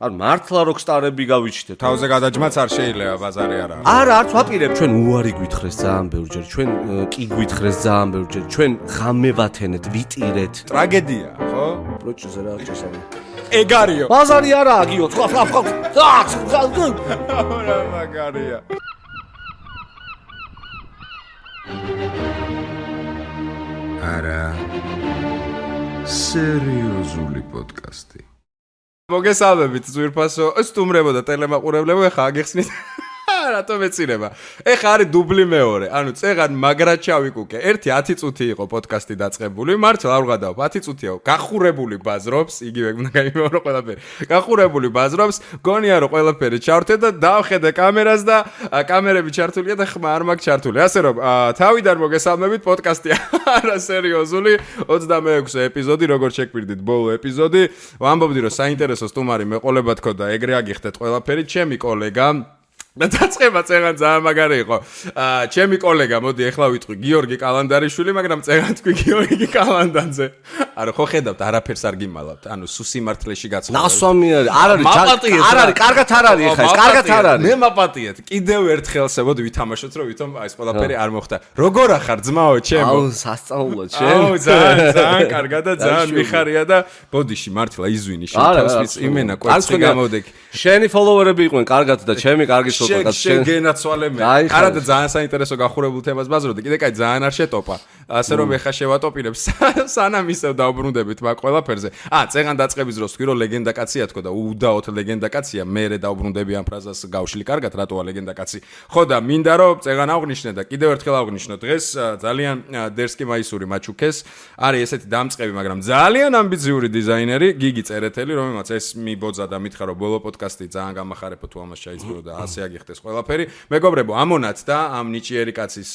არ მართლა როკსტარები გავიჩნდეთ. თავზე გადაჯმაც არ შეიძლება, ბაზარი არა. არა, არც ვაპირებ. ჩვენ უარი გვითხრეს ძალიან ბევრჯერ, ჩვენ კი გვითხრეს ძალიან ბევრჯერ, ჩვენ ღამე ვათენეთ, ვიტირეთ. ტრაგედია, ხო? პროჭზე რა წესავი. ეგარიო. ბაზარი არაა, გიო, სხვა. რა მაგარია. არა სერიოზული პოდკასტი. მოგესალმებით ძვირფასო სტუმრებო და ტელემაყურებლებო, ეხა აგიხსნით რატომ ეცირება. ეხა არის დუბლი მეორე. ანუ წეღან მაგრად ჩავიკუკე. 10 წუთი იყო პოდკასტი დაწყებული. მართლა არ ვღადავ, 10 წუთია. გახურებული ბაზრობს, იგივე უნდა გაიმეორო ყველაფერი. გახურებული ბაზრობს, გონია რომ ყველაფერი ჩავრთე და დავხედე კამერას და კამერები ჩართულია და ხმა არ მაქვს ჩართული. ასე რომ თავიდან მოგესალმებით, პოდკასტი არა სერიოზული 26 ეპიზოდი, როგორც შეგვირდით ბოლო ეპიზოდი. ვამბობდი რომ საინტერესო სტუმარი მეყოლებათ ხო და ეგრე აგიხდეთ ყველაფერი. ჩემი კოლეგა და დაწყება წეღან ძალიან მაგარი იყო. ჩემი კოლეგა, მოდი ახლა ვიტყვი, გიორგი კალანდარიშვილი, მაგრამ წეღან თქვი გიორგი კალანდანზე. არა, ხო ხედავთ, არაფერს არ გიმალავთ. ანუ სუსიმართლეში გაცხოვდა. ნასვამი არ არის, არ არის, კარგად არ არის ეხა ეს, კარგად არ არის. მე მაპატიეთ. კიდევ ერთხელ შევოდი ვითამაშოთ, რომ ვითომ ეს ყველაფერი არ მოხდა. როგორ ახარ ძმაო, ჩემო? აუ, სასწაულად შენ. აუ, ძალიან კარგად და ძალიან მიხარია და ბოდიში მართლა იზვინი შეთავს იმენა კვერცხი გამოდეკი. შენი ფოლოვერები იყვნენ კარგად და ჩემი კარგი შენ გენაცვალე მე. არა და ძალიან საინტერესო გახურებულ თემას ბაზრობდი. კიდე კაი ძალიან არ შეტოპა. ასე რომ ეხა შევატოპირებ სანამ ისევ დავბრუნდებით მაგ ყველაფერზე. წეღან დაწყების დროს თქვი რომ ლეგენდა კაცია თქო და უდაოდ ლეგენდა კაცია. მე დავბრუნდები ამ ფრაზას გავშლი კარგად რატოა ლეგენდა კაცი. ხო და მინდა რომ წეღან აღვნიშნე და კიდევ ერთხელ აღვნიშნო დღეს ძალიან დერსკი მაისური მაჩუქეს. არის ესეთი დამწყები, მაგრამ ძალიან ამბიციური დიზაინერი გიგი წერეთელი, რომელმაც ეს მიბოძა და მითხრა რომ ბოლო პოდკასტი ძალიან გამახარებო თუ ამას ჩაიწყრო და ასე აგიხდეს ყველაფერი. მეგობრებო, ამონათ და ამ ნიჭიერი კაცის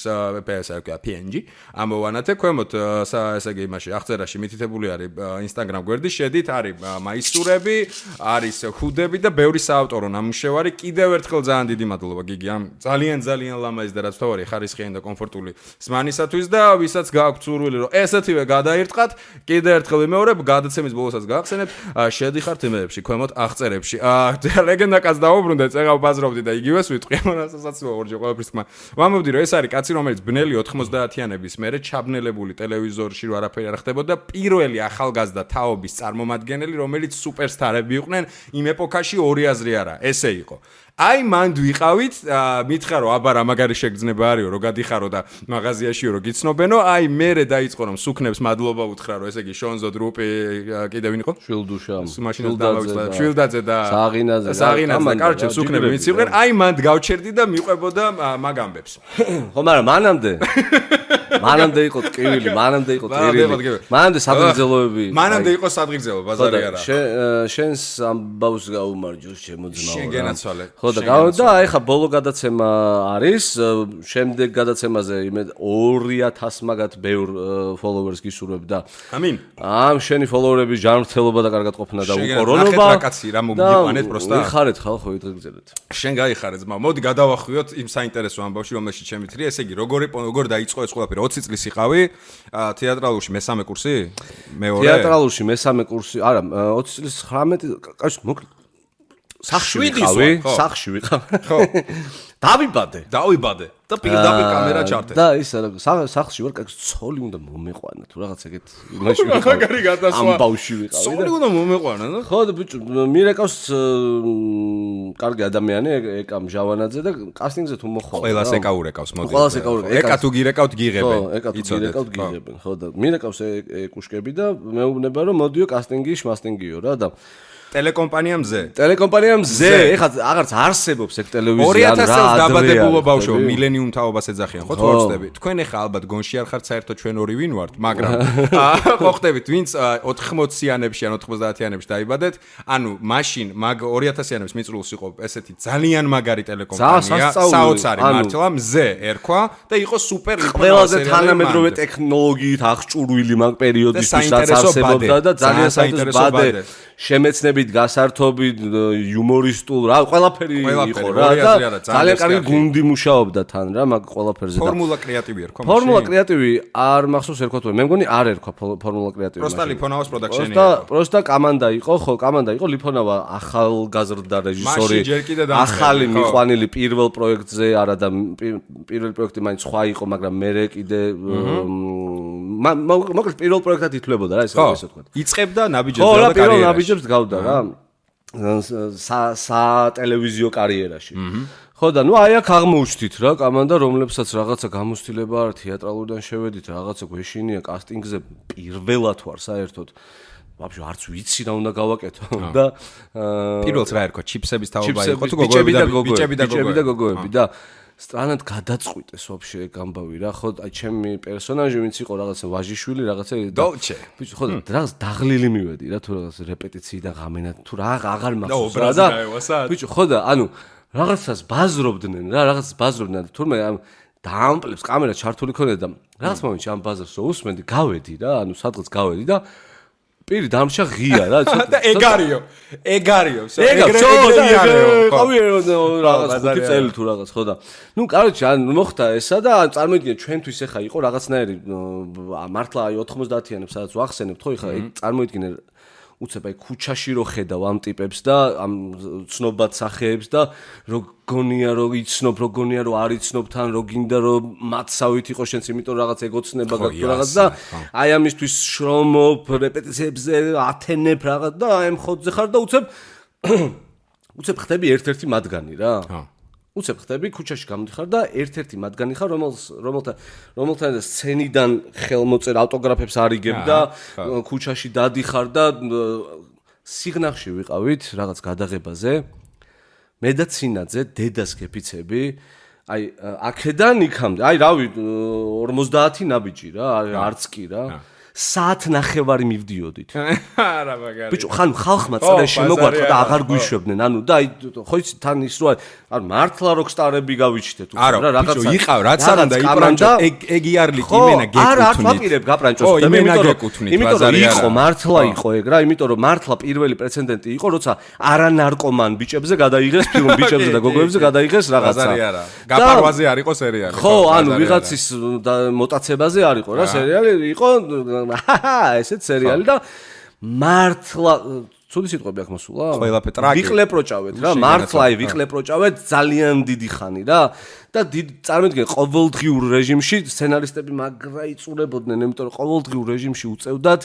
PNG ამოვანათე ქვემოთ ესე იგი იმაში აღწერაში მითითებული არის Instagram გვერდი, შედით არის მაისურები, არის ხუდები და ბევრი საავტორო ნამუშევარი. კიდევ ერთხელ ძალიან დიდი მადლობა გიგი ამ ძალიან ლამაზი და რაც თავარი ხარისხიანი და კომფორტული ზმანისათვის და ვისაც გააქვთ სურვილი რომ ესეთივე გადაირტყათ, კიდევ ერთხელ ვიმეორებ, გადაცემის ბოლოსაც გაახსენებ, შედიხართ იმეებში ქვემოთ აღწერებში. ლეგენდა კაც დაუბრუნდე, წეღავ ბაზრობდი და იგივეს ვიტყვი, მონასაცილო ორჯერ ყველაფრის თქმა. ვამბობდი რომ ეს არის კაცი, რომელიც ბნელი 90-იანების მერე ჩაბნელებული ტელევიზორში რო არაფერი არ ხდებოდა, პირველი ახალგაზრდა თაობის წარმომადგენელი, რომელიც სუპერსტარები იყვნენ იმ ეპოქაში, ორი აზრი არა, ესე იყო. აი მანდ ვიყავით, მითხრა რომ აბა რა მაგარი შეგრძნება არისო, რომ გადიხარო და მაღაზიაშიო რომ გიცნობენო, აი მერე დაიწყო რომ სუქნებს მადლობა უთხრა რომ ესე იგი შონზო დრუპი კიდე ვინ იყო? შვილდუშა. მაშინაც დავავიწყდა შვილდაძე და საღინაძე და კარჩე სუქნები მიცივდნენ, აი მანდ გავჩერდი და მიყვებოდა მაგ ამბებს. ხო, მაგრამ მანამდე იყო ტკივილი, მანამდე სადღეგრძელოები. მანამდე იყო სადღეგრძელო, ბაზარი არა. შენს ამბავს გაუმარჯოს ჩემო ძმაო. შენ გენაცვალე. ხო და ეხა ბოლო გადაცემა არის, შემდეგ გადაცემაზე 2000 მაგათ ბევრ ფოლოვერს გისურვებ და ამინ. ამ შენი ფოლოვერების ჯანმრთელობა და კარგად ყოფნა და უკორონობა. რა კაცი რა მოგიყვანეთ პროსტა. ვიხარეთ ხალხო იტყიგზელეთ. შენ გაიხარე ძმა. მოდი გადავახვიოთ იმ საინტერესო ამბავში, რომელშიც შემითხრია, ესე იგი როგორ დაიწყო ეს ყველაფერი? 20 წლის იყავი თეატრალურში მესამე კურსი? მეორე? თეატრალურში მესამე კურსი, არა, 20 წლის 19 კაცი მოკლედ სახში ვიყავი. ხო. დავიბადე და პირდაპირ კამერა ჩართე. და ის სახში ვარ, კაცი ცოლი უნდა მომეყვანა თუ რაღაც ეგეთ იმაში ვიყავი. მაგარი გადასვლა. ამ ბავში ვიყავი. ცოლი უნდა მომეყვანა, და? ხო და ბიჭო, მირეკავს კარგი ადამიანი, ეკა მჟავანაძე და კასტინგზე თუ მოხვალ. ყველას ეკაურეკავს, მოდი. ყველას ეკაურეკავს. ეკა თუ გირეკავთ გიღებენ. ხო, ეკა თუ გირეკავთ გიღებენ. ხო და მირეკავს ეკუშკები და მეუბნება რომ მოდიო კასტინგი, შმასტინგიო რა და ტელეკომპანია მზე, ეხლა აღარც არსებობს ეგ ტელევიზია 2000 წელს დაბადებულო ბავშვო, მილენიუმ თაობას ეძახიან, ხო თუ არ ვწდები? თქვენ ეხლა ალბათ გონში არ ხართ საერთოდ ჩვენ ორი ვინ ვართ, მაგრამ ხო ხდებით, ვინც 80-იანებში ან 90-იანებში დაიბადეთ, ანუ მაშინ მაგ 2000-იანების მიწრულს იყო ესეთი ძალიან მაგარი ტელეკომპანია, საოცარი მართლა, მზე ერქვა და იყო სუპერ ყველაზე თანამედროვე ტექნოლოგიით აღჭურვილი მაგ პერიოდისთვის რაც არსებობდა და ძალიან საინტერესო ბადე შემეცნები ჟანრით, გასართობით, იუმორისტულ, რა, ყველაფერი იყო რა და ძალიან კარგი გუნდი მუშაობდა თან რა, მაგ ყველაფერზე და ფორმულა კრეატივი ერქვა. ფორმულა კრეატივი არ მახსოვს ერქვა თუ მე მგონი არ ერქვა ფორმულა კრეატივი. პროსტა ლიფონავას პროდაქშენი იყო. პროსტა კომანდა იყო, ხო, კომანდა იყო ლიფონავა ახალგაზრდა რეჟისორი. ახალი მიყვანილი პირველ პროექტზე არა და პირველი პროექტი მაინც სხვა იყო, მაგრამ მე კიდე მოკლედ პირველ პროექტად ითვლებოდა რა ესე ვთქვა. იწყებდა ნაბიჯებს და კარიერაში. პირველ ნაბიჯებს გავდა რა. სატელევიზიო კარიერაში. ხო და ნუ აი აქ აღმოუჩდით რა კომანდა რომლებსაც რაღაცა გამოცდილება არ თეატრალურიდან შევედით რაღაცა გვეშინია კასტინგზე პირველად ვარ საერთოდ ვაფშე არც ვიცი რა უნდა გავაკეთო და პირველს რა ერქვა ჩიპსების თაობა იყო თუ გოგოები და გოგოები და სტრანად გადაწყვიტეს ვაფშე გამბავი რა ხო აი ჩემი პერსონაჟი ვინც იყო რაღაცა ვაჟიშვილი რაღაცა დოლჩე ბიჭო ხო რაღაც დაღლილი მივედი რა თუ რაღაც რეპეტიციიდან ღამენა თუ რა აღარ მახსოვს რა და ბიჭო ხო და ანუ რაღაცას ბაზრობდნენ რა რაღაცას ბაზრობდნენ და თურმე ამ დაამპლებს კამერა ჩართული ქონდა და რაღაც მომენტში ამ ბაზარს უსმენდი გავედი რა ანუ სადღაც გავედი და პირი დამშა ღია რა და ეგარიო ყავი რაღაც ხუთი წელი თუ რაღაც ხო და ნუ კაროჩე ან მოხდა ესა და წარმოიდგინე ჩვენთვის ეხა იყო რაღაცნაირი მართლა აი 90-იანებს სადაც ვახსენებთ ხო ეხა წარმოიდგინე უცებ აი ქუჩაში რო ხედავ ამ ტიპებს და ამ ცნობად სახეებს და როგონია რო იცნობ როგონია რო არ იცნობ თან რო გინდა რო მათსავით იყო შენც იმიტომ რაღაც ეგოცნება გაქვს რაღაც და აი ამისთვის შრომობ რეპეტიციებზე ათენებ რაღაც და აი მხოდზე ხარ და უცებ ხდები ერთ-ერთი მათგანი რა უცებ ხდები ქუჩაში გამოდიხარ და ერთ-ერთი მათგანი ხარ რომელთან სცენიდან ხელმოწერ ავტოგრაფებს არიგებ და ქუჩაში დადიხარ და სიგნახში ვიყავით რაღაც გადაღებაზე მე და ცინაძე დედას გეფიცები აი აქედან იქამდე აი რავი 50 ნაბიჯი რა არც კი რა საათ ნახევარი მივდიოდით. არა მაგარი. ბიჭო, ხან ხალხმა წრე შემოგვატყდა და აღარ გვიშვებდნენ. ანუ და აი ხო იცი თან ის რო ანუ მართლა როკსტარები გავიჩნდეთ უკვე რა რაღაცა. ბიჭო, იყავ რაც არ უნდა იპრანჭო ეგ იარლიკ იმენა გეკუთვნით. არა, არ ვაპირებ გაპრანჭოს და მე იმიტომ რომ იყო მართლა იყო ეგ რა, იმიტომ რომ მართლა პირველი პრეცედენტი იყო, როცა არანარკომან ბიჭებზე გადაიღეს ფილმ ბიჭებზე და გოგოებზე გადაიღეს რაღაცა. ბაზარი არა. გაპარვაზე არ იყო სერიალი. ხო, ანუ ვიღაცის მოტაცებაზე არ იყო რა სერიალი, იყო ესეთ სერიალი და მართლა ცუდი სიტყვები აქ მოსულა? ყველაფერი ტრაკი. ვიყლეპროჭავეთ რა, მართლა ვიყლეპროჭავეთ ძალიან დიდი ხანი რა და წარმოიდგინე ყოველდღიურ რეჟიმში სცენარისტები მაგრა იწურებოდნენ, იმიტომ რომ ყოველდღიურ რეჟიმში უწევდათ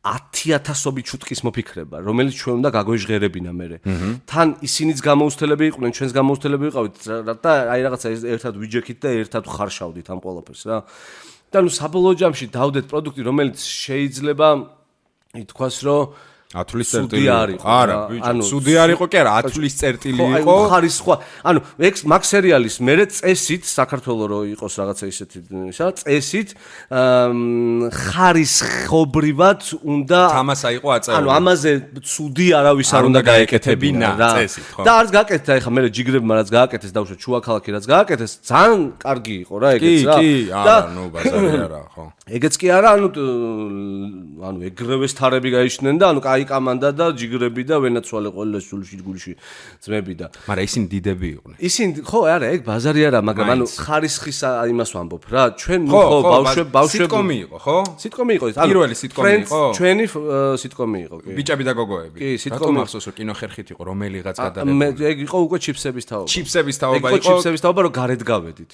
10,000 ჩუტკის მოფიქრება, რომელიც ჩვენ უნდა გაგვეჟღერებინა მერე. თან ისინიც გამოუსთელები იყვნენ, ჩვენს გამოუსთელები ვიყავით და აი რაღაცა ერთად ვიჯექით და ერთად ხარშავდით ამ ყველაფერს რა. და ნუ საბოლოო ჯამში დავდეთ პროდუქტი, რომელიც შეიძლება ითქვას, რომ ათვლის წერტილი იყო. არა, ბიჭო, სუდი არ იყო კი არა, ათვლის წერტილი იყო. აი, ხარისხვა. ანუ მაგ სერიალის მერე წესით საქართველოს რო იყოს რაღაცა ისეთი ისა, წესით ხარისხობრივად უნდა თამასა იყო აწეული. ანუ ამაზე სუდი არავის არ უნდა გაეკეთებინა რა. წესით, ხო. და არც გააკეთდა, ეხა მე ჯიგრებმა რაც გააკეთეს, დავუშვათ შუაქალაქი რაც გააკეთეს, ძალიან კარგი იყო რა ეგეც რა. კი, არა, ნუ ბაზარი არა, ხო. ეგეც კი არა, ანუ ეგრევე სტარები გაიჩნდნენ და ანუ აი კომანდა და ჯიგრები და ვენაცვალე ყველა სულში ძმები და მაგრამ ისინი დიდები იყვნენ. ისინი ხო არა ეგ ბაზარი არა, მაგრამ ანუ ხარისხის იმას ვამბობ რა. ჩვენ ხო ბავშვები სიტკომი იყო, ხო? სიტკომი იყო ის. პირველი სიტკომი იყო. ჩვენი სიტკომი იყო, კი. ბიჭები და გოგოები. კი, სიტკომი მახსოვს რომ კინოხერხით იყო, რომელიღაც გადაღებული. ეგ იყო უკვე ჩიფსების თაობა. ჩიფსების თაობა იყო. ჩიფსების თაობა რომ გარეთ გავედით.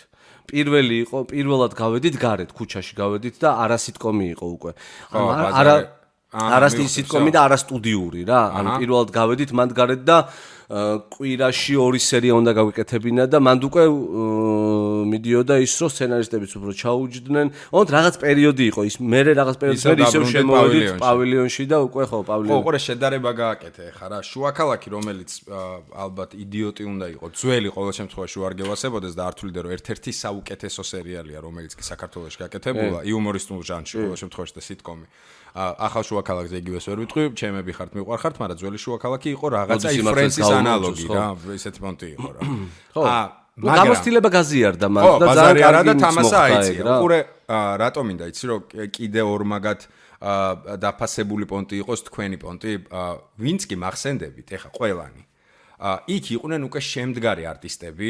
პირველად გავედით გარეთ, ქუჩაში გავედით და არა სიტკომი იყო უკვე. არა სიტკომი და არა სტუდიური რა. ანუ პირველად გავედით მანდ გარეთ და კვირაში 2 სერია უნდა გავიკეთებინა და მანდ უკვე მიდიოდა ის რომ სცენარისტებიც უფრო ჩაუჯდნენ. ოღონდ რაღაც პერიოდი იყო ის, მე რაღაც პერიოდის მე ისევ შემოვედით პავილიონში და უკვე ხო პავილიონი. ხო, ყურე შედარება გააკეთე ხა რა. შუაქალაქი რომელიც ალბათ იდიოტი უნდა იყოს. ძველი ყოველ შემთხვევაში არ გევასებოდეს და არ თuliде რომ ერთ-ერთი საუკეთესო სერიალია რომელიც კი საქართველოში გაკეთებულა იუმორისტულ ჟანრში ყოველ შემთხვევაში და სიტკომი. ახალ შუაქალაქზე იგივეს ვერ ვიტყვი, ჩემები ხართ მიყვარხართ, მაგრამ ძველი შუაქალაქი იყო რაღაცა ფრენცის ანალოგი რა, ესეთი პონტი იყო რა. ხო. გამოცდილება გაზიარდა მაგრამ და ძალიან კარგი და თამასა აიწია. უყურე რატომ მინდა იცი რომ კიდე ორმაგად დაფასებული პონტი იყოს თქვენი პონტი, ვინც კი მახსენდებით, ეხა ყველანი. იქ იყვნენ უკვე შემდგარი არტისტები,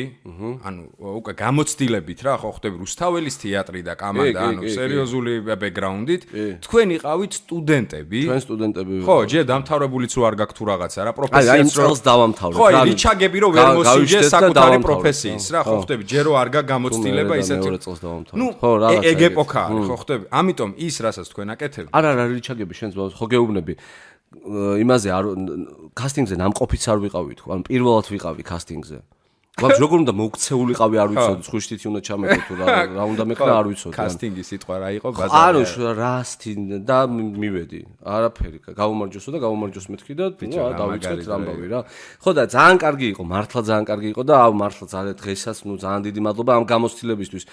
ანუ უკვე გამოცდილებით რა, ხო ხდები რუსთაველის თეატრი და კამანდა, ანუ სერიოზული ბექგრაუნდით, თქვენ იყავით სტუდენტები. ჩვენ სტუდენტები. ხო, ჯერ დამთავრებულიც რო არ გაქვთ თუ რაღაცა რა, პროფესიაც რო წელს დავამთავრეთ. ხო, რიჩაგები რო ვერ მოსიჯე საკუთარი პროფესიის რა, ხო ხდები, ჯერ რო არ გამოცდილება ისეთი. ნუ, ეგ ეპოქა არის, ხო ხდები. ამიტომ ის რასაც თქვენ აკეთებთ. არა, რიჩაგები შენს ხო გეუბნები. იმაზე კასტინგზე ნამყოფიც არ ვიყავი თქო, ანუ პირველად ვიყავი კასტინგზე. გვაქვს როგორ უნდა მოუქცეულიყავი არ ვიცოდი, ხვიშტით უნდა ჩამეკო თუ რა უნდა მეკრა არ ვიცოდი. კასტინგის სიტყვა რა იყო ბაზარი. ანუ რასთინ და მივედი. არაფერი, გაუმარჯოსო და გაუმარჯოს მეთქი და დავიწყეთ ამბავი რა. ხო და ძალიან კარგი იყო, მართლა ძალიან კარგი იყო და მართლა ძალიან დღესაც ძალიან დიდი მადლობა ამ გამოცდილებისთვის.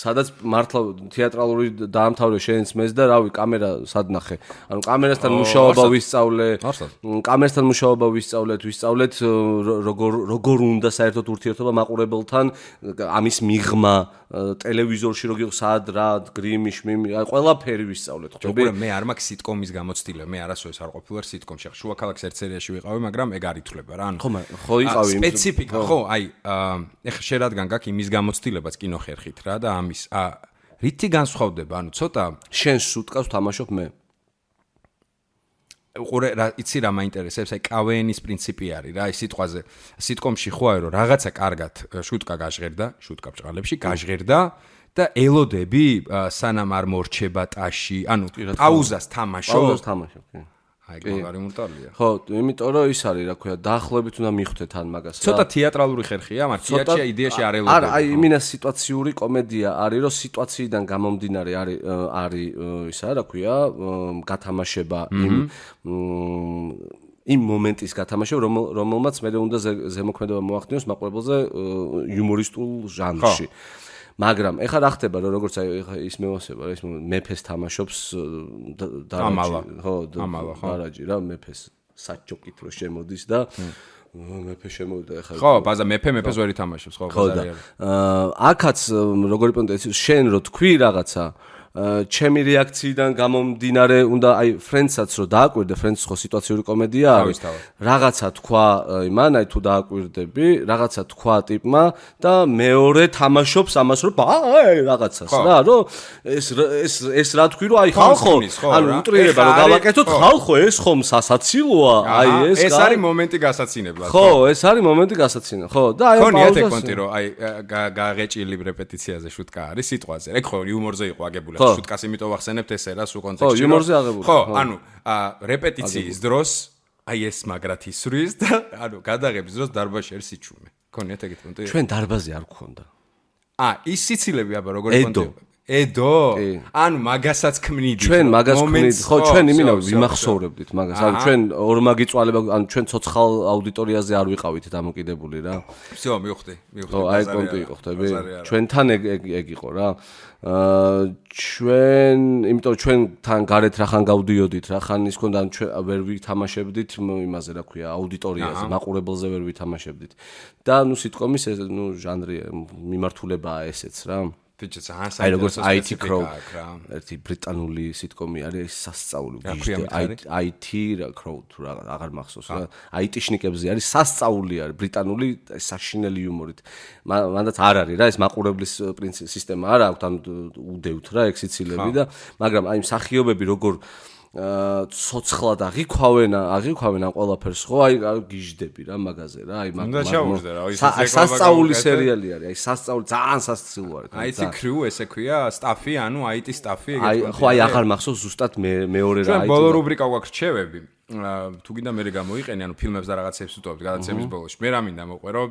სადაც მართლა თეატრალური დაამთავრე შენს მეს და რავი, კამერა სად ნახე. ანუ კამერასთან მუშაობა ვისწავლე. კამერასთან მუშაობა ვისწავლეთ, როგორ უნდა საერთოდ ურთიერთობა მაყურებელთან, ამის მიღმა, ტელევიზორში როგორ სად რა, გრიმი, შმიმი, ყველაფერი ვისწავლეთ, ხდები? მე არ მაქვს სიტკომის გამოცდილება, მე არასოდეს არ ყოფილვარ სიტკომში. შუა ქალაქის ერთ სერიაში ვიყავი, მაგრამ ეგ არ ითვლება რა. ხო იყავი. სპეციფიკა, ხო, აი, ეხლა შენ რადგან გაქვს იმის გამოცდილებაც კინოხერხით რა და ამის, რითი განსხვავდება? ანუ ცოტა შენ სუტკას თამაშობ მე. უყურე რა იცი რა მაინტერესებს, აი კავენის პრინციპი არის რა, აი სიტყვაზე. სიტკომში ხო არის რომ რაღაცა კარგად შუტკა გაჟღერდა, შუტკა ბჭყალებში გაჟღერდა და ელოდები სანამ არ მორჩება ტაში, ანუ პაუზას თამაშობ. პაუზას თამაშობ, კი. აი მაგარი მურტალია. ხო, იმიტომ რომ ის არის რა ქვია, დაახლოებით უნდა მიხვდეთ ან მაგას რა. ცოტა თეატრალური ხერხია, მაგრამ თეატრია იდეაში არ ელოდება. არა, აი იმინა სიტუაციური კომედია არის, რომ სიტუაციიდან გამომდინარე არის ისა რა ქვია, გათამაშება იმ მომენტის გათამაშება, რომელმაც მე უნდა ზემოქმედება მოახდინოს მაყურებელზე იუმორისტულ ჟანრში. მაგრამ ეხლა რა ხდება რომ როგორც აი ეხლა ის მევასება რა ის მეფეს თამაშობს დარაჯი რა მეფეს საჩოკით რო შემოდის და მეფე შემოვიდა ეხლა ხო ბაზა მეფეს ვერ ითამაშობს ხო ბაზარი არის აქაც როგორი პონტი შენ რო თქვი რაღაცა ჩემი რეაქციიდან გამომდინარე უნდა აი ფრენდსაც რო დააკვირდე ფრენდს ხო სიტუაციური კომედია არის რაღაცა თქვა იმან აი თუ დააკვირდები რაღაცა თქვა ტიპმა და მეორე თამაშობს ამას რომ აი რაღაცას რა რომ ეს რა თქვი რომ აი ხალხო ანუ უტრირება რომ გავაკეთოთ ხალხო ეს ხომ სასაცილოა აი ეს არის მომენტი გასაცინებლად ხო ეს არის მომენტი გასაცინებლად ხო და აი ხონიათ ეგ პონტი რომ აი გაღეჭილი რეპეტიციაზე შუტკა არის სიტყვაზე ეგ ხო იუმორზე იყო აგებული შუტკას იმიტომ ვახსენებთ ესე რა სულ კონტექსტში ხო იუმორზე აღებული ხო ანუ რეპეტიციის დროს აი ეს მაგრად ისვრის და ანუ გადაღების დროს დარბაზში არის სიჩუმე ქონიათ ეგეთ პონტი ჩვენ დარბაზი არ გქონდა ის სიცილები აბა როგორი პონტი ედო ანუ მაგასაც ქმნიდით ჩვენ მაგას ქმნით ხო ჩვენ იმინა ვიმახსოვრებდით მაგას ანუ ჩვენ ორმაგი წვალება ანუ ჩვენ ცოცხალ აუდიტორიაზე არ ვიყავით დამოკიდებული რა всё მივხვდი ხო აი პონტი იყო ხტები ჩვენთან ეგ იყო რა ჩვენ იმიტომ ჩვენთან გარეთ რახან გავდიოდით რახან ის ქონდა ჩვენ ვერ ვითამაშებდით იმაზე რა ქვია აუდიტორიაზე მაყურებელზე ვერ ვითამაშებდით და ნუ სიტკომის ეს ნუ ჟანრი მიმართულებაა ესეც რა აი როგორც IT Crow ერთი ბრიტანული სიტკომი არის სასწაული IT Crow თუ აღარ მახსოვს რა IT-შნიკებზე არის სასწაული არის ბრიტანული საშინელი იუმორით მანდაც არ არის რა ეს მაყურებლის სისტემა არ აქვს ანუ უდევთ რა ეგ სიცილები და მაგრამ აი მსახიობები როგორ ცოცხლად აღიქვავენ ამ ყველაფერს ხო აი გიჟდები რა მაგაზე რა აი სასწაული სერიალი არის აი სასწაული ძალიან სასწაული არის IT Crew ესე ქვია სტაფი ანუ IT სტაფი ეგეთ ხო აი აღარ მახსოვს ზუსტად მეორე რა აი ბოლო რუბრიკა გვაქვს რჩევები თუ გინდა მე გამოიყენე ანუ ფილმებს და რაღაცებს ვუტოვებთ გადაცემის ბოლოში მე რა მინდა მოყვერო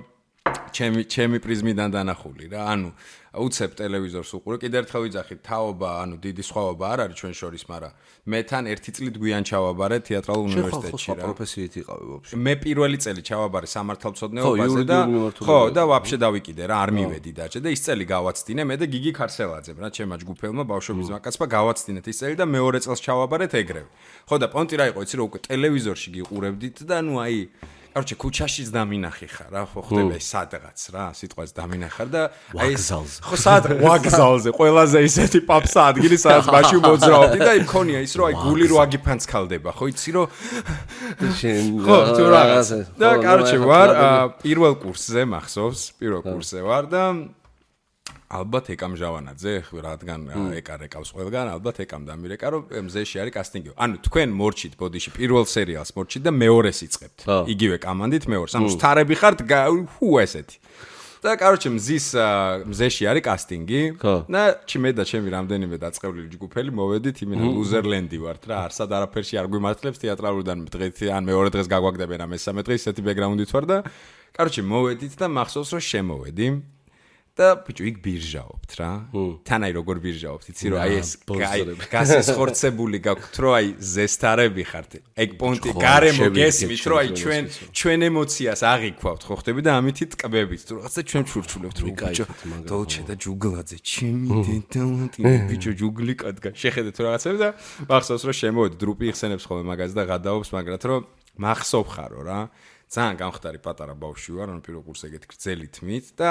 ჩემი პრიზმიდან დანახული რა ანუ უცებ ტელევიზორს უყურე კიდე ერთხელ ვიძახით თაობა ანუ დიდი სხვაობა არ არის ჩვენ შორის მაგრამ მე თან ერთი წლით გვიან ჩავაბარე თეატრალურ უნივერსიტეტში რა პროფესიით იყავი ვაფშე მე პირველი წელი ჩავაბარე სამართალმცოდნეობაზე და ხო და ვაფშე დავიკიდე რა არ მივედი დაჭე და ის წელი გავაცდინე მე და გიგი ქარსელაძემ რა ჩემმა ჯგუფელმა ბავშვობის მაკაცმა გავაცდინეთ ის წელი და მეორე წელს ჩავაბარეთ ეგრევე ხო და პონტი რა იყო იცი რომ უკვე ტელევიზორში გიყურებდით და ნუ აი Короче, ქუჩაშიც დამინახი ხარ რა, ხო ხდება ეს სადღაც რა, სიტყვას დამინახარ და აი ეს ხო სად ვაგზალზე, ყველაზე ისეთი პაპსა ადგილი სადაც მაშინ მოძრაობდი და იქონია ის რომ აი გული რო აგიფანცქალდება, ხო იცი რომ ხო თუ რაღაც. და короче ვარ პირველ კურსზე მახსოვს, პირველ კურსზე ვარ და ალბათ ეკამ ჟავანაძე, რადგან ეკა რეკავს ყველგან, ალბათ ეკამ დამირეკა, რომ მზეში არის კასტინგი. ანუ თქვენ მორჩით ბოდიში პირველ სერიალს მორჩით და მეორეს იწყებთ. იგივე კამანდით მეორეს. ანუ სტარები ხართ, ესეთი. და короче მზეში არის კასტინგი და მე და ჩემი რამდენიმე დაწყევლილი ჯგუფელი მოვედით იმენა ლუზერლენდი ვართ რა, არსად არაფერში არ გვიმართლებს თეატრალურიდან დღეს ან მეორე დღეს გაგვაგდებენ ამ მესამე დღეს ისეთი ბექგრაუნდით ვარ და короче მოვედით და მახსოვს რომ შემოვედი და ბიჭო იქ ბირჟაობთ რა. თან აი როგორ ბირჟაობთ, იცი რომ აი ეს გასესხორცებული გაქვთ, რომ აი ზესტარები ხართ. ეგ პონტი გარემო გესმით, რომ აი ჩვენ ემოციას აღიქვავთ, ხო ხდები და ამითი ტკბებით, თუ რაღაცა ჩვენ ჩურჩულებთ, რომ ბიჭო დოლჩე და ჯუგლაძე, ჩემი დედამატი, ბიჭო ჯუგლი კადგა. შეხედეთ რაღაცები და მახსოვს რომ შემოვედი, დრუპი იხსენებს ხოლმე მაგას და გადაობს მაგრად, რომ მახსოვ ხარო რა. ძალიან გამხდარი პატარა ბავშვი ვარ, ანუ პირველ კურსზე ეგეთი გრძელი თმით და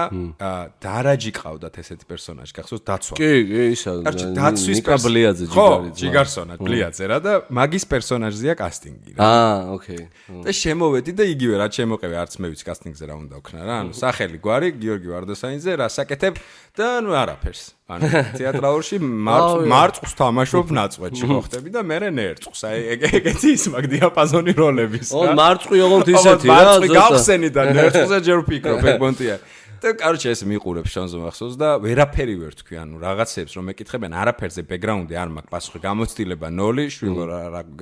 დარაჯი ყავდათ ესეთი პერსონაჟი, გახსოვს დაცვა. კი, ისა. დაცვის ბლიაძე ჯიგარი. ჯიგარსონა ბლიაძე რა და მაგის პერსონაჟზეა კასტინგი რა. ოკეი. და შემოვედი და იგივე რა შემოყევი, არც მე ვიცი კასტინგზე რა უნდა ვქნა რა. ანუ სახელი გვარი გიორგი ვარდოსანიძე, რა საკეთებ და ნუ არაფერს. ანუ თეატრალურში მარწყს თამაშობ ნაწყვეტში ხო ხდები და მე ნერწყს. აი ეგეთი ის მაგ დიაპაზონი როლების რა. მარწყი ოღონდ ისეთი რა. მარწყი გავხსენი და ნერწყზე ჯერ ვფიქრობ ეგ პონტია. და короче ეს მიყურებს შანზე მახსოვს და ვერაფერი ვერ თქვი, ანუ რაღაცებს რომ ეკითხებენ, არაფერზე ბექგრაუნდი არ მაქვს, პასუხი გამოცდილება 0, შვილო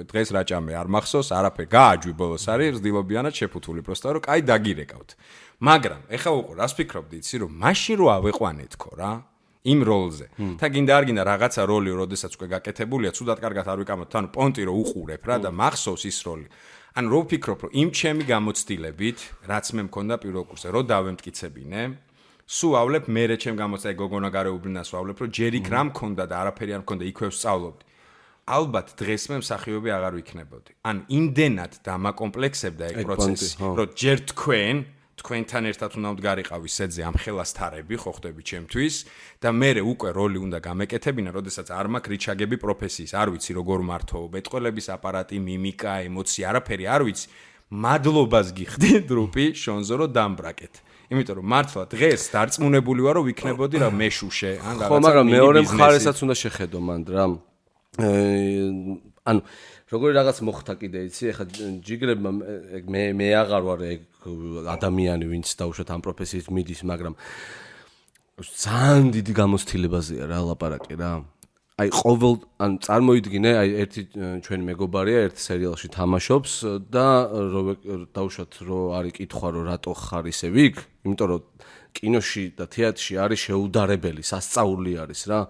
დღეს რა ჭამე არ მახსოვს, არაფერი გააჯვი ბოლოს არის, რძდილობიანად შეფუთული, პროსტა რომ კაი დაგირეკავთ. მაგრამ ეხა უყო, რას ფიქრობდი, იცი რომ მაშინ რო ავეყვანეთქო რა. იმ როლზე. თან გინდა არ გინდა რაღაცა როლი, როდესაც უკვე გაკეთებულია, ცუდად კარგად არ ვიკამოთ, ანუ პონტი რო უყურებ რა და მახსოვს ის როლი. ანუ რო ვფიქრობ, რომ იმ ჩემი გამოცდილებით, რაც მე მქონდა პირველ კურსზე, რო დავემტკიცებინე, სულავლებ მერე ჩემ გამოცდილ გოგონა გარეუბნას ვავლებ, რომ ჯერ იქ რა მქონდა და არაფერი არ მქონდა, იქვე ვსწავლობდი. ალბათ დღეს მე მსახიობი აღარ ვიქნებოდი. ან იმდენად დამაკომპლექსებდა ეგ პროცესი, რომ ჯერ თქვენთან ერთად უნდა ვდგარიყავი სედზე ამ ხელასთარები, ხო ხდები ჩემთვის და მე უკვე როლი უნდა გამეკეთებინა, როდესაც არ მაქვს რიჩაგები პროფესიის, არ ვიცი როგორ მართო, მეტყველების აპარატი, მიმიკა, ემოცია, არაფერი არ ვიცი. მადლობას გიხდი დრუპი შონზო რომ დამბრაკეთ. იმიტომ რომ მართლა დღეს დარწმუნებული ვარ რომ ვიქნებოდი რა მეშუშე, ან რაღაცა. ხო, მაგრამ მეორე მხარესაც უნდა შეხედო მანდ რა. ანუ როგორი რაღაც მოხდა კიდე იცი, ეხლა ჯიგრებმა მე აღარ ვარ ეგ ადამიანი, ვინც დაუშვათ ამ პროფესიით მიდის, მაგრამ ძალიან დიდი გამოცდილებაზეა რა ლაპარაკი რა. აი ყოველ ან წარმოიდგინე, აი ერთი ჩვენი მეგობარია ერთ სერიალში თამაშობს და დაუშვათ რომ არის კითხვა რომ რატო ხარ ისე ვიქ, იმიტომ რომ კინოში და თეატრში არის შეუდარებელი, სასწაული არის რა.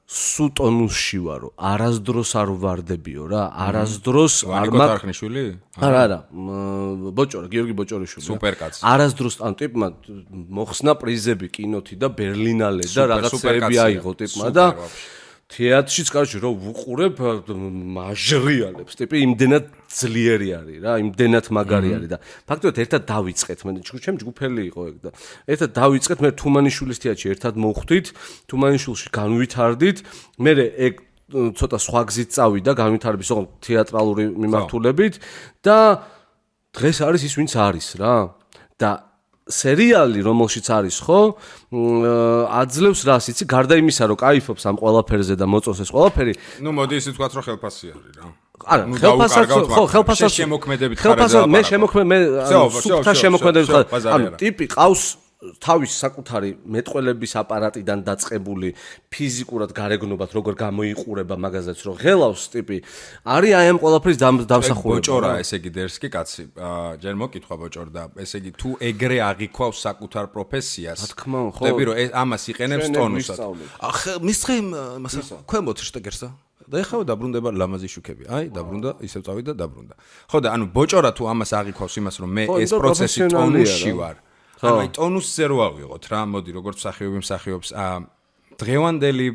სუტონუსში ვარო, არასდროს არ ვარდებიო რა, არასდროს არ მაქნიშვილი? არა, ბოჭორა, გიორგი ბოჭორიშვილი. სუპერკაცი. არასდროს ან ტიპმა მოხსნა პრიზები კინოთი და ბერლინალე და რაღაცები აიღო ტიპმა და თეატრშიც კარჩი რომ ვუყურებ მაჟრიალებს, ტიპი იმდენად ძლიერი არის რა, იმდენად მაგარი არის და ფაქტობრივად ერთად დავიწყეთ, მე ჩემ ჯგუფელი იყო ეგ და ერთად დავიწყეთ, მე თუმანიშვილის თეატრში ერთად მოვხვდით, თუმანიშვილში განვითარდით, მე ეგ ცოტა სხვა გზით წავიდა განვითარების ოღონდ თეატრალური მიმართულებით და დღეს არის ის ვინც არის რა და სერიალი რომელშიც არის ხო აძლევს რას იცი გარდა იმისა რომ კაიფობს ამ ყველაფერზე და მოწონს ეს ყველაფერი ნუ მოდი ისე თქვა რომ ხელფასი არის რა არა ხელფასად შემოქმედებით ხარ მე სუფთა შემოქმედებით ხარ ანუ ტიპი ყავს თავის საკუთარი მეტყველების აპარატიდან დაწყებული ფიზიკურად გარეგნობად როგორ გამოიყურება მაგაზეც რომ ღელავს ტიპი არის აი ამ ყველაფრის დამსახურება ბოჭორა ესე იგი დერსკი კაცი ჯერ მოკითხვა ბოჭორ და ესე იგი თუ ეგრე აღიქვავს საკუთარ პროფესიას რა თქმა უნდა ხდები რომ ამას იყენებს ტონუსად ახ მისხე მასა ქვემოთ შტეგერსა და ეხლა დაბრუნდება ლამაზი შუქები. აი, დაბრუნდა, ისევ წავიდა და დაბრუნდა. ხო და ანუ ბოჭორა თუ ამას აღიქვავს იმას რომ მე ეს პროცესი ტონუსში ვარ. ანუ აი ტონუსზე რო ავიღოთ რა, მოდი როგორც მსახიობი მსახიობს დღევანდელი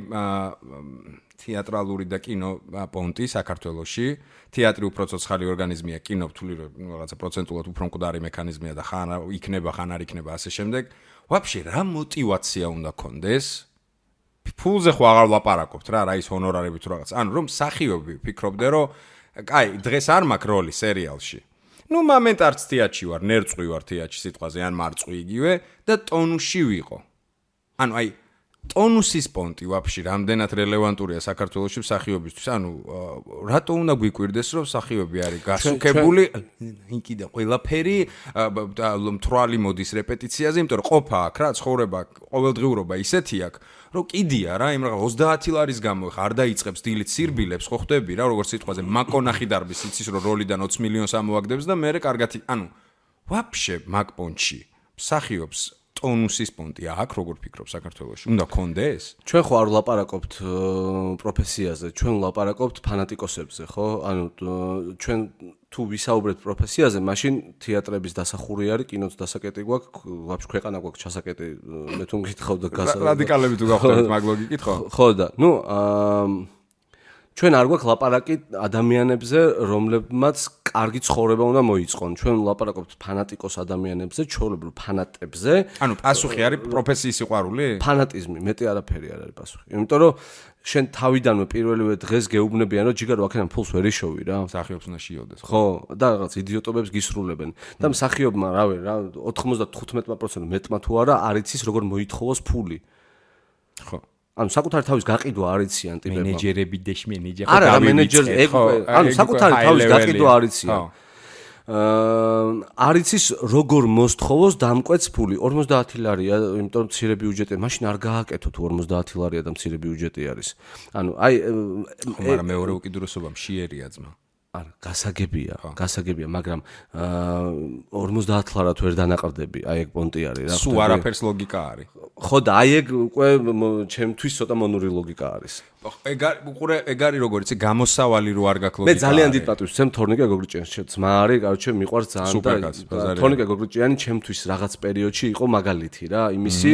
თეატრალური და კინო პონტი საქართველოში თეატრი უფრო ცოცხალი ორგანიზმია, კინო რთული რაღაცა პროცენტულად უფრო მკვდარი მექანიზმია და ხან იქნება, ხან არ იქნება ასე შემდეგ. ვაფშე რა мотиваცია უნდა კონდეს? ფულზე ხო აღარ ლაპარაკობთ რა ის ჰონორარები თუ რაღაც. ანუ რომ მსახიობი ფიქრობდე რომ კაი, დღეს არ მაქვს როლი სერიალში. მომენტ არც თეატრში ვარ, ნერწყვი ვარ თეატრში სიტყვაზე ან მარწყვი იგივე და ტონუსში ვიყო. ანუ ტონუსის პონტი ვაფშე რამდენად რელევანტურია საქართველოში მსახიობისთვის. ანუ რატო უნდა გვიკვირდეს რომ მსახიობი არის გასუქებული იქიდან ყველაფერი მთვრალი მოდის რეპეტიციაზე, იმიტომ რომ ყოფა აქ რა ცხოვრება ყოველდღიურობა ისეთი აქ რომ კიდია რა იმ რაღაც 30 ლარის გამო ხა არ დაიწყებს დილით სირბილებს ხო ხვდები რა როგორც სიტყვაზე მაკონახი დარბის იცის რომ როლიდან 20 მილიონს ამოაგდებს და მე კარგად ანუ ვაფშე მაგ პონტში მსახიობს ტონუსის პონტი აქ როგორ ფიქრობ საქართველოში უნდა კონდეს ჩვენ ხო არ ვლაპარაკობთ პროფესიაზე ჩვენ ვლაპარაკობთ ფანატიკოსებზე ხო ანუ ჩვენ თუ ვისაუბრეთ პროფესიაზე მაშინ თეატრების დასახური არის კინოც დასაკეტი გვაქვს ვაფშე ქვეყანა გვაქვს ჩასაკეტი მე თუ მკითხავ და რადიკალები თუ გავხდებით მაგ ლოგიკით ხო ხო და ნუ ჩვენ არ გვაქვს ლაპარაკი ადამიანებზე რომლებმაც კარგი ცხოვრება უნდა მოიწყონ ჩვენ ვლაპარაკობთ ფანატიკოს ადამიანებზე ჩვეულებრივ ფანატებზე ანუ პასუხი არის პროფესიის სიყვარული ფანატიზმი მეტი არაფერი არ არის პასუხი იმიტომ რომ შენ თავიდანვე პირველივე დღეს გეუბნებიან რომ ჯიგარო აქედან ფულს ვერ იშოვი რა მსახიობს უნდა შეიოდეს ხო და რაღაც იდიოტობებს გისრულებენ და მსახიობმა რავი რა 95% მეტმა თუ არა არ იცის როგორ მოითხოვოს ფული ხო ანუ საკუთარი თავის გაყიდვა არ იციან ტიპებმა მენეჯერები და მენეჯერი ხო არა მენეჯერი ანუ საკუთარი თავის გაყიდვა არ იციან არ იცის როგორ მოსთხოვოს დამკვეთს ფული 50 ლარია იმიტომ რომ მცირე ბიუჯეტია მაშინ არ გააკეთო თუ 50 ლარია და მცირე ბიუჯეტი არის ანუ აი მაგრამ მეორე უკიდურესობა მშიერია ძმა არა გასაგებია მაგრამ 50 ლარად ვერ დანაყრდები აი ეგ პონტი არის რა სულ არაფერს ლოგიკა არის ხო და აი ეგ უკვე ჩემთვის ცოტა მონური ლოგიკა არის ეგ არის როგორ იცი გამოსავალი რო არ გაქვს ლოგიკა მე ძალიან დიდ პატივს ვცემ თორნიკე გოგრიჭიანს ძმა არის კაროჩე მიყვარს ძალიან და თორნიკე გოგრიჭიანი ჩემთვის რაღაც პერიოდში იყო მაგალითი რა იმისი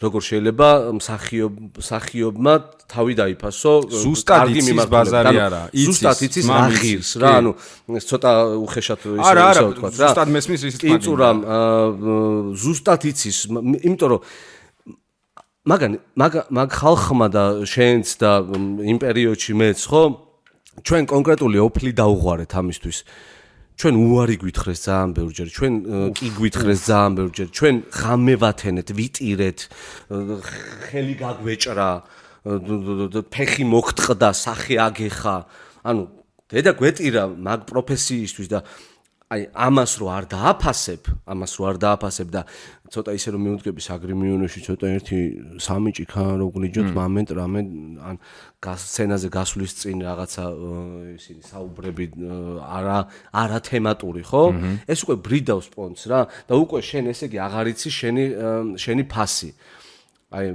როგორ შეიძლება მსახიობმა თავი დაიფასო ზუსტად იცის ბაზარი არა ზუსტად იცის რა ღირს რა ანუ ცოტა უხეშად ისე ვთქვა რა ზუსტად მესმის ისიც კინწურამ ზუსტად იცის იმიტომ რომ მაგ ხალხმა და შენც და იმ პერიოდში მეც ხო ჩვენ კონკრეტული ოფლი დაუღვარეთ ამისთვის ჩვენ უარი გვითხრეს ძალიან ბევრჯერ ჩვენ კი გვითხრეს ძალიან ბევრჯერ ჩვენ ღამე ვათენეთ ვიტირეთ ხელი გაგვეჭრა ფეხი მოგტყდა სახე აგეხა ანუ დედა გვეტირა მაგ პროფესიისთვის და აი ამას რო არ დააფასებ და ცოტა ისე რომ მიუდგები საგრიმიონში ცოტა ერთი სამი ჭიქა რო გლიჯოთ მომენტ რამე ან სცენაზე გასვლის წინ რაღაცა ისინი საუბრები არა თემატური ხო ეს უკვე ბრიდავს პონტს რა და უკვე შენ ესე იგი აღარ იცი შენი ფასი აი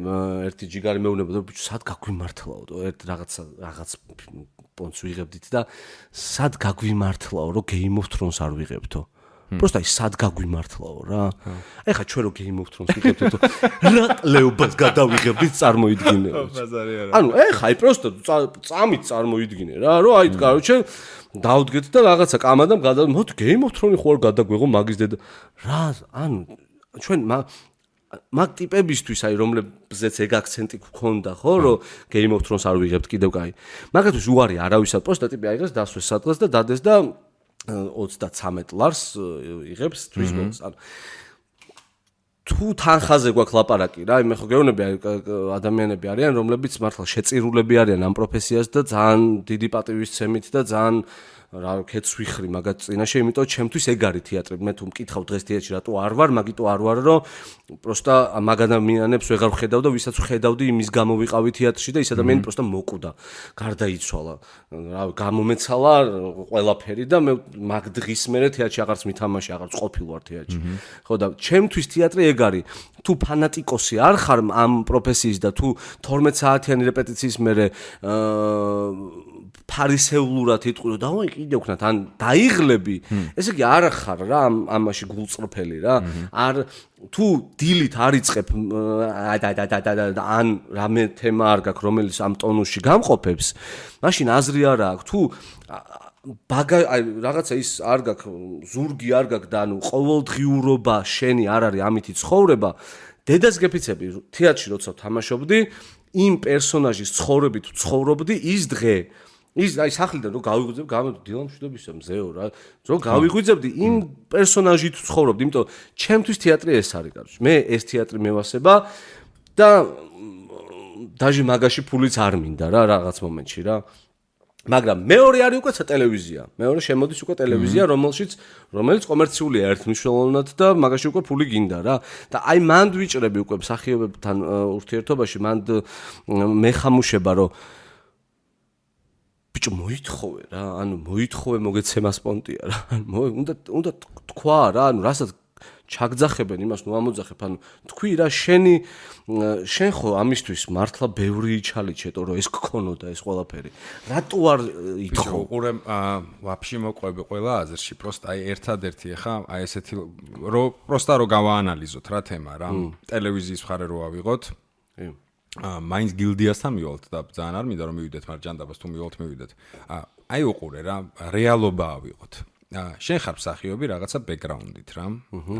ერთი ჯიგარი მეუბნებოდა ბიჭო სად გაგვიმართლაო ერთ რაღაც პონტს ვიღებდით და სად გაგვიმართლაო რომ Game of Thrones არ ვიღებთო просто აი სად გაგვიმართლაო რა აი ხა ჩვენ რო Game of Thrones ვიღებდით რა ყლეობას გადავიღებდით წარმოიდგინე ანუ ეხა აი просто წამით წარმოიდგინე რა რომ აი კაროჩე დავდგეთ და რაღაცა კამადამ მოდი Game of Thrones ხო არ გადაგვეღო მაგის დედა რა ანუ ჩვენ მაგ ტიპებისთვის აი რომლებზეც ეგ აქცენტი გქონდა ხო რომ Game of Thrones არ ვიღებთ კიდევ კაი მაგათთვის უარი არავისად პოსტა ტიპი აიღეს დასვეს სადღაც და დადეს და 33 ლარს იღებს თვის გოლს ანუ თუ თანხაზე გვაქვს ლაპარაკი რა მე ხო გეუბნები ადამიანები არიან რომლებიც მართლა შეწირულები არიან ამ პროფესიას და ძალიან დიდი პატივისცემით და ძალიან რა ქეთს ვიხრი მაგათ წინაშე იმიტომ ჩემთვის ეგ არის თეატრი მე თუ მკითხავ დღეს თეატრში რატო არ ვარ მაგიტო არ ვარ რომ პროსტა მაგ ადამიანებს ვეღარ ვხედავ და ვისაც ვხედავდი იმის გამო ვიყავი თეატრში და ის ადამიანი პროსტა მოკვდა გარდაიცვალა რა გამომეცალა ყველაფერი და მე მაგ დღის მერე თეატრში აღარც მითამაში აღარც ყოფილ ვარ თეატრში ხო და ჩემთვის თეატრი ეგ არის თუ ფანატიკოსი არ ხარ ამ პროფესიის და თუ 12 საათიანი რეპეტიციის მერე ფარისეულურად იტყვი რომ დავაი კიდე ვქნათ ან დაიღლები ესე იგი არ ხარ რა ამაში გულწრფელი რა არ თუ დილით არ იწყებ ან რამე თემა არ გაქვს რომელიც ამ ტონუსში გამყოფებს მაშინ აზრი არ აქვს თუ რაღაცა ის არ გაქვს ზურგი არ გაქვს და ანუ ყოველდღიურობა შენი არ არის ამითი ცხოვრება დედას გეფიცები თეატრში როცა თამაშობდი იმ პერსონაჟის ცხოვრებით ცხოვრობდი ის დღე ის აი სახლიდან რომ გავიღვიძებ დილამშვიდობისა მზეო რა რომ გავიღვიძებდი იმ პერსონაჟით ცხოვრობდი იმიტომ ჩემთვის თეატრი ეს არის კარგი მე ეს თეატრი მევასება და დაჟე მაგაში ფულიც არ მინდა რა რაღაც მომენტში რა მაგრამ მეორე არის უკვე ტელევიზია მეორე შემოდის უკვე ტელევიზია რომელიც კომერციულია ერთმნიშვნელოვნად და მაგაში უკვე ფული გინდა რა და აი მანდ ვიჭრები უკვე მსახიობებთან ურთიერთობაში მანდ მეხამუშება რომ ბიჭო მოითხოვე რა ანუ მოითხოვე მოგეცემა სპონტია რა უნდა თქვა რა ანუ რასაც ჩაგძახებენ იმას ნუ ამოძახებ ანუ თქვი რა შენ ხო ამისთვის მართლა ბევრი იჩალიჩეტო რომ ეს გქონოდა ეს ყველაფერი რატო არ ითხოვ უყურე ვაფშე მოყვები ყველა აზრში პროსტა აი ერთადერთი ხა აი ესეთი რომ პროსტა რომ გავაანალიზოთ რა თემა რა ტელევიზიის მხარე რო ავიღოთ მაინც გილდიასთან მივალთ და ძალიან არ მინდა რომ მივიდეთ მაგრამ ჯანდაბას თუ მივალთ მივიდეთ აი უყურე რა რეალობა ავიღოთ შენ ხარ მსახიობი რაღაცა ბექგრაუნდით რა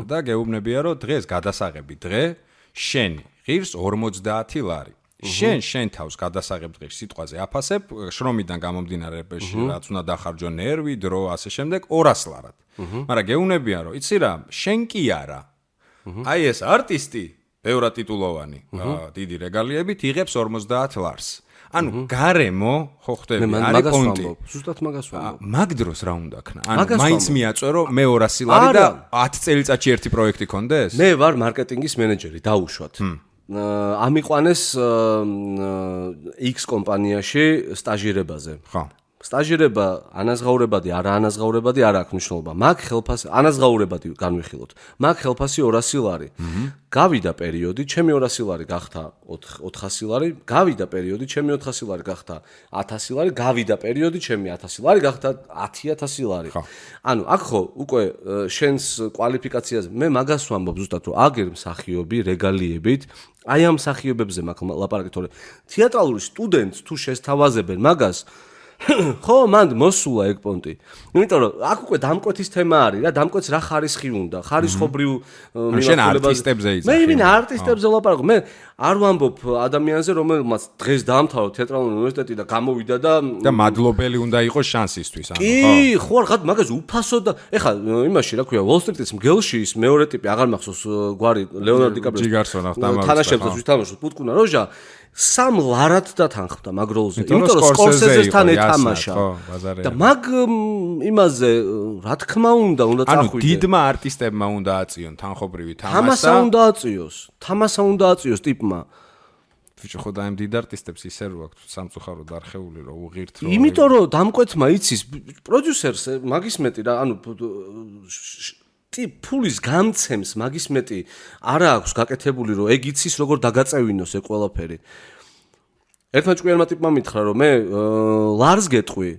და გეუბნებია რომ დღეს გადასაღები დღე შენ ღირს 50 ლარი შენ თავს გადასაღებ დღეს სიტყვაზე აფასებ შრომიდან გამომდინარეებში რაც უნდა დახარჯო ნერვი დრო ასე შემდეგ 200 ლარად მაგრამ გეუბნებია რომ იცი რა შენ კი არა აი ეს არტისტი ბევრად ტიტულოვანი დიდი რეგალიებით იღებს 50 ლარს ანუ გარემო ხო ხდები არის პონტი ზუსტად მაგას ვამბობ მაგ დროს რა უნდა ქნა ანუ მაინც მიაწვერო მე 200 ლარი და 10 წელიწადში ერთი პროექტი კონდეს მე ვარ მარკეტინგის მენეჯერი დაუშვათ ამიყვანეს X კომპანიაში სტაჟირებაზე ხო სტაჟირება ანაზღაურებადი არა ანაზღაურებადი არ აქვს მნიშვნელობა მაგ ხელფასი ანაზღაურებადი განვიხილოთ მაგ ხელფასი 200 ლარი გავიდა პერიოდი ჩემი 200 ლარი გახდა 400 ლარი გავიდა პერიოდი ჩემი 400 ლარი გახდა 1000 ლარი გავიდა პერიოდი ჩემი 1000 ლარი გახდა 10000 ლარი ანუ აქ ხო უკვე შენს კვალიფიკაციაზე მე მაგას ვამბობ ზუსტად რომ აგერ მსახიობი რეგალიებით აი ამ მსახიობებზე მაგ ლაპარაკი თორე თეატრალური სტუდენტს თუ შესთავაზებენ მაგას ხო მანდ მოსულა ეგ პონტი იმიტომ რომ აქ უკვე დამკვეთის თემა არის რა დამკვეთს რა ხარისხი უნდა ხარისხობრივ შენ არტისტებზე იცი მე ვინ არტისტებზე ლაპარაკობ მე არ ვამბობ ადამიანზე რომელმაც დღეს დაამთავრა თეატრალური უნივერსიტეტი და გამოვიდა და მადლობელი უნდა იყოს შანსისთვის ანუ კი ხო რა მაგას უფასო და ეხლა იმაში რა ქვია Wall Street-ის მგელში ის მეორე ტიპი აღარ მახსოვს გვარი ლეონარდო დიკაპრიოს თამაშობს ვითამაშობს პუტკუნა როჟა სამ ლარად დათანხმდა მაგ როლზე იმიტომ რომ სკორსეზესთან ეთამაშა და მაგ იმაზე რა თქმა უნდა ანუ წახვიდე დიდმა არტისტებმა უნდა აწიონ თანხობრივი თამაშა თამასა უნდა აწიოს ტიპმა ვიჭო ხო და ამ დიდ არტისტებს ისე რო აქვს სამწუხაროდ არხეული რო უღირთ რო იმიტომ რომ დამკვეთმა იცის პროდიუსერს მაგის მეტი რა ანუ ფულის გამცემს მაგის მეტი არა აქვს გაკეთებული რომ ეგ იცის როგორ დაგაწევინოს ეგ ყველაფერი ერთმა ჭკვიანმა ტიპმა მითხრა რომ მე ლარს გეტყვი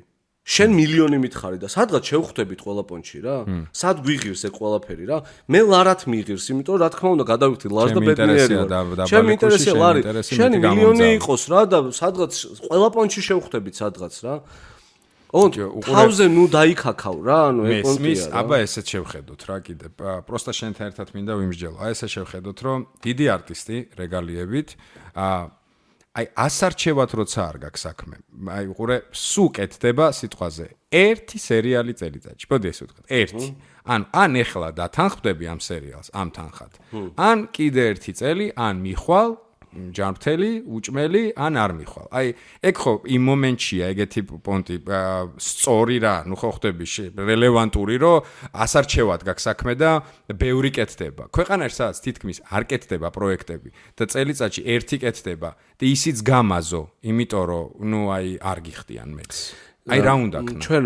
შენ მილიონი მითხარი და სადღაც შევხვდებით ყველა პონჩი რა სად გვიღირს ეგ ყველაფერი რა მე ლარად მიიღირს იმიტომ რა თქმა უნდა გადავიხდი ლარს და ბედნიერი ვარ ჩემი ინტერესია ლარი შენი მილიონი იყოს რა და სადღაც ყველა პონჩი შევხვდებით სადღაც რა თავზე ნუ დაიქაქავ რა ანუ ეგ პონტია აბა ესეც შევხედოთ რა კიდე პროსტა შენთან ერთად მინდა ვიმსჯელო აი ესე შევხედოთ რომ დიდი არტისტი რეგალიებით აი ასარჩევად როცა არ გაქვს საქმე აი უყურე სულ კეთდება სიტყვაზე ერთი სერიალი წელიწადში მოდი ესე ვთქვათ ერთი ან ეხლა დათანხმდები ამ სერიალს ამ თანხად ან კიდე ერთი წელი ან მიხვალ ჯანმრთელი, უჭმელი, ან არ მიხვალ. აი, ეგ ხო იმ მომენტშია ეგეთი პონტი სწორი რა, ნუ ხო ხდები რელევანტური, რომ ასარჩევად გაქვს საქმე და ბევრი კეთდება. ქვეყანაში სადაც თითქმის არ კეთდება პროექტები და წელიწადში ერთი კეთდება და ისიც გამაზო, იმიტომ რომ ნუ აი არ გიხდიან მეც. აი რა უნდა ქნა ჩვენ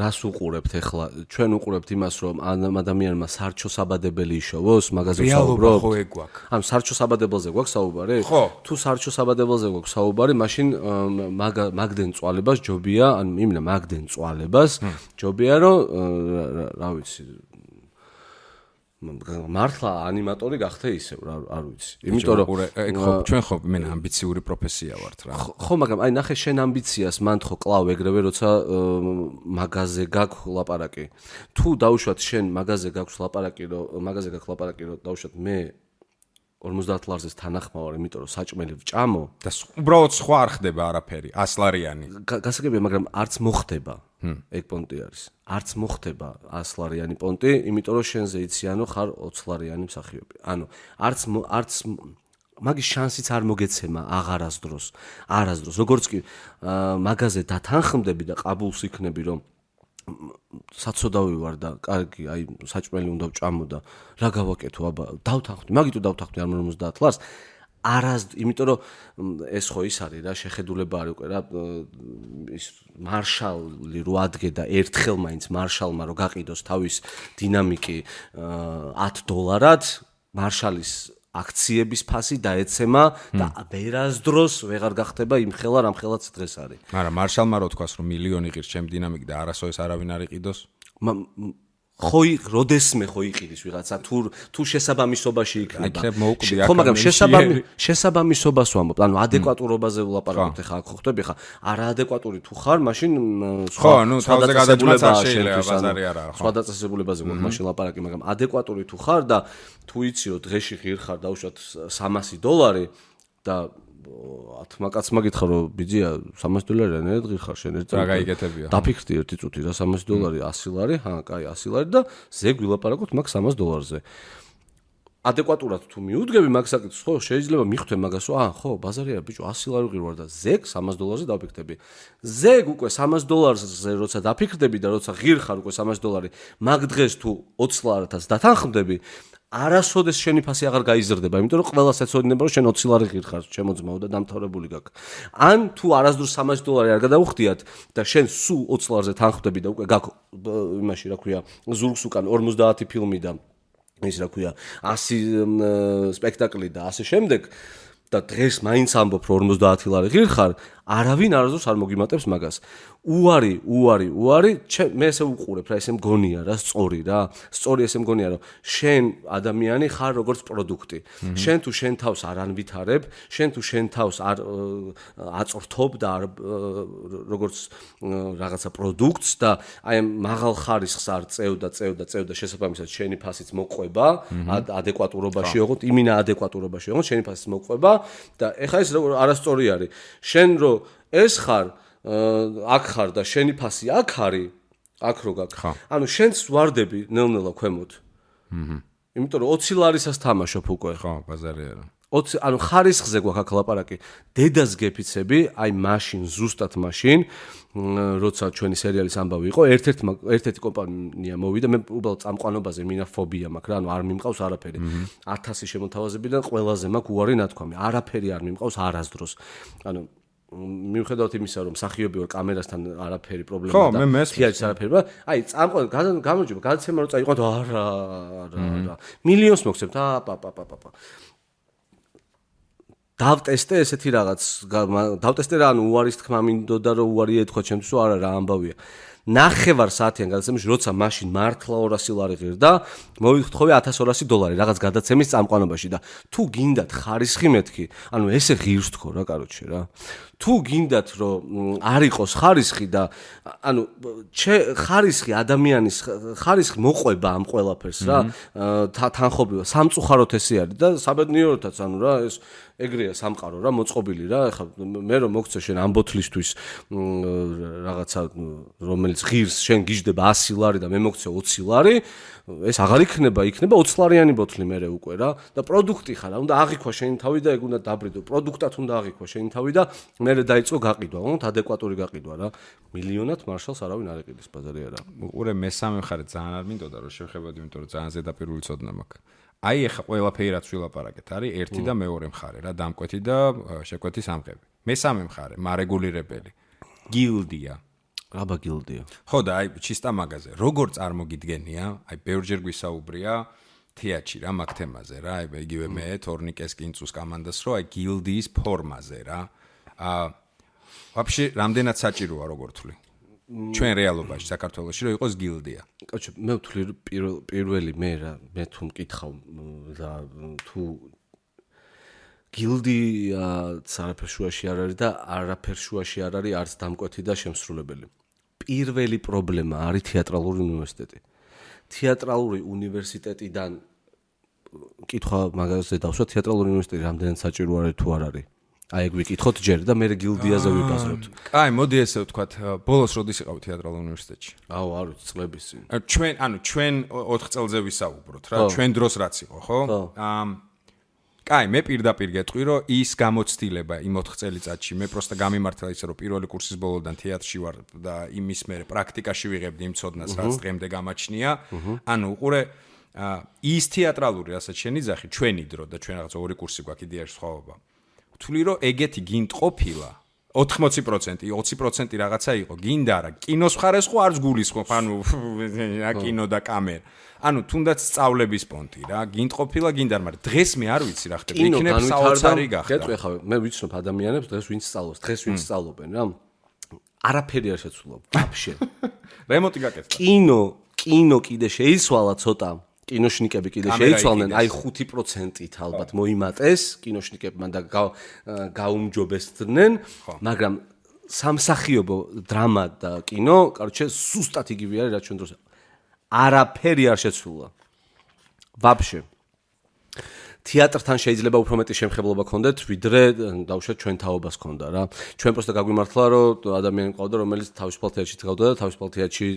რას უყურებთ ახლა ჩვენ უყურებთ იმას რომ ადამიანმა სარჩო საბადებელი იშოვოს მაგაზე საუბრობთ ხო ეგ გვაქვს ანუ სარჩო საბადებელზე გვაქვს საუბარი თუ სარჩო საბადებელზე გვაქვს საუბარი მაშინ მაგდენ წვალებას ჯობია ანუ იმენა მაგდენ წვალებას ჯობია რომ რა ვიცი მართლა ანიმატორი გახდე ისევ არ ვიცი იმიტომ რომ ჩვენ ხო მე ამბიციური პროფესია ვართ რა ხო მაგრამ აი ნახე შენ ამბიციას მან ხო კლავ ეგრევე როცა მაგაზე გაქვს ლაპარაკი თუ დაუშვათ შენ მაგაზე გაქვს ლაპარაკი რომ დაუშვათ მე 50 ლარზეს თანახმავარ იმიტომ რომ საჭმელი ვჭამო და უბრალოდ სხვა არ ხდება არაფერი 100 ლარიანი გასაგებია მაგრამ არც მოხდება ეგ პონტი არის არც მოხდება 100 ლარიანი პონტი იმიტომ რომ შენზე იციანო ხარ 20 ლარიანი მსახიობი ანუ არც მაგის შანსიც არ მოგეცემა აღარასდროს როგორც კი მაგაზე დათანხმდები და ყაბულს იქნები რომ საცოდავი ვარ და კარგი აი საჭმელი უნდა ვჭამო და რა გავაკეთო აბა დავთანხმდი მაგიტო დავთანხმდი არ 50 ლარს იმიტომ რომ ეს ხო ის არის რა შეხედულება არის უკვე რა ის მარშალი რო ადგე და ერთხელ მაინც მარშალმა რო გაყიდოს თავის დინამიკი $10 მარშალის აქციების ფასი დაეცემა და ვერასდროს ვეღარ გახდება იმ ხელა რამ ხელაც დღეს არის. მაგრამ მარშალმა რო თქვას რომ მილიონი ღირს ჩემ დინამიკი და არასოდეს არავინ არ იყიდოს? როდესმე ხო იყიდის ვიღაცა თუ შესაბამისობაში იქნება. ხო მაგრამ შესაბამისობას ვამბობ, ანუ ადეკვატურობაზე ვლაპარაკობთ ხა აქ ხო ხტები ხა არაადეკვატური თუ ხარ, მაშინ ხო, ნუ თავზე გადაჭმაც არ შეიძლება ბაზარი არა. სხვა დაწესებულებაზე გვაქვს მაშინ ლაპარაკი, მაგრამ ადეკვატური თუ ხარ და თუ იცი რომ დღეში ღირ ხარ დაუშვათ $300 და ათმაკაცმა გითხრა რომ ბიძია $300 ნედღი ხარ შენ ერთ რა გაიგეთებია დაფიქრდი ერთი წუთი რა $300 100 ლარი ჰა კაი 100 ლარი და ზეგ ვილაპარაკოთ მაგ $300-ზე ადეკვატურად თუ მიუდგები მაგ საკითხს ხო შეიძლება მიხვდე მაგას რომ ხო ბაზარი არა ბიჭო 100 ლარი ღირ ვარ და ზეგ $300-ზე დაფიქრდები ზეგ უკვე $300-ზე როცა დაფიქრდები და როცა ღირ ხარ უკვე $300 მაგ დღეს თუ 20 ლარათაც დათანხმდები არასოდეს შენი ფასი აღარ გაიზრდება, იმიტომ რომ ყველას ეცოდინება რომ შენ 20 ლარი ღირ ხარ, ჩემო ძმაო და დამთავრებული გაქვს. ან თუ არასდროს $300 არ გადაუხდიათ და შენ სულ 20 ლარზე თანხმდები და უკვე გაქვს იმაში რა ქვია, ზურგს უკან 50 ფილმი და ის რა ქვია, 100 სპექტაკლი და ასე შემდეგ და დღეს მაინც ამბობ რომ 50 ლარი ღირ ხარ, არავინ არასდროს არ მოგიმატებს მაგას. უარი, მე ესე უყურებ რა, ესე მგონია რა, სწორი ესე მგონია რომ შენ ადამიანი ხარ როგორც პროდუქტი. შენ თუ შენ თავს არ ანვითარებ, შენ თუ შენ თავს არ აწვრთობ და როგორც რაღაცა პროდუქტს და აი მაღალ ხარისხს არ წევ და შესაბამისად შენი ფასიც მოყვება, ადეკვატურობაში ოღონდ, იმინა ადეკვატურობაში ოღონდ შენი ფასიც მოყვება და ეხლა ეს არასწორი არის. შენ რო ეს ხარ აქ ხარ და შენი ფასი აქ არის, აქ რო გაქვს. ანუ შენც ვარდები ნელ-ნელა ქვემოთ. იმიტომ რომ 20 ლარისას თამაშობ უკვე. ხო, ბაზარი არა. 20 ანუ ხარისხზე გვაქვს აქ ლაპარაკი. დედას გეფიცები, აი მაშინ, ზუსტად მაშინ, როცა ჩვენი სერიალის ამბავი იყო, ერთ-ერთი კომპანია მოვიდა, მე უბრალოდ წამყვანობაზე მინა ფობია მაქვს რა, ანუ არ მიმყავს არაფერი. 1000 შემოთავაზებიდან ყველაზე მაქვს უარი ნათქვამი. არაფერი არ მიმყავს არასდროს. ანუ მიუხედავად იმისა, რომ მსახიობი ვარ კამერასთან არაფერი პრობლემა და თეატრს არაფერი, აი წამყვანი გამარჯობა, გადაცემა რო წაიყვანთ, არა. მილიონს მოგცემთ, პაპაპაპაპა. დავტესტე ესეთი რაღაც, დავტესტე რა, ანუ უარის თქმა მინდოდა რომ უარი ეთქვა ჩემთვის, არა რა ამბავია. ნახევარ საათიან გადაცემაში, როცა მაშინ მართლა 200 ლარი ღირ და მოვიხთხოვე $1200 რაღაც გადაცემის წამყვანობაში და თუ გინდათ ხარისხი მეთქი, ანუ ესე ღირს თქო რა, კაროჩე რა. თუ გინდათ რომ არ იყოს ხარისხი და ანუ ხარისხი ადამიანის ხარისხი მოყვება ამ ყველაფერს რა, თანხობრივად სამწუხაროდ ესე არის და საბედნიეროთაც ანუ რა ეს ეგრეა სამყარო რა მოწყობილი რა ეხლა მე რომ მოგცე შენ ამ ბოთლისთვის რაღაცა რომელიც ღირს შენ გიждდება 100 ლარი და მე მოგცე 20 ლარი ეს აღარ იქნება 20 ლარიანი ბოთლი მერე უკვე რა და პროდუქტი ხარ უნდა აღიქვა შენი თავი და ეგ უნდა დაბრიდო პროდუქტად უნდა აღიქვა შენი თავი და მერე დაიწყო გაყიდვა უნდა ადეკვატური გაყიდვა რა მილიონად მარშალს არავინ არ ეყიდის ბაზარი არა უყურე მესამე მხარე ძალიან არ მინდოდა რომ შევხედავდი იმიტომ რომ ძალიან ზედაპირული ცოდნა მაქვს აი ეხა ყველაფერი რაც ვილაპარაკეთ არის ერთი და მეორე მხარე რა დამკვეთი და შეკვეთის ამღები მესამე მხარე მარეგულირებელი გილდია აბა გილდია. ხო და აი ჩისტა მაგაზე. როგორ წარმოგიდგენია? აი ბევრჯერ გვისაუბრია თეატრში რა მაგ თემაზე რა. აი იგივე მე თორნიკეს კინწუს კომანდას რო აი გილდიის ფორმაზე რა. ვაფშე რამდენად საჭიროა როგორ თვლი? ჩვენ რეალობაში საქართველოში რო იყოს გილდია. კაცო მე ვთვლი პირველი მე თუ მკითხავ და თუ გილდია არაფერ შუაში არ არის და არაფერ შუაში არ არის არც დამკვეთი და შემსრულებელი. პირველი პრობლემა არის თეატრალური უნივერსიტეტი. თეატრალური უნივერსიტეტიდან კითხვა მაგაზე დავსვა თეატრალური უნივერსიტეტი რამდენად საჭირო არის თუ არ არის. აი ეგ ვიკითხოთ ჯერ და მე გილდიაზე ვიბაზროთ. კაი, მოდი ესე ვთქვათ, ბოლოს როდის იყავ თეატრალურ უნივერსიტეტში? აუ, არ ვიცი, წლების წინ. ჩვენ 4 წელზე ვისაუბროთ რა, ჩვენ დროს რაც იყო, ხო? კაი, მე პირდაპირ გეტყვი, რომ ის გამოცდილება იმ 4 წელიწადში მე პროსტა გამიმართლა ისე, რომ პირველი კურსის ბოლოდან თეატრში ვარ და იმის მერე პრაქტიკაში ვიღებდი იმ ცოდნას, რაც დღემდე გამაჩნია. ანუ უყურე ის თეატრალური, რასაც შენი ძახი, ჩვენი დრო და ჩვენ რაღაც ორი კურსი გვაქვს იდეაში სხვაობა. ვთვლი რომ ეგეთი გინდ ყოფილა 80%, 20% რაღაცა იყო, გინდა რა, კინოს მხარეს ხო არც გულისხმობ, ანუ კინო და კამერა. ანუ თუნდაც სწავლების პონტი რა, გინდ ყოფილა გინდა, მაგრამ დღეს მე არ ვიცი რა ხდება, იქნებ საოცარი გახდა. გეტყვი ხა, მე ვიცნობ ადამიანებს დღეს ვინც სწავლობს, დღეს ვინც სწავლობენ რა. არაფერი არ შეცვლა, ვაფშე. რემონტი გაკეთდა. კინო კიდე შეიცვალა ცოტა. კინოშნიკები კიდე შეიცვალნენ, აი 5%-ით ალბათ მოიმატეს კინოშნიკებმა და გაუმჯობესდნენ, მაგრამ სამსახიობო დრამა და კინო, კაროჩე, სუსტად იგივე არის, რაც ჩვენ დროს. არაფერი არ შეცვლა. ვაფშე. თეატრთან შეიძლება უფრო მეტი შემხებლობა გქონდეთ, ვიდრე დავუშვათ ჩვენ თაობას გქონდა რა. ჩვენ პროსტა გაგვიმართლა, რომ ადამიანი მყავდა, რომელიც თავისუფალ თეატრში წავდა და თავისუფალ თეატრში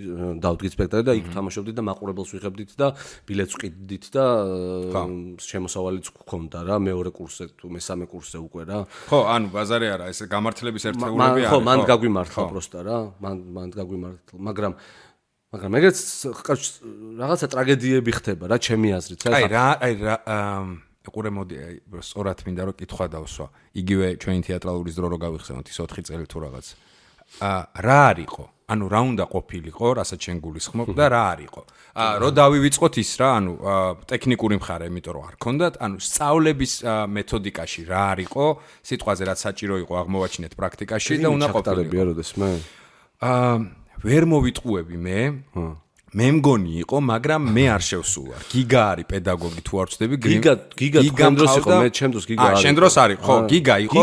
დავდგით სპექტაკლი და იქ თამაშობდით და მაყურებელს ვიღებდით და ბილეთს ვყიდით და შემოსავალიც გქონდა რა, მეორე კურსზე თუ მესამე კურსზე უკვე რა. ხო, ანუ ბაზარი არა, ეს გამართლების ერთეულები არის. ხო, მან გაგვიმართლა პროსტა რა, მან გაგვიმართლა, მაგრამ ეგეც რაღაცა ტრაგედიები ხდება რა, ჩემი აზრით რა. აი ყურე მოდი სწორად მინდა რომ კითხვა დავსვა. იგივე ჩვენი თეატრალური დრო რო გავიხსენოთ ის 4 წელი თუ რაღაც. რა არისო? ანუ რა უნდა ყოფილიყო, რასაც შენ გულისხმობ და რა არისო? რო დავივიწყოთ ის რა, ანუ ტექნიკური მხარე, იმიტომ რომ არ ქონდათ, ანუ სწავლების მეთოდიკაში რა არისო, სიტყვაზე რაც საჭირო იყო აღმოვაჩინეთ პრაქტიკაში და უნდა ყოფილიყო. როდესმე? ვერ მოვიტყუები მე. მე მგონი იყო, მაგრამ მე არ შევსულა. გიგა არის პედაგოგი თუ არ ვწდები, გიგა თქვენ დროს იყო, მე ჩემ დროს გიგა არის. შენ დროს არის, ხო, გიგა იყო.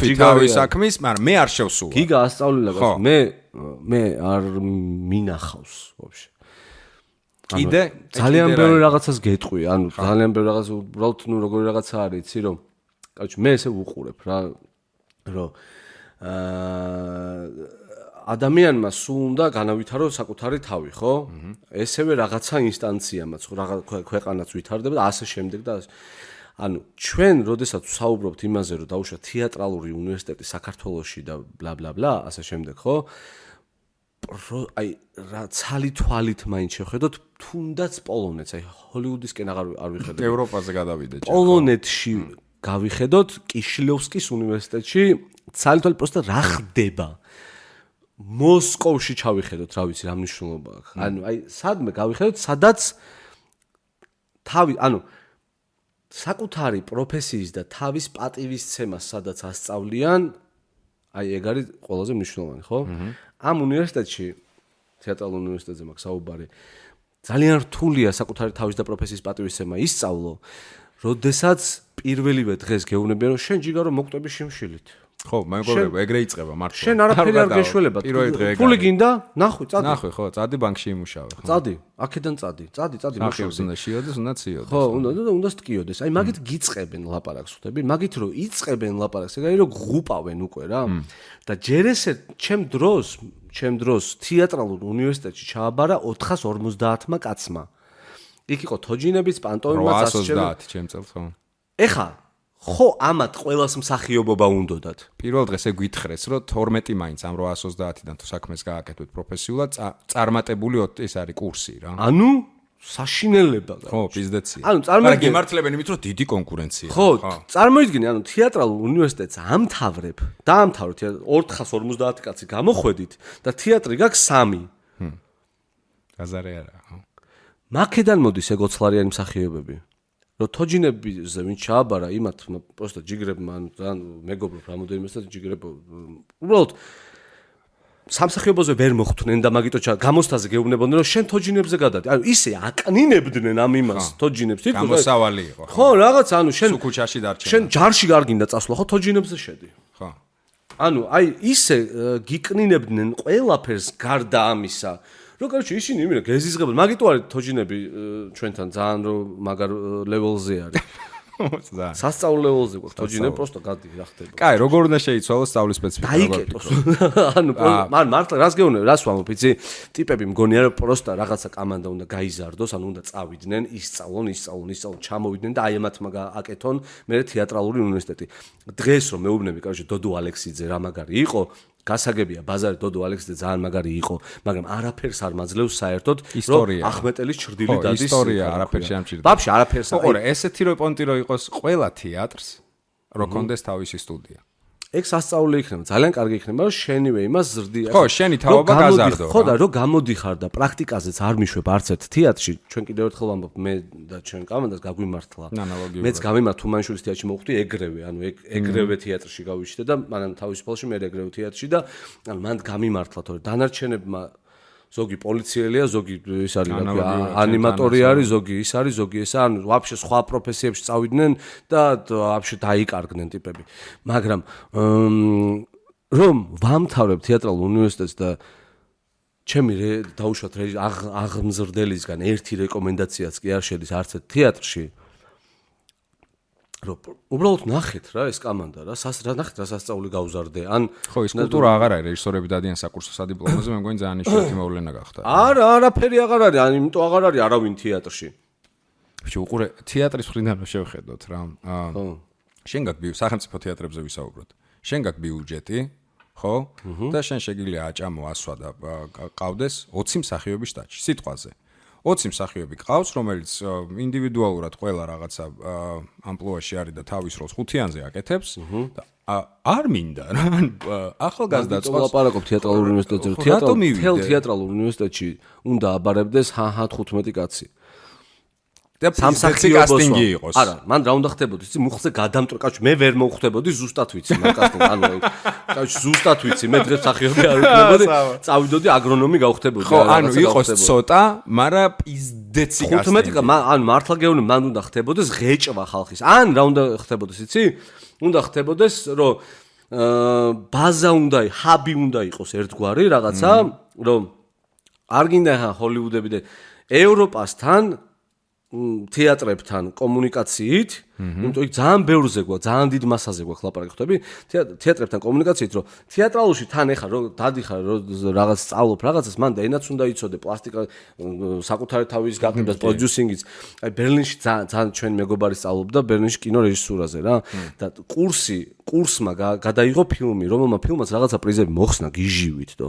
გიგა საქმის, მაგრამ მე არ შევსულა. გიგა ასწავლილა, მე არ მინახავს ვაფშე. კიდე ძალიან ბევრი რაღაცას გეტყვი, ანუ ძალიან ბევრი რაღაც უბრალოდ ნუ როგორი რაღაცა არის, იცი რომ კაცო მე ესე ვუყურებ რა, რომ ადამიანმა სულ უნდა განავითარო საკუთარი თავი, ხო? ესევე რაღაცა ინსტანციამაც, ქვეყანაც ვითარდება და ასე შემდეგ და ანუ ჩვენ როდესაც ვსაუბრობთ იმაზე, რომ დაუშვა თეატრალური უნივერსიტეტი საქართველოში და ბლა ბლა ბლა, ასე შემდეგ, ხო? აი რა ცალი თვალით მაინც შევხედოთ, თუნდაც პოლონეთს, აი ჰოლივუდისკენ არ ვიხედოთ. ევროპაზე გადავიდეთ. პოლონეთში გავიხედოთ კიშლევსკის უნივერსიტეტში, ცალი თვალით პროსტა რა ხდება? მოსკოვში ჩავიხედოთ, რა ვიცი, რა მნიშვნელობა აქვს. ანუ აი სადმე გავიხედოთ, სადაც თავი, ანუ საკუთარი პროფესიის და თავის პატივისცემას სადაც ასწავლიან, აი ეგ არის ყველაზე მნიშვნელოვანი, ხო? ამ უნივერსიტეტში, თეატრალურ უნივერსიტეტზე მაქვს საუბარი, ძალიან რთულია საკუთარი თავის და პროფესიის პატივისცემა ისწავლო, როდესაც პირველივე დღეს გეუბნებიან, რომ შენ ჯიგარო მოკვდები შიმშილით. ხო, მეგობრებო, ეგრე იწება მართლა. შენ არაფერი არ გეშველება. ფული გინდა? ნახვი, წადი. ნახვი, ხო, წადი ბანკში იმუშავე, ხო. წადი, აქედან წადი. წადი, მუშაობს უნდა შეიოდეს, უნდა ციოდეს. ხო, უნდა სტკიოდეს. აი, მაგით გიწყებენ ლაპარაკს, ხვდები? მაგით რომ იწყებენ ლაპარაკს, ეგ არის რომ ღუპავენ უკვე რა. და ჯერ ესე ჩემ დროს თეატრალურ უნივერსიტეტში ჩააბარა 450-მა კაცმა. იქ იყო თოჯინებიც, პანტომიმაც, 830 ჩემ წელს, ხო. ეხა ხო ამათ ყველას მსახიობობა უნდოდათ. პირველ დღეს ეგ გითხრეს, რომ 12 მაინც ამ 830-დან თუ საქმეს გააკეთოთ პროფესიულად, წარმატებული ეს არის კურსი რა. ანუ საშინელება. ხო, პიზდეცია. ანუ წარმოიდგინე, გემართლებენ იმით, რომ დიდი კონკურენცია. ხო, წარმოიდგინე, ანუ თეატრალურ უნივერსიტეტს ამთავრებ, დაამთავრეთ 450 კაცი გამოხვედით და თეატრი გაქვს 3. გაზარე არა, ხო. მაქედან მოდის ეგოცლარიანი მსახიობები. რომ თოჯინებზე ვინ ჩააბარა იმათ პროსტა ჯიგრებმა ან მეგობრობ რამოდენიმეს და ჯიგრებო უბრალოდ სამსახიობოზე ვერ მოხვდნენ და მაგიტო გამოსთაზე გეუბნებოდნენ რომ შენ თოჯინებზე გადადი. ანუ ისე აკნინებდნენ ამ იმას თოჯინებს თვითონ გამოსავალი იყო. ხო, რაღაც ანუ შენ სუკუჩაში დარჩენ. შენ ჯარში გარგინდა წასვლა ხო თოჯინებზე შედი. ხო. ანუ აი ისე გიკნინებდნენ ყველაფერს გარდა ამისა. რო კაროჩი ისინი იმენა გეზიზღებოდნენ. მაგიტო არის თოჯინები ჩვენთან ძალიან რო მაგარ ლეველზე არის. სასწავლო ლეველზე გვაქვს თოჯინები პროსტო გადი რა ხდება. კაი, როგორ უნდა შეიცვალოს სწავლის სპეციფიკა? დაიკეტოს. ანუ მან მართლა რას გეუბნები, რას ვამბობ, იცი? ტიპები მგონია რომ პროსტა რაღაცა კამანდა უნდა გაიზარდოს, ანუ უნდა წავიდნენ, ისწავლონ, ჩამოვიდნენ და აი ამათმა აკეთონ მე თეატრალური უნივერსიტეტი. დღეს რომ მეუბნები, კაროჩი დოდო ალექსიძე რა მაგარი იყო, გასაგებია ბაზარი დოდო ალექსიძე ძალიან მაგარი იყო, მაგრამ არაფერს არ მაძლევს საერთოდ რომ ახმეტელის ჩრდილი დადის. ისტორია არაფერს შეამჭირდება. ვაფშე არაფერს. ოღონდ ესეთი რო პონტი რო იყოს ყველა თეატრს რო კონდეს თავისი სტუდია. ეგ სასწაული იქნება, ძალიან კარგი იქნება, რომ შენივე იმას ზრდი. ხო, შენი თავობა გაზარდო. ხო და რო გამოდიხარ და პრაქტიკაზეც არ მიშვებ არც ერთ თეატრში, ჩვენ კიდევ ერთხელ ვამბობ, მე და ჩვენ კამანდას გაგვიმართლა. მეც გავიმართ თუმანიშვილის თეატრში მოვხვდი ეგრევე, ანუ ეგრევე თეატრში გავიშვიდე და მანამ თავისუფალში მე ეგრევე თეატრში და ანუ მან გამიმართლა, თორე დანარჩენებმა ზოგი პოლიციელია, ზოგი ის არის ანიმატორი არის, ზოგი ის არის, ზოგი ესა, ანუ ვაფშე სხვა პროფესიებში წავიდნენ და ვაფშე დაიკარგნენ ტიპები. მაგრამ რომ ვამთავრებ თეატრალურ უნივერსიტეტს და ჩემი დაუშვათ აღმზრდელისგან ერთი რეკომენდაციაც კი არ შედის არც ერთ თეატრში. რომ უბრალოდ ნახეთ რა ეს კამანდა რა ნახეთ რა სასწაული გავზარდე ან ხო ის კულტურა აღარ არის რეჟისორები დადიან საკურსო სადიპლომოზე მე მგონი ძალიან იშვიათი მოვლენა გახდა არა არაფერი აღარ არის ან იმიტომ აღარ არის არავინ თეატრში ბიჭო უყურე თეატრის მხრიდან რომ შევხედოთ რა შენ გაქვს სახელმწიფო თეატრებზე ვისაუბროთ შენ გაქვს ბიუჯეტი ხო და შენ შეგიძლია აჭამო ასვა და ყავდეს 20 მსახიობის შტატში სიტყვაზე 20 მსახიობი ყავს, რომელიც ინდივიდუალურად ყველა რაღაცა ამპლუაში არის და თავის როლს ხუთიანზე აკეთებს და არ მინდა რა ახალგაზრდა წყობს ლაპარაკობ თეატრალურ უნივერსიტეტზე თეატრალურ უნივერსიტეტში უნდა აბარებდეს 15 კაცი და სამსახიობი იყოს. არა, მან რა უნდა ხდებოდეს? იცი, მუხლზე გადამტრო, კაცო, მე ვერ მოვხვდებოდი ზუსტად ვიცი, მაგ კასტინგ, ანუ კაცო, ზუსტად ვიცი, მე დღეს მსახიობი არ ვიქნებოდი, წავიდოდი აგრონომი გავხდებოდი. ხო, ანუ იყოს ცოტა, მაგრამ პიზდეცი კასტინგი. 15, ანუ მართლა გეუბნები, მან უნდა ხდებოდეს ღეჭვა ხალხის. ან რა უნდა ხდებოდეს, იცი? უნდა ხდებოდეს, რომ ბაზა უნდა, ჰაბი უნდა იყოს ერთგვარი რაღაცა, რომ არ გინდა ჰოლივუდები და ევროპასთან თეატრებთან კომუნიკაციით, იმიტომ იქ ძალიან ბევრზე გვაქვს, ძალიან დიდ მასაზე გვაქვს ლაპარაკი ხდები, თეატრებთან კომუნიკაციით, რომ თეატრალურში თან ეხა რომ დადიხარ რომ რაღაც სწავლობ რაღაცას, მან და ენაც უნდა იცოდე, პლასტიკა, საკუთარი თავის გაყიდვას, პროდიუსინგიც. აი ბერლინში ძალიან ჩვენ მეგობარი სწავლობდა ბერლინში კინორეჟისურაზე რა და კურსმა გადაიღო ფილმი, რომელმა ფილმაც რაღაცა პრიზები მოხსნა გიჟივით და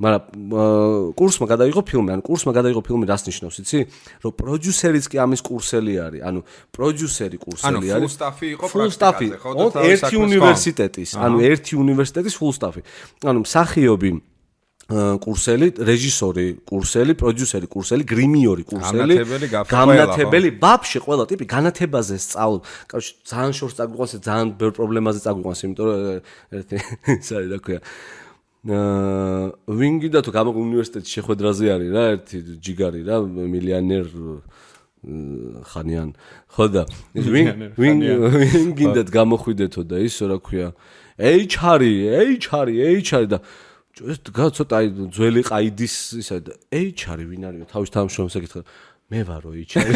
მაგრამ კურსმა გადაიღო ფილმი, ანუ კურსმა გადაიღო ფილმი რას ნიშნავს, იცი? რომ პროდიუსერიც კი ამის კურსელი არის, ანუ პროდიუსერი კურსელი არის. ანუ full staff იყო პრაქტიკაზე, ხო და ერთი უნივერსიტეტის, ანუ ერთი უნივერსიტეტის full staff-ი. ანუ მსახიობი კურსელი, რეჟისორი კურსელი, პროდიუსერი კურსელი, გრიმიორი კურსელი, განათებელი, ვაფშე ყველა ტიპი განათებაზე სწავლობს. კაცო, ძალიან შორს წაგვიყვანს, ძალიან ბევრ პრობლემაზე წაგვიყვანს, იმიტომ რომ ერთი ის არის რა ქვია. ვინგი და თუ გამო უნივერსიტეტის შეხვედრაზე არის რა ერთი ჯიგარი რა მილიონერ ხანიან ხო და ვინგინდათ გამოხვიდეთო და ისო რა ქვია HR და ცოტა აი ძველი ყაიდის ისა და HR ვინ არისო თავის თანამშრომლებს ეკითხა მე ვარო HR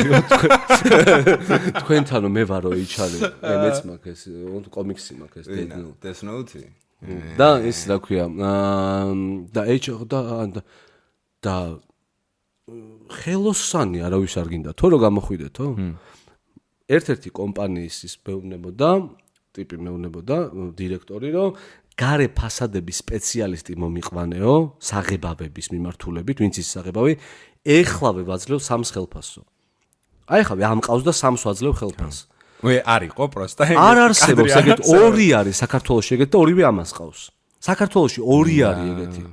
თქვენთანო მე ვარო HR მეც მაქვს ეს კომიქსი მაქვს ეს Death Note და ის რა ქვია და და ხელოსანი არავის არ გინდა თო რომ გამოხვიდეთო ერთ-ერთი კომპანიის ის მეუბნებოდა ტიპი მეუბნებოდა დირექტორი რომ გარე ფასადების სპეციალისტი მომიყვანეო, საღებავების მიმართულებით, ვინც ის საღებავი, ეხლავე ვაძლევ 3 ხელფასო. აი ხავე ამყავს და 3 ვაძლევ ხელფასს. არისო პროსტა. არ არსებობს ეგეთ 2 არის საქართველოში ეგეთ და 2-ვე ამას ყავს. საქართველოში 2 არის ეგეთი.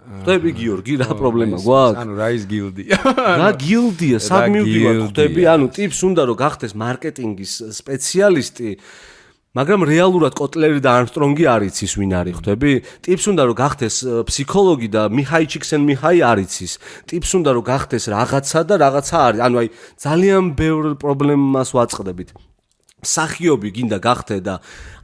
ხვდები გიორგი რა პრობლემა გვაქვს? ანუ რა ის გილდია? რა გილდია? სად მივდივარ ხვდები? ანუ ტიპს უნდა რომ გახდეს მარკეტინგის სპეციალისტი, მაგრამ რეალურად კოტლერი და არმსტრონგი არ იცის ვინ არის ხვდები? ტიპს უნდა რომ გახდეს ფსიქოლოგი და მიჰაი ჩიქსენმიჰაი არ იცის. ტიპს უნდა რომ გახდეს რაღაცა და რაღაცა არის. ანუ აი ძალიან ბევრ პრობლემას ვაწყდებით. მსახიობი გინდა გახდე და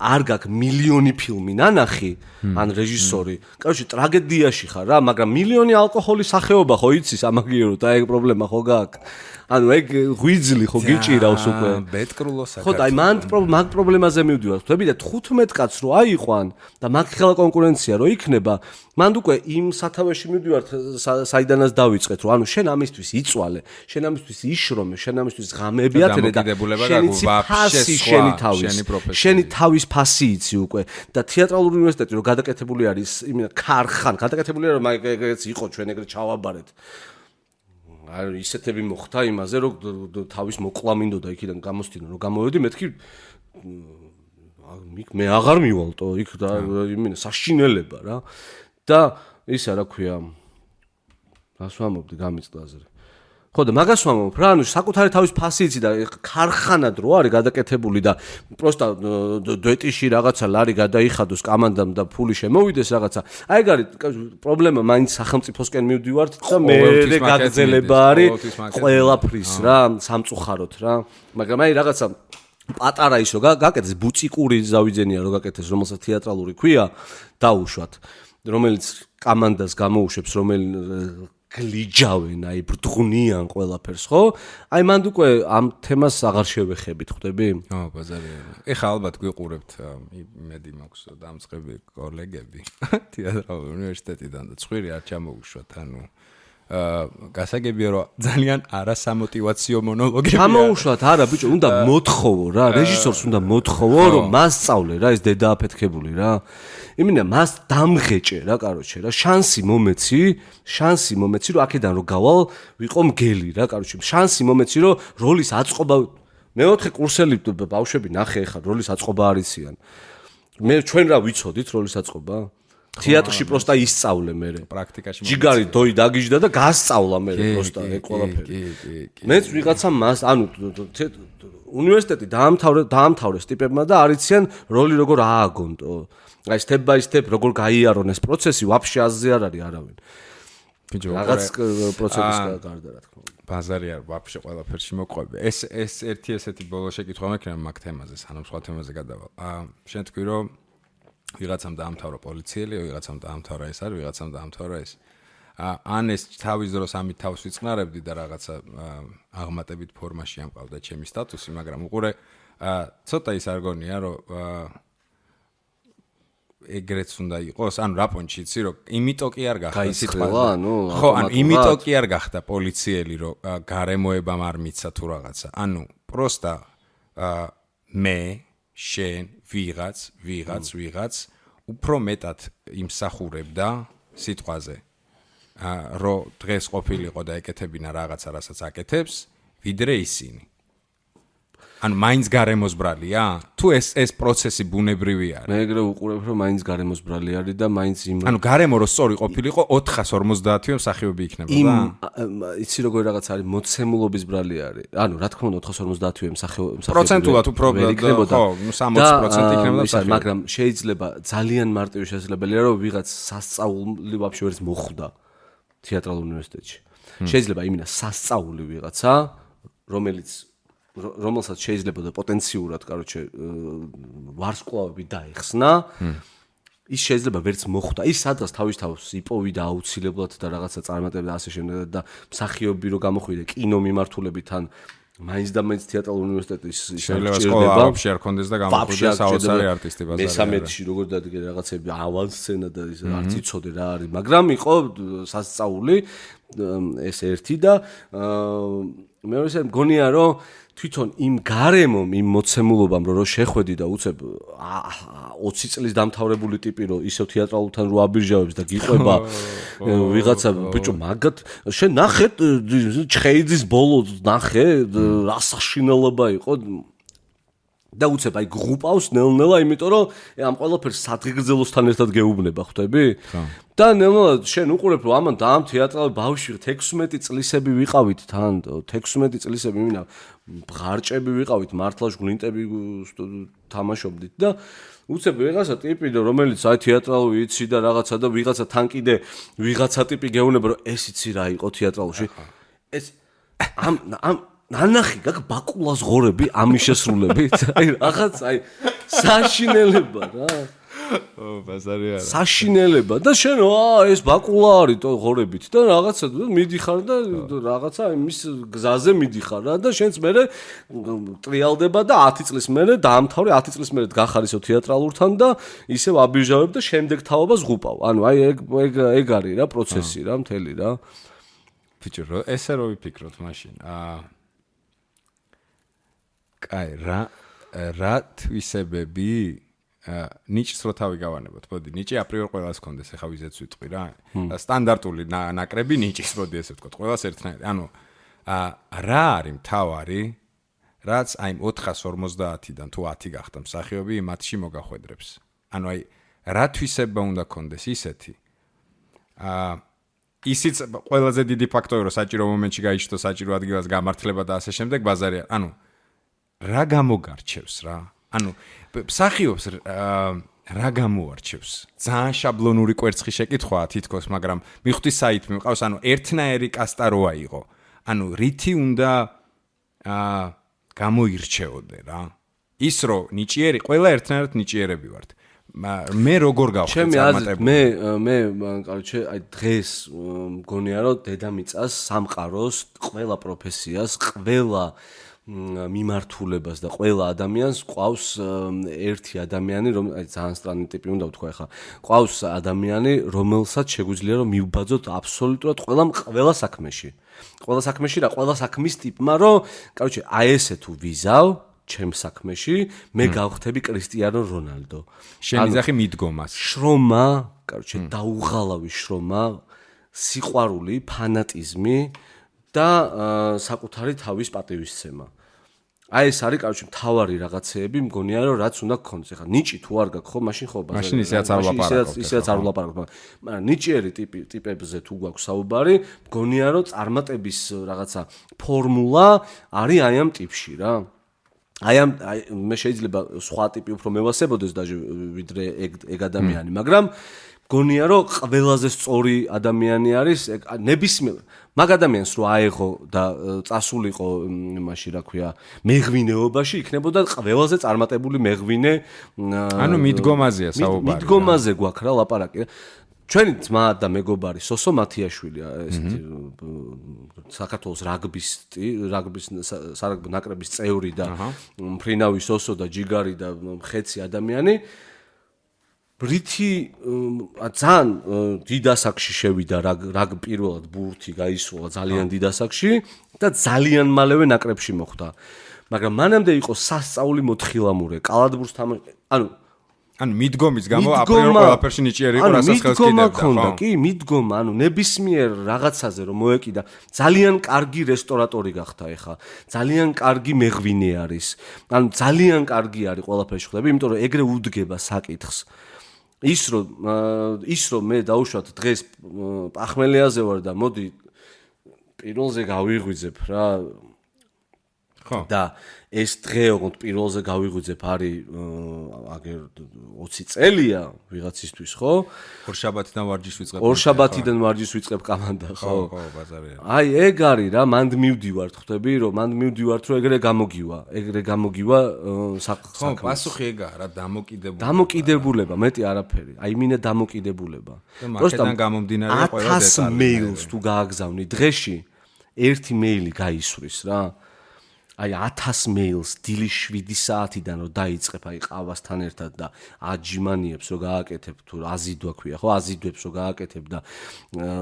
არ გაქვს მილიონი ფილმი ნანახი ან რეჟისორი. კაროჩე ტრაგედიაში ხარ რა, მაგრამ მილიონი ალკოჰოლის სახეობა ხო იცის ამაგიერო და ეგ პრობლემა ხო გაქვს. ანუ ეგ ღვიძლი ხო გიჭირავს უკვე. ბეტკრულო საქართველო. ხო და აი მაგ პრობლემაზე მივდივარ. ხვდები და 15 კაცს რო აიყვან და მაგ ხელა კონკურენცია რო იქნება, მანდ უკვე იმ სათავეში მივდივარ საიდანაც დავიწყეთ, რომ ანუ შენ ამისთვის იწვალე, შენ ამისთვის იშრომე, შენ ამისთვის ღამეები ათენე და შენი თავის ფასი იცი უკვე და თეატრალური უნივერსიტეტი რო გადაკეთებული არის იმენა ქარხან, გადაკეთებულია რომ ეგეც იყო ჩვენ ეგრე ჩავაბარეთ. აი ისეთები მოხდა იმაზე რომ თავის მოკლა მინდოდა იქიდან გამოსდინო რომ გამოვედი მეთქი მე აღარ მივალტო იქ და იმენა საშინელება რა და ისა რა ქვია რას ვამობდი გამიწდა აზრი ხო და მაგას ვამობ რა ანუ საკუთარი თავის ფასი იცი და ქარხანად რო არის გადაკეთებული და პროსტა დუეტიში რაღაცა ლარი გადაიხადოს კამანდამ და ფული შემოვიდეს რაღაცა აი ეგ არის პრობლემა მაინც სახელმწიფოსკენ მივდივართ და მე გაგრძელება არის ყველაფრის რა სამწუხაროდ რა მაგრამ აი რაღაცა პატარა ის რო გაკეთეს ბუციკური ზავიძენია რო გაკეთეს რომელსაც თეატრალური ქვია დაუშვათ რომელიც კამანდას გამოუშვებს რომელიც გლიჯავენ აი ბრდღუნიან ყველაფერს ხო? აი მანდ უკვე ამ თემას აღარ შევეხებით ხვდები? ო ბაზარია. ეხა ალბათ გვიყურებთ იმედი მაქვს დამწყები კოლეგები თეატრალური უნივერსიტეტიდან და ცხვირი არ ჩამოუშვათ ანუ გასაგებია რომ ძალიან არასამოტივაციო მონოლოგები ჩამოუშვათ არა ბიჭო უნდა მოთხოვო რა რეჟისორს უნდა მოთხოვო რომ მასწავლე რა ეს დედა აფეთქებული რა იმენა მას დამღეჭე რა კაროჩე რა შანსი მომეცი რომ აქედან რომ გავალ ვიყო მგელი რა კაროჩე შანსი მომეცი რომ როლის აწყობა მეოთხე კურსელი ბავშვები ნახე ხარ როლის აწყობა არიციან მე ჩვენ რა ვიცოდით როლის აწყობა თეატრში პროსტა ისწავლე მე პრაქტიკაში ჯიგარი დოი დაგიჟდა და გასწავლა მე პროსტა ეგ ყველაფერი მეც ვიღაცა მას ანუ უნივერსიტეტი დაამთავრეს ტიპებმა და არიციან როლი როგორ ააგონტო აი step by step როგორ გაიარონ ეს პროცესი ვაფშე აზზე არ არის არავინ ბიჭო რაღაც პროცესის გარდა რა თქმა უნდა ბაზარი არ ვაფშე ყველაფერში მოყვები ეს ერთი ესეთი ბოლო შეკითხვა მექნება მაგ თემაზე სანამ სხვა თემაზე გადავალ შენ თქვი რომ ვიღაცამ დაამთავრა პოლიციელი, ვიღაცამ დაამთავრა ეს არის, ვიღაცამ დაამთავრა ეს. ან ეს თავის დროს ამით თავს ვიწყნარებდი და რაღაცა აღმატებით ფორმაში ამყავდა ჩემი სტატუსი, მაგრამ უყურე ცოტა ის არ გონია, რომ ეგრეც უნდა იყოს, ანუ რა პონჩი იცი, რომ იმიტომ კი არ გახდა სიტყვა, ანუ ხო, ანუ იმიტომ კი არ გახდა პოლიციელი, რომ გარემოებამ არ მიცა თუ რაღაცა. ანუ პროსტა მე შენ ვიღაც უფრო მეტად იმსახურებდა სიტყვაზე რომ დღეს ყოფილიყო და ეკეთებინა რაღაცა რასაც აკეთებს ვიდრე ისინი ანუ მაინც გარემოსბრალია თუ ეს პროცესი ბუნებრივი არის მე ეგრე უყურებ რომ მაინც გარემოსბრალი არის და მაინც იმ ანუ გარემო რო სწორი ყოფილიყო 450-ე მსახიობი იქნებოდა იცი როგორ რაღაც არის მოცემულობის ბრალი არის ანუ რა თქმა უნდა 450-ე მსახიობი პროცენტულად უფრო იქნებოდა ხო 60% იქნებოდა მსახიობი მაგრამ შეიძლება ძალიან მარტივი შესაძლებელია რომ ვიღაც სასწაული ვაფშე ვერც მოხვდა თეატრალურ უნივერსიტეტში შეიძლება იმენა სასწაული ვიღაცა რომელსაც შეიძლება და პოტენციურად, კაროჩე, ვარსკვლავები დაეხსნა, ის შეიძლება ვერც მოხვდა. ის სადღაც თავის იპოვიდა აუცილებლად და რაღაცა წარმატებდა ასე შემდეგ და მსახიობი რო გამოხვიდა კინო მიმართულებით ან მაინც და მაინც თეატრალური უნივერსიტეტის შეიძლება სკოლა ვაფშე არ კონდეს და გამოხვიდა საოცარი არტისტი ბაზარი. მესამედში როგორ დადგე რაღაცები ავანსცენა და ის არც იცოდე რა არის, მაგრამ იყო სასწაული ეს ერთი და მეორე ისე მგონია რომ თვითონ იმ გარემომ, იმ მოცემულობამ რო შეხვედი და უცებ 20 წლის დამთავრებული ტიპი რო ისევ თეატრალურთან რო აბირჟავებს და გიყვება ვიღაცა ბიჭო მაგათ შენ ნახე ჩხეიძის ბოლო ნახე რა საშინელება იყო და უცებ აი გრუპავს ნელ-ნელა იმიტომ რომ ამ ყველაფერს სადგეგრძელოსთან ერთად გეუბნება ხვდები და ნელ-ნელა შენ უყურებ რომ ამან და ამ თეატრალურ ბავშვი 16 წლისები ვიყავით თან 16 წლისები მინა ბღარჭები ვიყავით მართლა ჟღლინტები თამაშობდით და უცებ ვიღაცა ტიპი რომელიც აი თეატრალური იცი და რაღაცა და ვიღაცა თან კიდე ვიღაცა ტიპი გეუბნება რომ ეს იცი რა იყო თეატრალურში ეს ამ ნანახი გაკ ბაკულას ღორები ამის შესრულებით აი რაღაც აი საშინელება რა ბაზარი არა საშინელება და შენ ეს ბაკულა არის თო ღორებით და რაღაცა მიდიხარ და რაღაცა იმის გზაზე მიდიხარ რა და შენც მე ტრიალდება და 10 წლის მერე დაამთავრე 10 წლის მერე გახარ ისო თეატრალურთან და ისევ აბირჟავებ და შემდეგ თავობას ღუპავ ანუ აი ეგ არის რა პროცესი რა მთელი რა ბიჭო ესე რო ვიფიქროთ მაშინ კაი რა თვისებები ნიჭს რო თავი გავანებოთ მოდი ნიჭი აპრიორ ყველას კონდეს ახლა ვიზეც ვიტყვი რა სტანდარტული ნაკრები ნიჭის მოდი ესე ვთქვათ ყველას ერთნაირი ანუ რა არის მთავარი რაც აი 450-დან თუ 10 გახდა მსახიობი მათში მოგახვედრებს ანუ აი რა თვისება უნდა კონდეს ისეთი ისიც ყველაზე დიდი ფაქტორი რომ საჭირო მომენტში გაიჩნდო საჭირო ადგილას გამართლება და ასე შემდეგ ბაზარია ანუ რა გამოგარჩევს რა ანუ მსახიობს რა გამოარჩევს ძალიან შაბლონური კვერცხი შეკითხვაა თითქოს მაგრამ მიხვდი საით მიყავს ანუ ერთნაირი კასტა როა იყო ანუ რითი უნდა გამოირჩეოდე რა ის რომ ნიჭიერი ყველა ერთნაირად ნიჭიერები ვართ მე როგორ გავხდი წარმატებული მე კაროჩე აი დღეს მგონია რომ დედამიწას სამყაროს ყველა პროფესიას ყველა მიმართულებას და ყველა ადამიანს ყავს ერთი ადამიანი აი ძალიან სტრანი ტიპი უნდა ვთქვა ახლა ყავს ადამიანი რომელსაც შეგვიძლია რომ მივბაძოთ აბსოლუტურად ყველა საქმეში რა ყველა საქმის ტიპმა რომ კაროჩე აი ესე თუ ვიზავ ჩემ საქმეში მე გავხდები კრისტიანო რონალდო შენ იძახი მიდგომას შრომა კაროჩე დაუღალავი შრომა სიყვარული ფანატიზმი და საკუთარი თავის პატივისცემა აი ეს არის კაროჩე მთავარი რაღაცეები მგონია რომ რაც უნდა გქონდეს ახლა ნიჭი თუ არ გაქვს ხო მაშინ ხო ბაზარი მაშინ ისეც არ ვლაპარაკობ ისეც არ ვლაპარაკობ მაგრამ ნიჭიერი ტიპებზე თუ გვაქვს საუბარი მგონია რომ წარმატების რაღაცა ფორმულა არის აი ამ ტიპში რა აი მე შეიძლება სხვა ტიპი უფრო მევასებოდეს დაჟე ვიდრე ეგ ადამიანი მაგრამ გონია რომ ყველაზე სწორი ადამიანი არის ნებისმიერ მაგ ადამიანს რო აეღო და წასულიყო იმაში რა ქვია მეღვინეობაში იქნებოდა ყველაზე წარმატებული მეღვინე ანუ მიდგომაზეა საუბარი მიდგომაზე გვაქვს რა ლაპარაკი ჩვენი ძმა და მეგობარი სოსო მათიაშვილი ესეთი საქართველოს რაგბის სარაგბო ნაკრების წევრი და მფრინავი სოსო და ჯიგარი და ხეცი ადამიანი რითი ძალიან დიდ ასაკში შევიდა რაგ პირველად ბურთი გაისულა ძალიან დიდ ასაკში და ძალიან მალევე ნაკრებში მოხვდა მაგრამ მანამდე იყო სასწაული მოთხილამურე კალათბურთს ანუ მიდგომის გამო აპრიორ ყველაფერში ნიჭიერი იყო რასაც ხელს კიდევდა კი მიდგომა ანუ ნებისმიერ რაღაცაზე რომ მოეკიდა ძალიან კარგი რესტორატორი გახდა ეხა ძალიან კარგი მეღვინე არის ანუ ძალიან კარგი არის ყველაფერში ხვდები იმიტომ რომ ეგრე უდგება საკითხს ის რომ მე დაუშვათ დღეს პახმელიაზე ვარ და მოდი პირველზე გავიღვიძებ რა ხო და ეს დღე ოღონდ პირველზე გავიღვიძებ არის აგერ 20 წელია ვიღაცისთვის ხო ორშაბათიდან ვარჯიშს ვიწყებ ორშაბათიდან ვარჯიშს ვიწყებ კამანდა ხო ხო ბაზარია აი ეგ არის რა მანდ მივდივართ ხვდები რომ მანდ მივდივართ რომ ეგრე გამოგივა ხო პასუხი ეგაა რა დამოკიდებულება მეტი არაფერი აი მინე დამოკიდებულება პროსტამ გამომდინარე ყველა 1000 მეილს თუ გააგზავნი დღეში ერთი მეილი გაისვრის რა აი 1000 მეილს დილის 7 საათიდან რომ დაიწყებ აი ყავასთან ერთად და აჯიმანიებს რომ გააკეთებ თუ აზიდვა ქვია ხო აზიდვებს რომ გააკეთებ და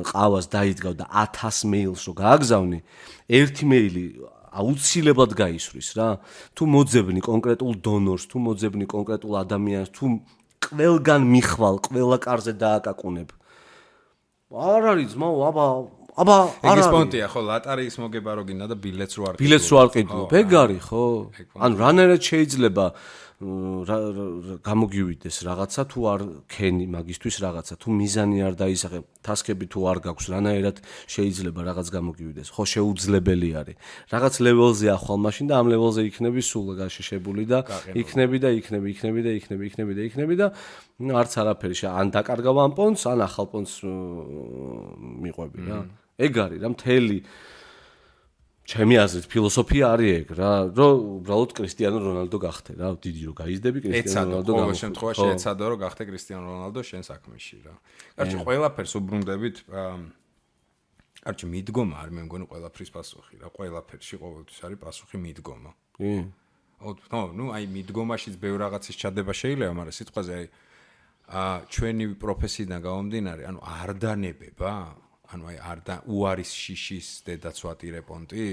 ყავას დაიდგავ და 1000 მეილს რომ გააგზავნი ერთი მეილი აუცილებლად გაისვრის რა თუ მოძებნი კონკრეტულ დონორს თუ მოძებნი კონკრეტულ ადამიანს თუ ყველგან მიხვალ ყველა კარზე დააკაკუნებ არ არის ძმაო აბა ეგ პონტია ხო ლატარიის მოგება რო გინდა და ბილეთს რო არ ყიდულობ ეგ არის ხო ანუ რანაირად შეიძლება გამოგივიდეს რაღაცა თუ არ ქენი მაგისთვის რაღაცა თუ მიზანი არ დაისახე ტასკები თუ არ გაქვს რანაირად შეიძლება რაღაც გამოგივიდეს ხო შეუძლებელი არის რაღაც ლეველზე ახვალ მაშინ და ამ ლეველზე იქნები სულ გაშიშებული და იქნები და არც არაფერი ან დაკარგავ ამ პონტს ან ახალ პონტს მიყვები რა ეგ არის რა მთელი ჩემი აზრით ფილოსოფია არის ეგ რა რომ უბრალოდ კრისტიანო რონალდო გახდე რა დიდი რომ გაიზდები კრისტიანო რონალდო ყოველ შემთხვევაში ეცადო რომ გახდე კრისტიანო რონალდო შენ საქმეში რა კარგი ყველაფერს უბრუნდებით კარგი მიდგომა არ მე მგონი ყველაფრის პასუხი რა ყველაფერში ყოველთვის არის პასუხი მიდგომა ნუ აი მიდგომაშიც ბევრ რაღაცის ჩადება შეიძლება მაგრამ სიტყვაზე აი ჩვენი პროფესიიდან გამომდინარე ანუ არ დანებება ანუ აი არ და უარის შიშის დედაც ვატირე პონტი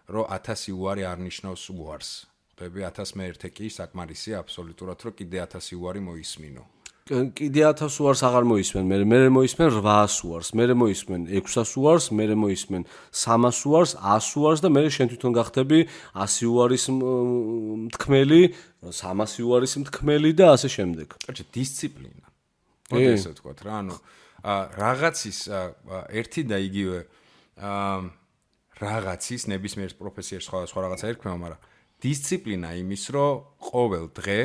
რომ 1000 უარი არ ნიშნავს უარს ხდები 1001 კი საკმარისია აბსოლუტურად რომ კიდე 1000 უარი მოისმინო კიდე 1000 უარს აღარ მოისმენ მე მოისმენ 800 უარს მე მოისმენ 600 უარს მე მოისმენ 300 უარს 100 უარს და მე შენ თვითონ გახდები 100 უარის მთქმელი 300 უარის მთქმელი და ასე შემდეგ კარგი დისციპლინა მოდი ესე ვთქვათ რა ანუ რაღაცის ერთი და იგივე რაღაცის ნებისმიერ პროფესიაში სხვა რაღაცა ერქმევა, მაგრამ დისციპლინა იმის, რომ ყოველ დღე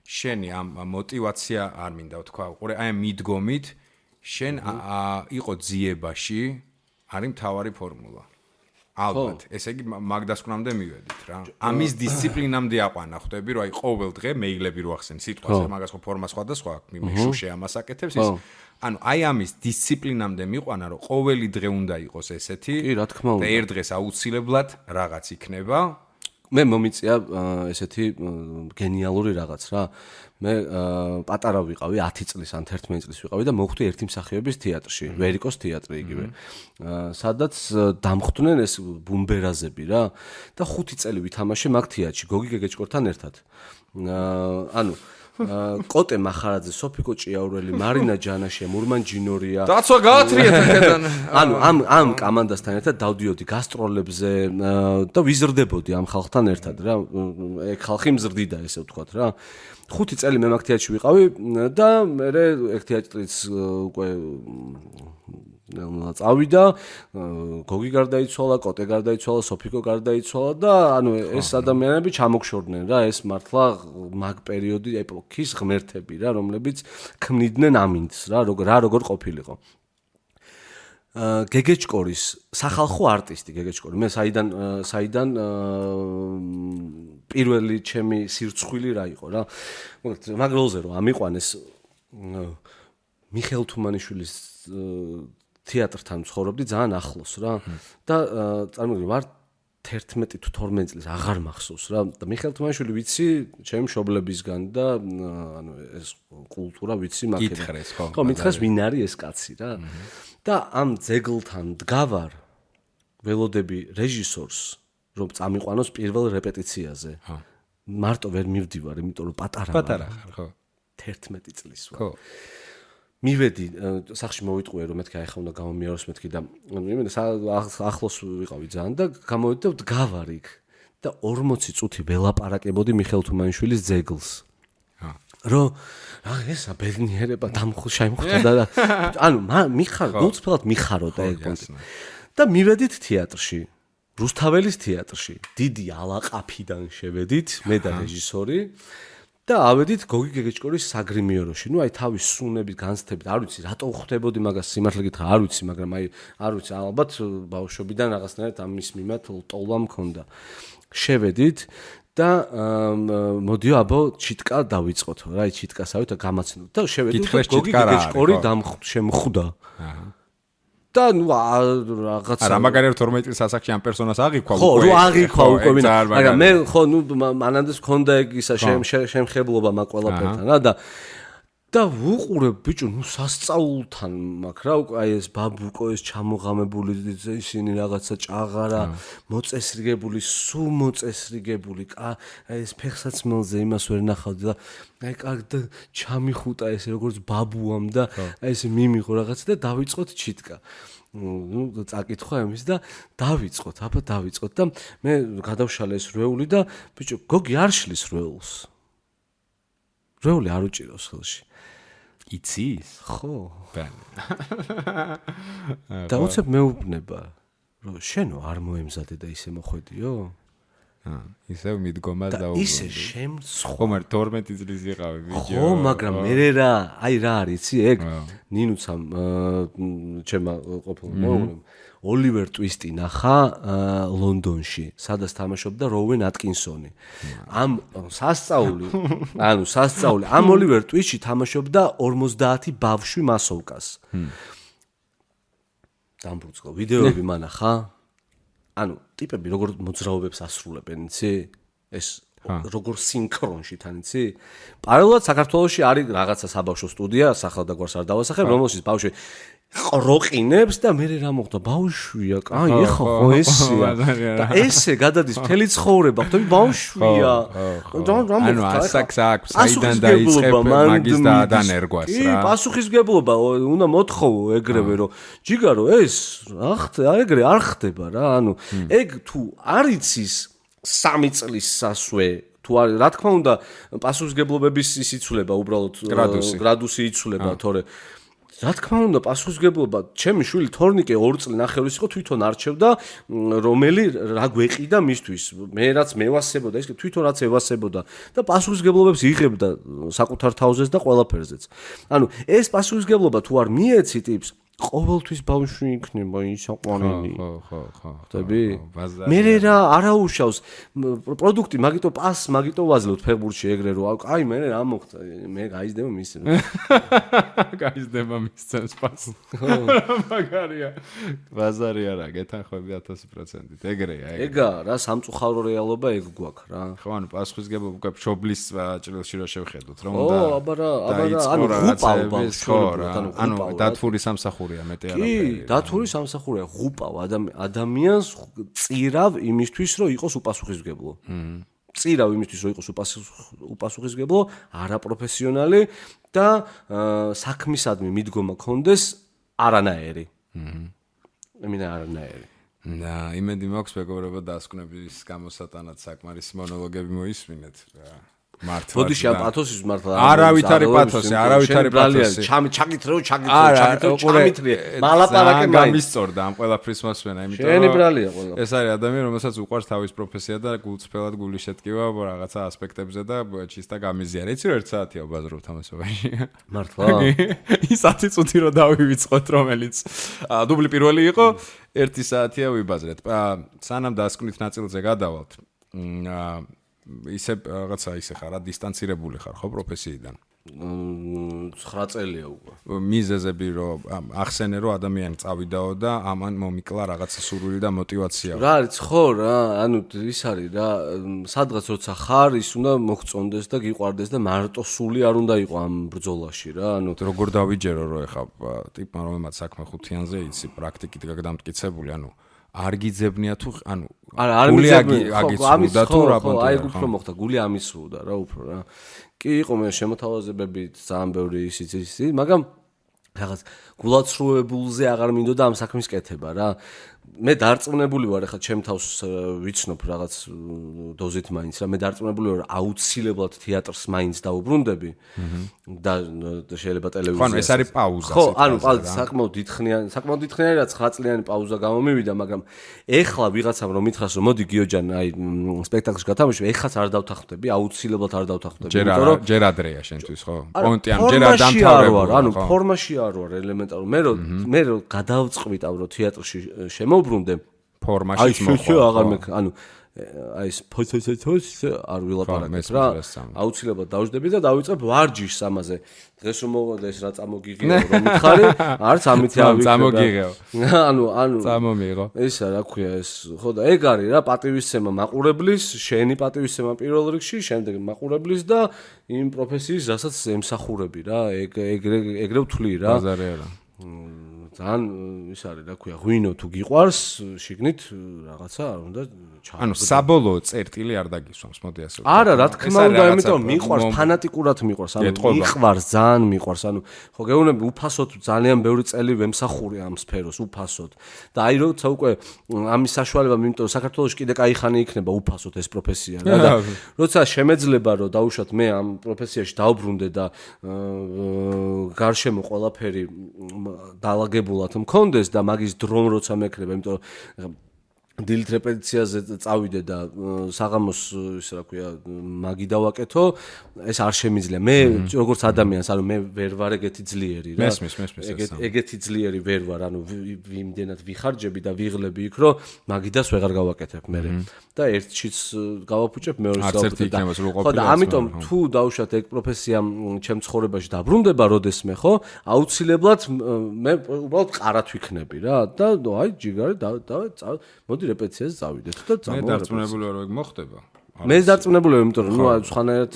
შენი ამ мотиваცია არ მინდა ვთქვა, ყურე აი მიდგომით შენ იყო ძიებაში არის მთავარი ფორმულა. ალბათ, ესე იგი მაგდასკვნამდე მივედით რა. ამის დისციპლინამდე აყვანა ხვდები, რომ აი ყოველ დღე მეილები რო ახსენ სიტყვაზე, მაგას ხო ფორმა სხვადასხვა, მიშუშე ამას აკეთებს ის. ანუ აი ამის დისციპლინამდე მიყვანა, რომ ყოველი დღე უნდა იყოს ესეთი. კი, რა თქმა უნდა. და ერთ დღეს აუცილებლად რაღაც იქნება. მე მომიწია ესეთი გენიალური რაღაც რა. მე პატარა ვიყავი 10 წლის ან 11 წლის ვიყავი და მოხვდი ერთი მსახიობის თეატრში, ვერიკოს თეატრი იგივე. სადაც დამხვდნენ ეს ბუმბერაზები რა და 5 წელი ვითამაშე მაგ თეატრში გოგი გეგეჭკორთან ერთად. ანუ კოტე მახარაძე, სოფიკო ჭიაურელი, მარინა ჯანაშია, მურმან ჯინორია. დაცვა გაათრიეთ აქედან. ანუ ამ კომანდასთან ერთად დავდიოდი გასტროლებზე და ვიზრდებოდი ამ ხალხთან ერთად რა. ეგ ხალხი მზრდიდა ესე ვთქვათ რა. 5 წელი მე მაგ თეატრში ვიყავი და მე ერთ თეატრიც უკვე წავიდა, გოგი გარდაიცვალა, კოტე გარდაიცვალა, სოფიკო გარდაიცვალა და ანუ ეს ადამიანები ჩამოგშორდნენ რა, ეს მართლა მაგ პერიოდი ეპოქის ღმერთები რა, რომლებიც ქმნიდნენ ამინდს რა, როგორ ყოფილიყო. გეგეჭკორის სახალხო არტისტი გეგეჭკორი. მე საიდან პირველი ჩემი სირცხვილი რა იყო რა. მაგ როლზე რომ ამიყვანეს მიხეილ თუმანიშვილის თეატრთან ცხოვრობდი ძალიან ახლოს რა და წარმოგიდგენთ ვარ 11 თუ 12 წლის აღარ მახსოვს რა და მიხეილ თუმანიშვილი ვიცი ჩემი მშობლებისგან და ანუ ეს კულტურა ვიცი მაქედან ხო მითხეს ვინ არის ეს კაცი რა და ამ ძეგლთან დგავარ ველოდები რეჟისორს რომ წამიყვანოს პირველ რეპეტიციაზე მარტო ვერ მივდივარ იმიტომ რომ პატარა ხარ ხო 11 წლის ვარ ხო მივედი სახში მოვიტყვე რომ მეთქი ახლა უნდა გამომიაროს მეთქი და მე ახლოს ვიყავი ძალიან და გამოვედი და დგავარ იქ და 40 წუთი ველაპარაკებოდი მიხეილ თუმანიშვილის ძეგლს რომ რა ესა ბედნიერება შემხვდა და ანუ მიხარ გულწრფელად მიხარო და ეგ პონტი და მივედით თეატრში რუსთაველის თეატრში დიდი ალაყაფიდან შევედით მე და რეჟისორი და ავედით გოგი გეგეჭკორის საგრიმიოროში. ნუ აი თავის სუნებით განცდებით, არ ვიცი რატო ხვდებოდი მაგას სიმართლე გითხრა, არ ვიცი, მაგრამ აი არ ვიცი, ალბათ ბავშვობიდან რაღაცნაირად ამის მიმართ ტოლა მქონდა. შევედით და მოდიო აბო ჩიტკა დავიწყოთ. რა აი ჩიტკასავით და გამაცნოთ და შევედით გოგი გეგეჭკორი შემხვდა. და ნუ რაღაცა არა მაგარია 12 წლის ასაკში ამ პერსონას აღიქვა უკვე ხო აღიქვა უკვე მაგრამ მე ხო ნუ მანანდეს მქონდა ეგ ისა შემხებლობა მაგ ყველაფერთან რა და ვუყურებ ბიჭო ნუ სასწაულთან მაგ რა უკვე აი ეს ბაბუკო ეს ჩამოღამებული ისინი რაღაცა ჭაღარა მოწესრიგებული სულ მოწესრიგებული აი ეს ფეხსაცმელზე იმას ვერ ნახავდი და აი კარგი ჩამიხუტა ეს როგორც ბაბუამ და აი ეს მიმიღო რაღაცა და დავიწყოთ ჩიტკა ნუ წაკითხვა იმის და დავიწყოთ და მე გადავშალე ეს რვეული და ბიჭო გოგი არ შლის რვეულს რვეული არ უჭირავს ხელში იცის ხო და უცებ მეუბნება რომ შენო არ მოემზადე და ისე მოხვედიო ისევ მიდგომა და ისე შემცხვა ხომ არ 12 წლის იყავი ბიჭო ხო მაგრამ მე რა აი რა არის იცი ეგ ნინუცამ ჩემმა ყოფილ მოუღლემ ოლივერ ტვისტი ნახა ლონდონში სადაც თამაშობდა როუენ ატკინსონი ამ სასწაული ამ ოლივერ ტვისტში თამაშობდა 50 ბავშვი მასოვკას დამბრუწყო ვიდეოები მანახა ანუ ტიპები როგორ მოძრაობებს ასრულებენ იცი ეს როგორ სინქრონში თან იცი პარალელურად საქართველოში არის რაღაცა საბავშვო სტუდია სახელდაგვარს არ დავასახებ რომელშიც ბავშვი ყროყინებს და მე რა მოხდა ბავშვია აი ეხა ხო ესია და ესე გადადის მთელი ცხოვრება ხვდები ბავშვია ანუ ასაკს აქვს საიდან დაიწყებ მაგის და ადანერგვას რა კი პასუხისგებლობა უნდა მოთხოვო ეგრევე რომ ჯიგარო ეს ეგრე არ ხდება რა ანუ ეგ თუ არ იცის 3 წლის სასვე თუ არის რა თქმა უნდა პასუხისგებლობების ის იცვლება უბრალოდ გრადუსი იცვლება თორე რა თქმა უნდა პასუხისგებლობა ჩემი შვილი თორნიკე 2 წელი ნახევრის იყო თვითონ არჩევდა რომელი რა გვეყიდა მისთვის მე რაც მევასებოდა ის თვითონ რაც ევასებოდა და პასუხისგებლობებს იღებდა საკუთარ თავზეც და ყველაფერზეც ანუ ეს პასუხისგებლობა თუ არ მიეცი ტიპს ყოველთვის ბავშვი იქნება ისაყვანელი ხო ხდები მე რა არაუშავს პროდუქტი მაგიტო პას მაგიტო ვაძლევთ ფეხბურთში ეგრე რომ აი მე რა მოხდა მე გაიზდება მის გაიზდება მისცემს პას მაგარია ბაზარი არა გეთანხმები 1000% ეგრეა ეგა რა სამწუხარო რეალობა ეგ გვაქვს რა ხო ანუ პასუხისგებლობა უკვე მშობლის ჭრილში რა შევხედოთ რომ და ო აბარა ანუ ღუპავ ანუ დათვური სამსახური კი, დათვური სამსახურია, ღუპავ ადამიანს წირავ იმისთვის, რომ იყოს უპასუხისმგებლო. წირავ იმისთვის, რომ იყოს უპასუხისმგებლო, არაპროფესიონალი და საქმისადმი მიდგომა ქონდეს არანაირი. ემინა არანაირი. და იმედი მაქვს მეგობრებო დასკვნების გამოსატანად საკმარისი მონოლოგები მოისმინეთ. მართლა. ბოდიში ამ პათოსის მართლა. არავით არის პათოსი, არავით არის პათოსი. ჩამითრეო, ჩამითრე. მალაპარაკე გამისწორდა ამ ყველაფრის მოსმენა, იმიტომ შენი ბრალია ყველა. ეს არის ადამიანი, რომელსაც უყვარს თავის პროფესია და გულწრფელად გული შეტკივა რაღაცა ასპექტებზე და ჩისტა გამიზიარა. იცი რომ 1 საათია ვბაზრობთ ამასობაში. მართლა. ის 10 წუთი რო დავივიწყოთ, რომელიც დუბლი პირველი იყო, 1 საათია ვიბაზრეთ. სანამ დასკვნით ნაწილზე გადავალთ. ისე რაღაცა ისე ხარ, დისტანცირებული ხარ ხო პროფესიიდან? 9 წელია უკვე. მიზეზები რომ ახსენე რომ ადამიანი წავიდაო და ამან მომიკლა რაღაცა სურვილი და мотиваცია. რა არის ხო რა, ანუ ის არის რა, სადღაც როცა ხარ, ის უნდა მოგწონდეს და გიყვარდეს და მარტო სული არ უნდა იყო ამ ბრძოლაში რა, ანუ როგორ დავიჯერო რომ ეხა ტიპმა რომელმაც საქმე ხუთიანზე იცი პრაქტიკით გაგდამტკიცებული, ანუ არ გიძებნია თუ ანუ არა არ მიძებნია აგიცნუდა თუ რა ბანტა აი უფრო მოხდა გული ამისრუდა რა უფრო რა კი იყო მე შემოთავაზებებით ძალიან ბევრი ისიც მაგრამ რაღაც გულაცრუებულზე აღარ მინდოდა ამ საქმის კეთება რა მე დარწმუნებული ვარ ახლა ჩემ თავს ვიცნობ რაღაც დოზით მაინც რა მე დარწმუნებული ვარ აუცილებლად თეატრს მაინც დაუბრუნდები და შეიძლება ტელევიზია ხო ანუ ეს არის პაუზა ხო ანუ საკმაოდ დიდხნიანი რაც 9 წლიანი პაუზა გამომივიდა მაგრამ ეხლა ვიღაცამ რომ მითხრას რომ მოდი გიოჯან აი სპექტაკლში გათამაშო ეხლაც არ დავთანხმდები აუცილებლად არ დავთანხმდები იმიტომ რომ ჯერ ადრეა შენთვის ხო პონტი ანუ ჯერ არ დამთავრებული ანუ ფორმაში არ ვარ ელემენტარულ მე რომ გადავწყვიტავ რომ თეატრში შემოbrunდე ფორმაში მოხდა. ანუ აი ეს ფოთოთოს არ ვილაპარაკებ რა. აუცილებლად დავждები და დავიწყებ ვარჯიშს ამაზე. დღეს რომ მოვიდა ეს რა წამოგიღეო რომ მითხარი, არც ამით ავიქრე. წამოგიღეო. ანუ წამომიღო. ესა რა ქვია ეს. ხო და ეგ არის რა პატივისცემა მაყურებლის, შენი პატივისცემა პირველ რიგში, შემდეგ მაყურებლის და იმ პროფესიის, რასაც ემსახურები რა. ეგრე ვთვლი რა. ბაზარია რა. ძალიან ის არის რა ქვია ღვინო თუ გიყვარს შიგნით რაღაცა არ უნდა ჩააგდო. ანუ საბოლოო წერტილი არ დაგისვამს, მოდი ასე ვთქვა. არა, რა თქმა უნდა, იმიტომ მიყვარს, ფანატიკურად მიყვარს, ანუ მიყვარს, ძალიან მიყვარს, ანუ ხო გეუბნები უფასოდ ძალიან ბევრი წელი ვემსახურე ამ სფეროს უფასოდ. და აი როცა უკვე ამის საშუალება, იმიტომ საქართველოში კიდე კაი ხანი იქნება უფასოდ ეს პროფესია რა და როცა შემეძლება რომ დაუშვათ მე ამ პროფესიაში დავბრუნდე და გარშემო ყველაფერი დაალაგებულად მქონდეს და მაგის დრომ როცა მექნება, იმიტომ დილით რეპეტიციაზე წავიდე და საღამოს ისე რა ქვია მაგი დავაკეთო, ეს არ შემიძლია. მე როგორც ადამიანს, ანუ მე ვერ ვარ ეგეთი ძლიერი რა. ეგეთი ძლიერი ვერ ვარ, ანუ იმდენად ვიხარჯები და ვიღლები იქ, რომ მაგიდას ვეღარ გავაკეთებ მე. და ერთშიც გავაფუჭებ, მეორეს გავაფუჭებ. ხო და ამიტომ თუ დავუშვათ ეგ პროფესია ჩემ ცხოვრებაში დაბრუნდება როდესმე, ხო? აუცილებლად მე უბრალოდ ყარად ვიქნები რა და აი ჯიგარი და მოდი რეპეტიციაზე წავიდეთ და მე დარწმუნებული ვარ, რომ ეგ მოხდება. მე დარწმუნებული ვარ, იმიტომ რომ ნუ სხვანაირად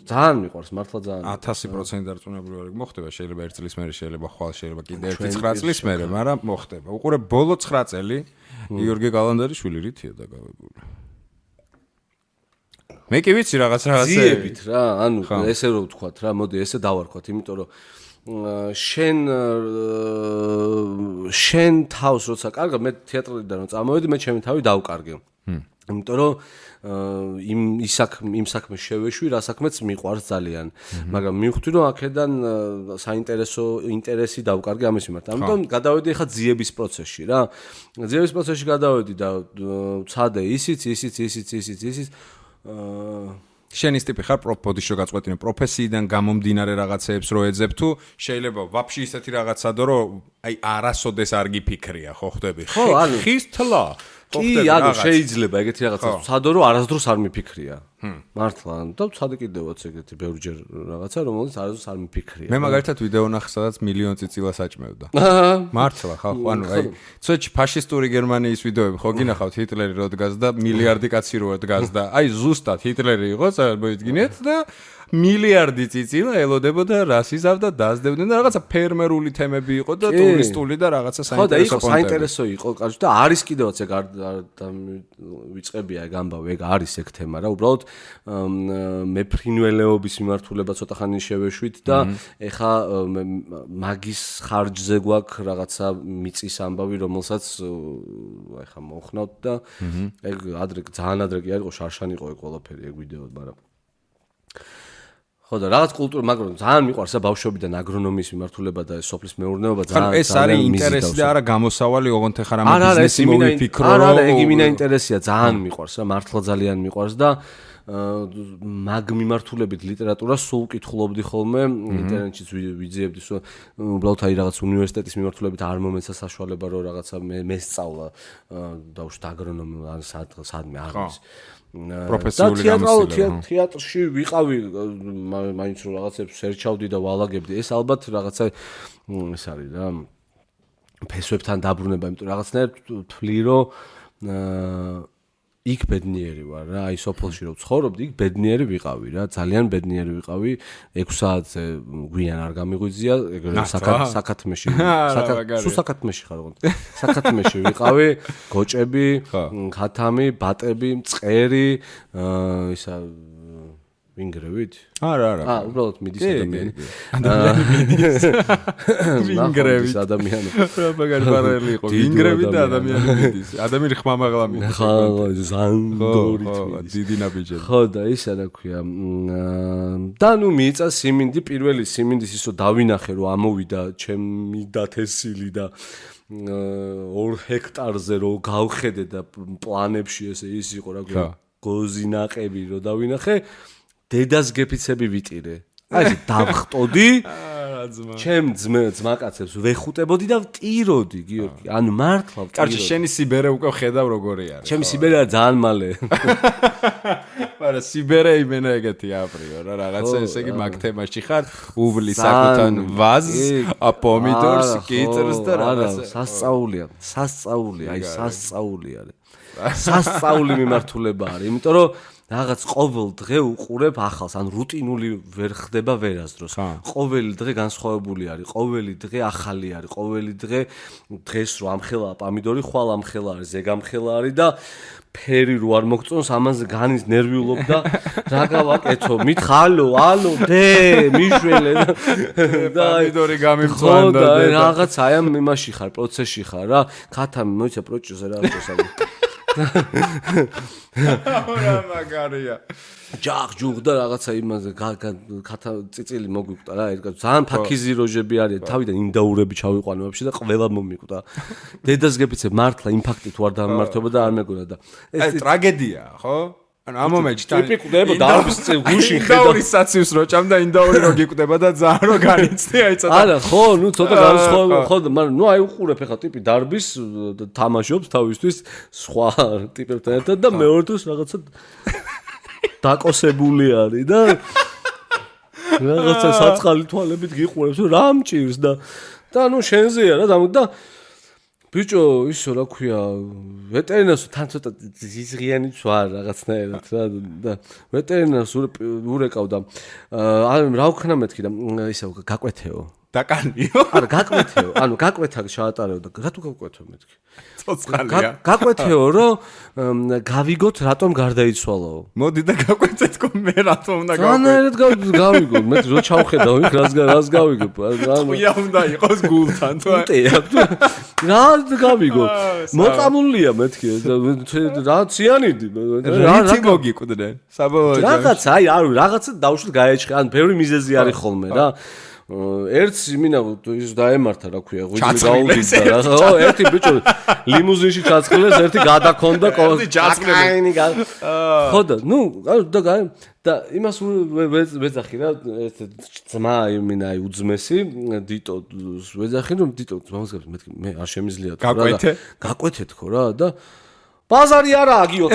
ძალიან მიყვარს, მართლა ძალიან 1000% დარწმუნებული ვარ, რომ მოხდება, შეიძლება 1 წლის მერე, შეიძლება ხვალ, შეიძლება კიდე 9 წლის მერე, მაგრამ მოხდება. უყურე ბოლო 9 წელი გიორგი გალანდარიშვილი რითია დაგავებული. მე კი ვიცი რაღაცა ძიებით რა, ანუ ესე რომ ვთქვათ რა, მოდი ესე დავარქვათ, იმიტომ რომ შენ თავს როცა კარგავ, მე თეატრიდან რომ წამოვედი, მე ჩემი თავი დავკარგე. იმიტომ რომ იმ საქმეს შევეშვი, რა საქმეც მიყვარს ძალიან. მაგრამ მივხვდი რომ აქედან საინტერესო ინტერესი დავკარგე ამის მიმართ. ამიტომ გადავედი ხა ძიების პროცესში რა. ძიების პროცესში გადავედი და ვცადე ისიც შენის ტიპი ხარ ბოდიშო გაწყვეტინე პროფესიიდან გამომდინარე რაღაცეებს რო ეძებ თუ შეიძლება ვაფშე ისეთი რაღაცა დო რომ აი არასოდეს არ გიფიქრია ხო ხვდები ხის თლა კი ანუ შეიძლება ეგეთი რაღაცა ვცადო რომ არასდროს არ მიფიქრია მართლა და ვცადე კიდევაც ეგეთი ბევრჯერ რაღაცა რომელიც არასდროს არ მიფიქრია მე მაგალითად ვიდეო ნახე სადაც მილიონ წიწილას აჭმევდა მართლა ხალხო ანუ აი ცოტა ფაშისტური გერმანიის ვიდეოები ხო გინახავთ ჰიტლერი რო დგას და მილიარდი კაცი რო დგას და აი ზუსტად ჰიტლერი იყო მოიდგინეთ და მილიარდი წიწილა ელოდებოდა რას იზავდა დასდებდნენ და რაღაცა ფერმერული თემები იყო და ტურისტული და რაღაცა საინტერესო საინტერესო იყო კაცო და არის კიდევაც ეგ არ ვიწყებია ეგ ამბავი ეგ არის ეგ თემა რა უბრალოდ მეფრინველეობის მიმართულება ცოტა ხანი შევეშვით და ეხა მაგის ხარჯზე გვაქვს რაღაცა მიწის ამბავი რომელსაც ეხა მოხნავთ და ეგ ადრე ძალიან ადრე კი არ იყო შარშან იყო ეგ ყველაფერი ეგ ვიდეო მაგრამ ხო და რაღაც კულტურა მაგრამ ძალიან მიყვარს და ბავშვობიდან აგრონომიის მიმართულება და სოფლის მეურნეობა ძალიან ეს არის ინტერესი და არა გამოსავალი ოღონდ ეხლა რამე ბიზნესი მოვიფიქრო არა ეგ იმინა ინტერესია ძალიან მიყვარს რა მართლა ძალიან მიყვარს და მაგ მიმართულებით ლიტერატურას სულ კითხულობდი ხოლმე ინტერნეტშიც ვიძიებდი უბრალოდ აი რაღაც უნივერსიტეტის მიმართულებით არ მომეცა საშუალება რომ რაღაცა მე სწავლა დავუშვათ აგრონომია ან სადმე აღის პროფესიული გამოცდილება თეატრში ვიყავი მაინც რომ რაღაცებს სერჩავდი და ვალაგებდი ეს ალბათ რაღაცა ეს არის რა ფესვებთან დაბრუნება იმიტომ რაღაცნაირად თვლი რომ იქ ბედნიერი ვარ რა აი სოფელში რომ ცხოვრობდი იქ ბედნიერი ვიყავი რა ძალიან ბედნიერი ვიყავი 6 საათზე გვიან არ გამიღვიძია ეგრე საკათმეში საკათმეში ხარ ოღონდ საკათმეში ვიყავი გოჭები ხათამი ბატები მწყერი ისა ვინგრევით? არა. უბრალოდ მიდის ადამიანი. ადამიანი მიდის. ვინგრევით ადამიანი. მაგარი პარალელი იყო. ვინგრევით და ადამიანი მიდის. ადამიანი ხმამაღლა მიდის. ხო, ზანგორით. დიდი ნაბიჯები. ხო და ისა რა ქვია. და ნუ მიიწა სიმინდი პირველი სიმინდის ისო დავინახე რომ ამოვიდა ჩემი დათესილი და 2 ჰექტარზე რომ გავხედე და პლანებში ესე ის იყო რა ქვია. გოზინაყები რომ დავინახე დედას გეფიცები ვიტირე. აი დავხტოდი ჩემ ძმაკაცებს ვეხუტებოდი და ვტიროდი, გიორგი. ანუ მართლა ვტიროდი. კარჩი, შენი სიბერე უკვე ხედავ როგორი არის. ჩემი სიბერე ძალიან მალე. მაგრამ სიბერე იმენა ეგეთი აპრიო რა რაღაცა ესე იგი მაგ თემაში ხარ უვლის საკუთარ ვაზს პომიდორს კიტრს და რაღაცა სასწაულია აი სასწაული არის სასწაული მიმართულება არის იმიტომ რომ რაღაც ყოველ დღე უყურებ ახალს ან რუტინული ვერ ხდება ვერასდროს ყოველი დღე განსხვავებული არის ყოველი დღე ახალი არის ყოველი დღე დღეს რო ამხელა პომიდორი ხვალ ამხელა არის ზეგამხელა არის და ფერი რო არ მოგწონს ამაზე განის ნერვიულობ და რა გავაკეთო მითხალო ალო დე მიშველე და პომიდორი გამიმწვანდა და რაღაც აი ამ იმაში ხარ პროცესში ხარ რა ქათამი მოიცა პროჭოზე რა აღწესავი რა მაგარია ჯახ და რაღაცა იმაზე ქათა წიწილი მოგვიკვდა რა ერთ ძალიან ფაქიზი როჟები არის თავიდან ინდაურები ჩავიყვანე ვაფშე და ყველა მომიკვდა დედას გეფიცე მართლა იმპაქტი თუ არ დამმართება და არ მეგონა და ეს ტრაგედიაა ხო ანუ ამ მომენტში ტიპიკურება დარბის გუშინ ხედავ ინდაურის საციუს რო ჭამ და ინდაური რო გიკვდება და ძალიან რო განიცდი აი ცოტა არა ხო ნუ ცოტა განსხვავება ხო მაგრამ ნუ აი უყურებ ახლა ტიპი დარბის თამაშობს თავისთვის სხვა ტიპებთან ერთად და მეორე დროს რაღაცა დაკოსებული არის და რაღაცა საწყალი თვალებით გიყურებს რა მჭირს და ნუ შენზეა რა და ბიჭო ისო რა ქვია ვეტერინარს თან ცოტა ზიზღიანიც ვარ რაღაცნაირად რა და ვეტერინარს ურეკავდა რა ვქნა მეთქი და ისე გაკვეთეო დაკანიო არა გაკვეთეო ანუ გაკვეთა ჩაატარეო და რა თუ გაკვეთო მეთქი ცოცხალია გაკვეთეო რომ გავიგოთ რატომ გარდაიცვალაო მოდი და გაკვეთეთკო მე რატომ უნდა განაერად გავიგო მე რო ჩავხედავ იქ რას გავიგო ყია უნდა იყოს გულთან თუ რა გავიგო მოწამულია მეთქი რა ციანიდი რა მოგიკვდნენ საბოლოოდ რაღაც აი არ რაღაცა დავშვით გაეჭხე ან ბევრი მიზეზი არის ხოლმე რა ერთს იმინა ის დაემართა რა ქვია ღვიძლი გაუდიდა რა ხო ერთი ბიჭო ლიმუზინში ჩაწყლეს ერთი გადაქონდა ჯაწყლები ხო და ნუ და იმას ვეძახი რა ერთ ძმა იმინა აი უძმესი დიტო ვეძახი რომ დიტო ძმას მეთქი მე არ შემიძლია თუ რა გაკვეთეთ ხო რა და ბაზარი არაა გიო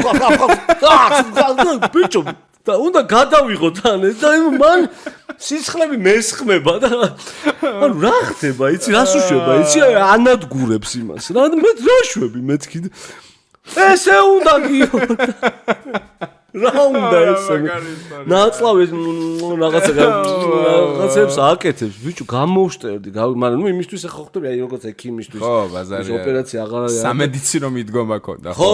ბიჭო და უნდა გადავიღოთ ან ეს და მან სიცხლები მესხმება და ანუ რა ხდება იცი რას უშვება იცი ანადგურებს იმას რა მე რა შვები მეთქი ესე უნდა გიო რა უნდა ესე ნაცლავეს რაღაცებს აკეთებს ბიჭო გამოვშტერდი მაგრამ ნუ იმისთვის ახლა ხვდები აი როგორც ექიმისთვის ხო ბაზარია ოპერაცია აღარ არის სამედიცინო მიდგომა ქონდა ხო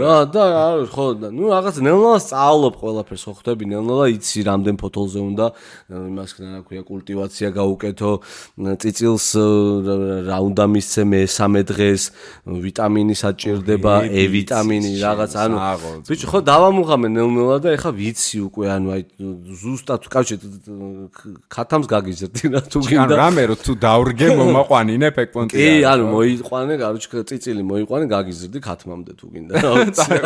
რა და ხო და ნუ რაღაც ნელ-ნელა სწავლობ ყველაფერს ხო ხვდები ნელ-ნელა იცი რამდენ ფოთოლზე უნდა იმას რა ქვია კულტივაცია გაუკეთო წიწილს რა უნდა მისცე მესამე დღეს ვიტამინი საჭირდება E ვიტამინი რაღაც ანუ ბიჭო ხო დავამუღამე ნელ-ნელა და ეხა ვიცი უკვე ანუ აი ზუსტად კავშირ ქათამს გაგიზრდი რა თუ გინდა რამე რო თუ დავრგე მომაყვანინე ფეკპონტი კი ანუ მოიყვანე გარუჩკა წიწილი მოიყვანე გაგიზრდი ქათმამდე თუ გინდა და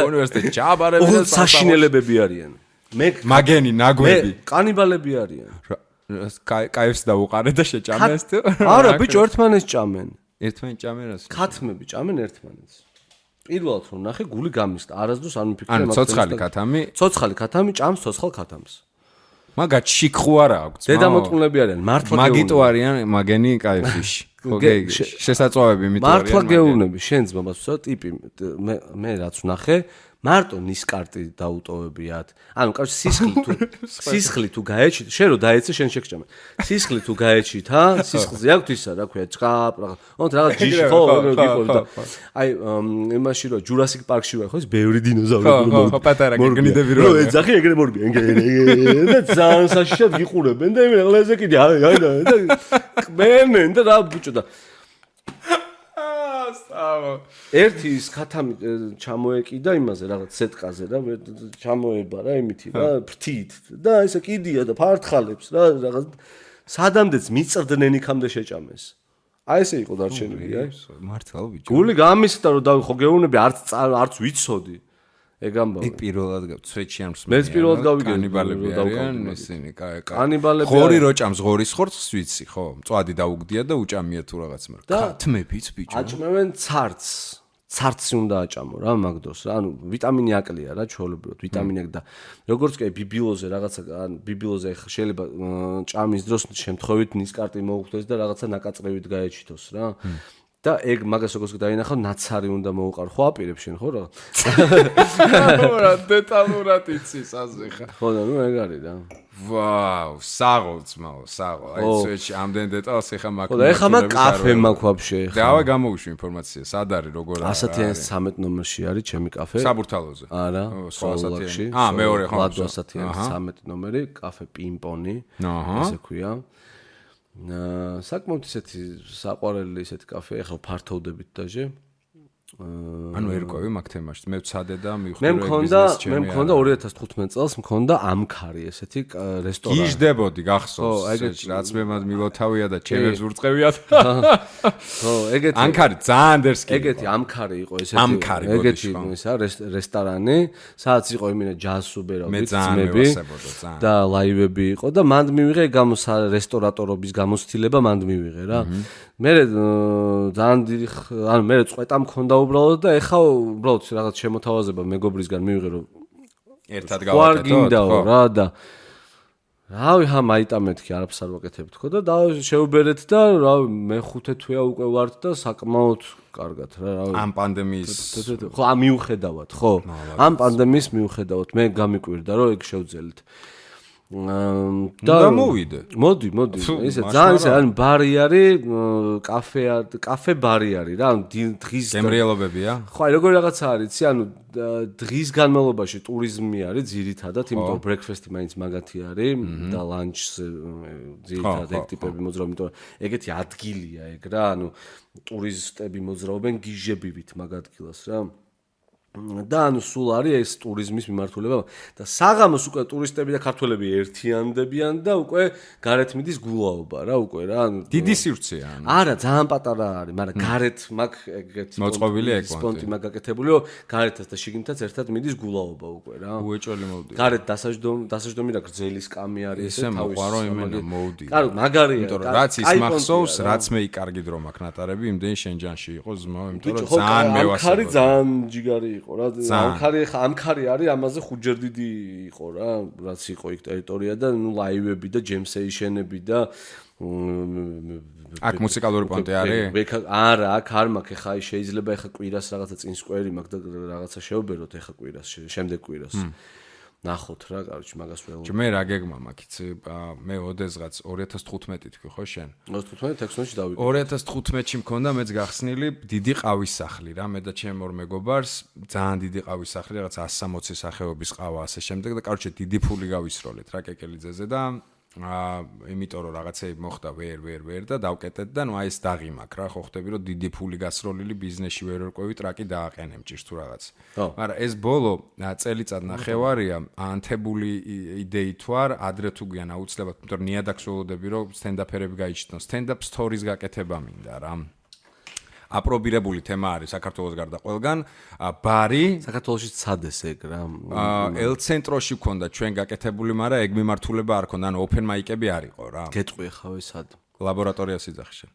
უნივერსიტეტში ჩაბარები და საშინელებები არიან მე მაგენი ნაგვები კანიბალები არიან კაიფს დავუყარე და შეჭამეს თუ არა ბიჭო ერთმანეთს ჭამენ ერთმანეთს ჭამენ რას ქათმები ჭამენ ერთმანეთს პირველად რომ ნახე გული გამისდა არასდროს არ მიფიქრე მაგას ცოცხალი ქათამი ჭამს ცოცხალ ქათამს მაგა ჩიქხუ არა აქვს დედამოწყუნლები არიან მართლა მაგიტო არიან მაგენი კაიფიში ხო შესაძლოები მითო არიან მართლა გეუბნები შენ ძმას ვსო ტიპი მე რაც ვნახე მარტო ნისკარტი დაუტოვებიათ ანუ კავშირ სისხლი თუ გაეჩით შენ რო დაეცე შენ შეგჭამე სისხლი თუ გაეჩით სისხლზე აქვს ისა რა ქვია ჭყაპ რაღაც ჯიში ხო აი იმაში რო ჯურასიკ პარკში ვარ ხო ის ბევრი დინოზავრი ხო პატარა გეგნიდები რო ეძახი ეგრე მორბიან და ძალიან საშიშად გიყურებენ და იმენ ყლეზე კიდე აი და კმენენ და რა ბუჭო და ერთი ის ქათამი ჩამოეკიდა იმაზე რაღაც სეტყაზე რა ჩამოება რა იმითი რა ფრთით და ესე კიდია და ფართხალებს რა რაღაც სადამდეც მიწრდნენ იქამდე შეჭამეს აი ესე იყო დარჩენილი აი მართლა ბიჭო გული გამისდა რომ დავი ხო გეუბნები არც ვიცოდი ეგ ამბავი. იქ პირველად სვეტში არ მსმენია. მეც პირველად გავიგე კანიბალები არიან ისინი, კაი. კანიბალები. ხორი რო ჭამს ღორის ხორცს ვიცი, ხო? მწვადი დაუგდია და უჭამია თუ რაღაც მაგრამ. ქათმებიც ბიჭო. აჭმევენ ცარცი უნდა აჭამო რა მაგდოს რა. ანუ ვიტამინი აკლია რა ჩვეულებრივად, ვიტამინი და როგორც კი ბიბილოზე რაღაცა, ან ბიბილოზე შეიძლება ჭამის დროს შემთხვევით ნისკარტი მოუხდეს და რაღაცა ნაკაწრევით გაეჩითოს რა. და ეგ მაგას როგორც დაინახავ ნაცარი უნდა მოუყარ ხო აპირებს შენ ხო რა რა დეტალურად იცის ასე ხა ხო და ნუ ეგ არის რა ვაუ საღოლწმაო აი სვეტში ამდენ დეტალს ეხა მაქვს ხო და ეხა მაგ კაფე მაქვს ვაფშე ეხა დავა გამოვიშვი ინფორმაცია სად არის როგორ არის 113 ნომერში არის ჩემი კაფე საბურთალოზე არა სოლაკში მეორე ხო 113 ნომერი კაფე პინპონი ესე ქვია საკმაოდ ისეთი საყვარელი ისეთი კაფე ახლა ფართოვდებით დაჟე ანუ ერკვევი მაგ თემაში მე ვცადე და მივხვდი მე მქონდა 2015 წელს მქონდა ამქარი ესეთი რესტორანი გიჟდებოდი გახსოვს რაც მე მილოთავია და ჩემებს ურწყევიათ ხო ეგეთი ამქარი ძალიან დერსკი ეგეთი ამქარი იყო ესეთი ეგეთი ისა რესტორანი სადაც იყო იმენა ჯაზსუბერავით ძმები და ლაივები იყო და მანდ მივიღე რესტორატორობის გამოცდილება მანდ მივიღე რა მე ძალიან დიდი ანუ მე წვეტა მქონდა უბრალოდ და ეხა უბრალოდ რაღაც შემოთავაზება მეგობრისგან მივიღე რომ ერთად გავაკეთოთ რა და რავი ხა მაიტამეთქი არაფერს არ ვაკეთებთ ხო და შეუბერეთ და რავი მე 5 თვეა უკვე ვართ და საკმაოდ კარგად რა რავი ამ პანდემიის ხო ამ მიუხედავად ხო ამ პანდემიის მიუხედავად მე გამიკვირდა რომ ეგ შევძელით და მოდი ესე ძალიან ისე ან ბარი არის კაფე ბარი არის რა დღის გემრიელობებია ხო აი როგორი რაღაცა არის იცი ანუ დღის განმავლობაში ტურიზმი არის ძირითადად იმიტომ რომ ბრექფასტი მაინც მაგათი არის და ლანჩზე ძირითადად ეგ ტიპები მოძრაობენ იმიტომ რომ ეგეთი ადგილია ეგ რა ანუ ტურისტები მოძრაობენ გიჟებივით მაგ ადგილას რა და ანუ სულ არის ეს ტურიზმის მიმართულება და საღამოს უკვე ტურისტები და ქართველები ერთიანდებიან და უკვე გარეთ მიდის გულაობა რა უკვე რა ანუ დიდი სივრცეა ანუ არა ძალიან პატარა არის მაგრამ გარეთ მაგ ეგეთი მოწყობილი სპონტი მაგ გაკეთებული რომ გარეთაც და შიგნითაც ერთად მიდის გულაობა უკვე რა უეჭველი მოვდი გარეთ დასაჯდომი და გრძელი სკამი არის ესე მოყვარო იმენა მოვდი კარგი მაგარია იმიტომ რომ რაც ის მახსოვს რაც მე იკარგი დრო მაქვს ნატარები იმდენ შენჯანში იყო ზმო იმიტომ რომ ძალიან მევასწრებდი ძალიან ჯიგარი იყო რა ამქარი არის ამაზე ხუჯერ დიდი იყო რა რაც იყო იქ ტერიტორია და ნუ ლაივები და ჯემსეიშენები და აქ მუსიკალური პონტი არის არა აქ არ მაქვს ეხა შეიძლება ეხა კვირას რაღაცა წინს კვერი მაქვს და რაღაცა შევბეროთ ეხა კვირას შემდეგ კვირას ნახოთ რა კაროჩი მაგას ველო მე რა გეგმა მაქვს იცი მე ოდესღაც 2015 თქვი ხო შენ 2015-16-ში დავიწყე 2015-ში მქონდა მეც გახსნილი დიდი ყავის სახლი რა მე და ჩემ ორ მეგობარს ძალიან დიდი ყავის სახლი რაღაც 160 სახეობის ყავა ასე შემდეგ და კაროჩი დიდი ფული გავისროლეთ რა კეკელიძეზე და იმიტომ რომ რაღაცები მოხდა ვერ და დავკეტეთ და ნუ აი ეს დაღი მაქვს რა ხო ხვდები რომ დიდი ფული გასროლილი ბიზნესში ვერ ვერკვევი ტრაკი დააყენემ ჭირს თუ რაღაც მაგრამ ეს ბოლო წელიწად ნახევარია ანთებული იდეით თუ არ ადრე თუ გვიან აუცილებლად იმიტომ რომ ნიადაგს ველოდები რომ სტენდაფერები გაიჩნდონ სტენდაპ სტორის გაკეთება მინდა რა აპრობირებული თემა არის საქართველოს გარდა ყველგან ბარი საქართველოში ცადეს ეგ რა ელ-ცენტროში გქონდა ჩვენ გაკეთებული მაგრამ ეგ მიმართულება არ ქონდა ანუ ოპენ მაიკები არ იყო რა გეტყვი ხავე სად ლაბორატორია სიძახში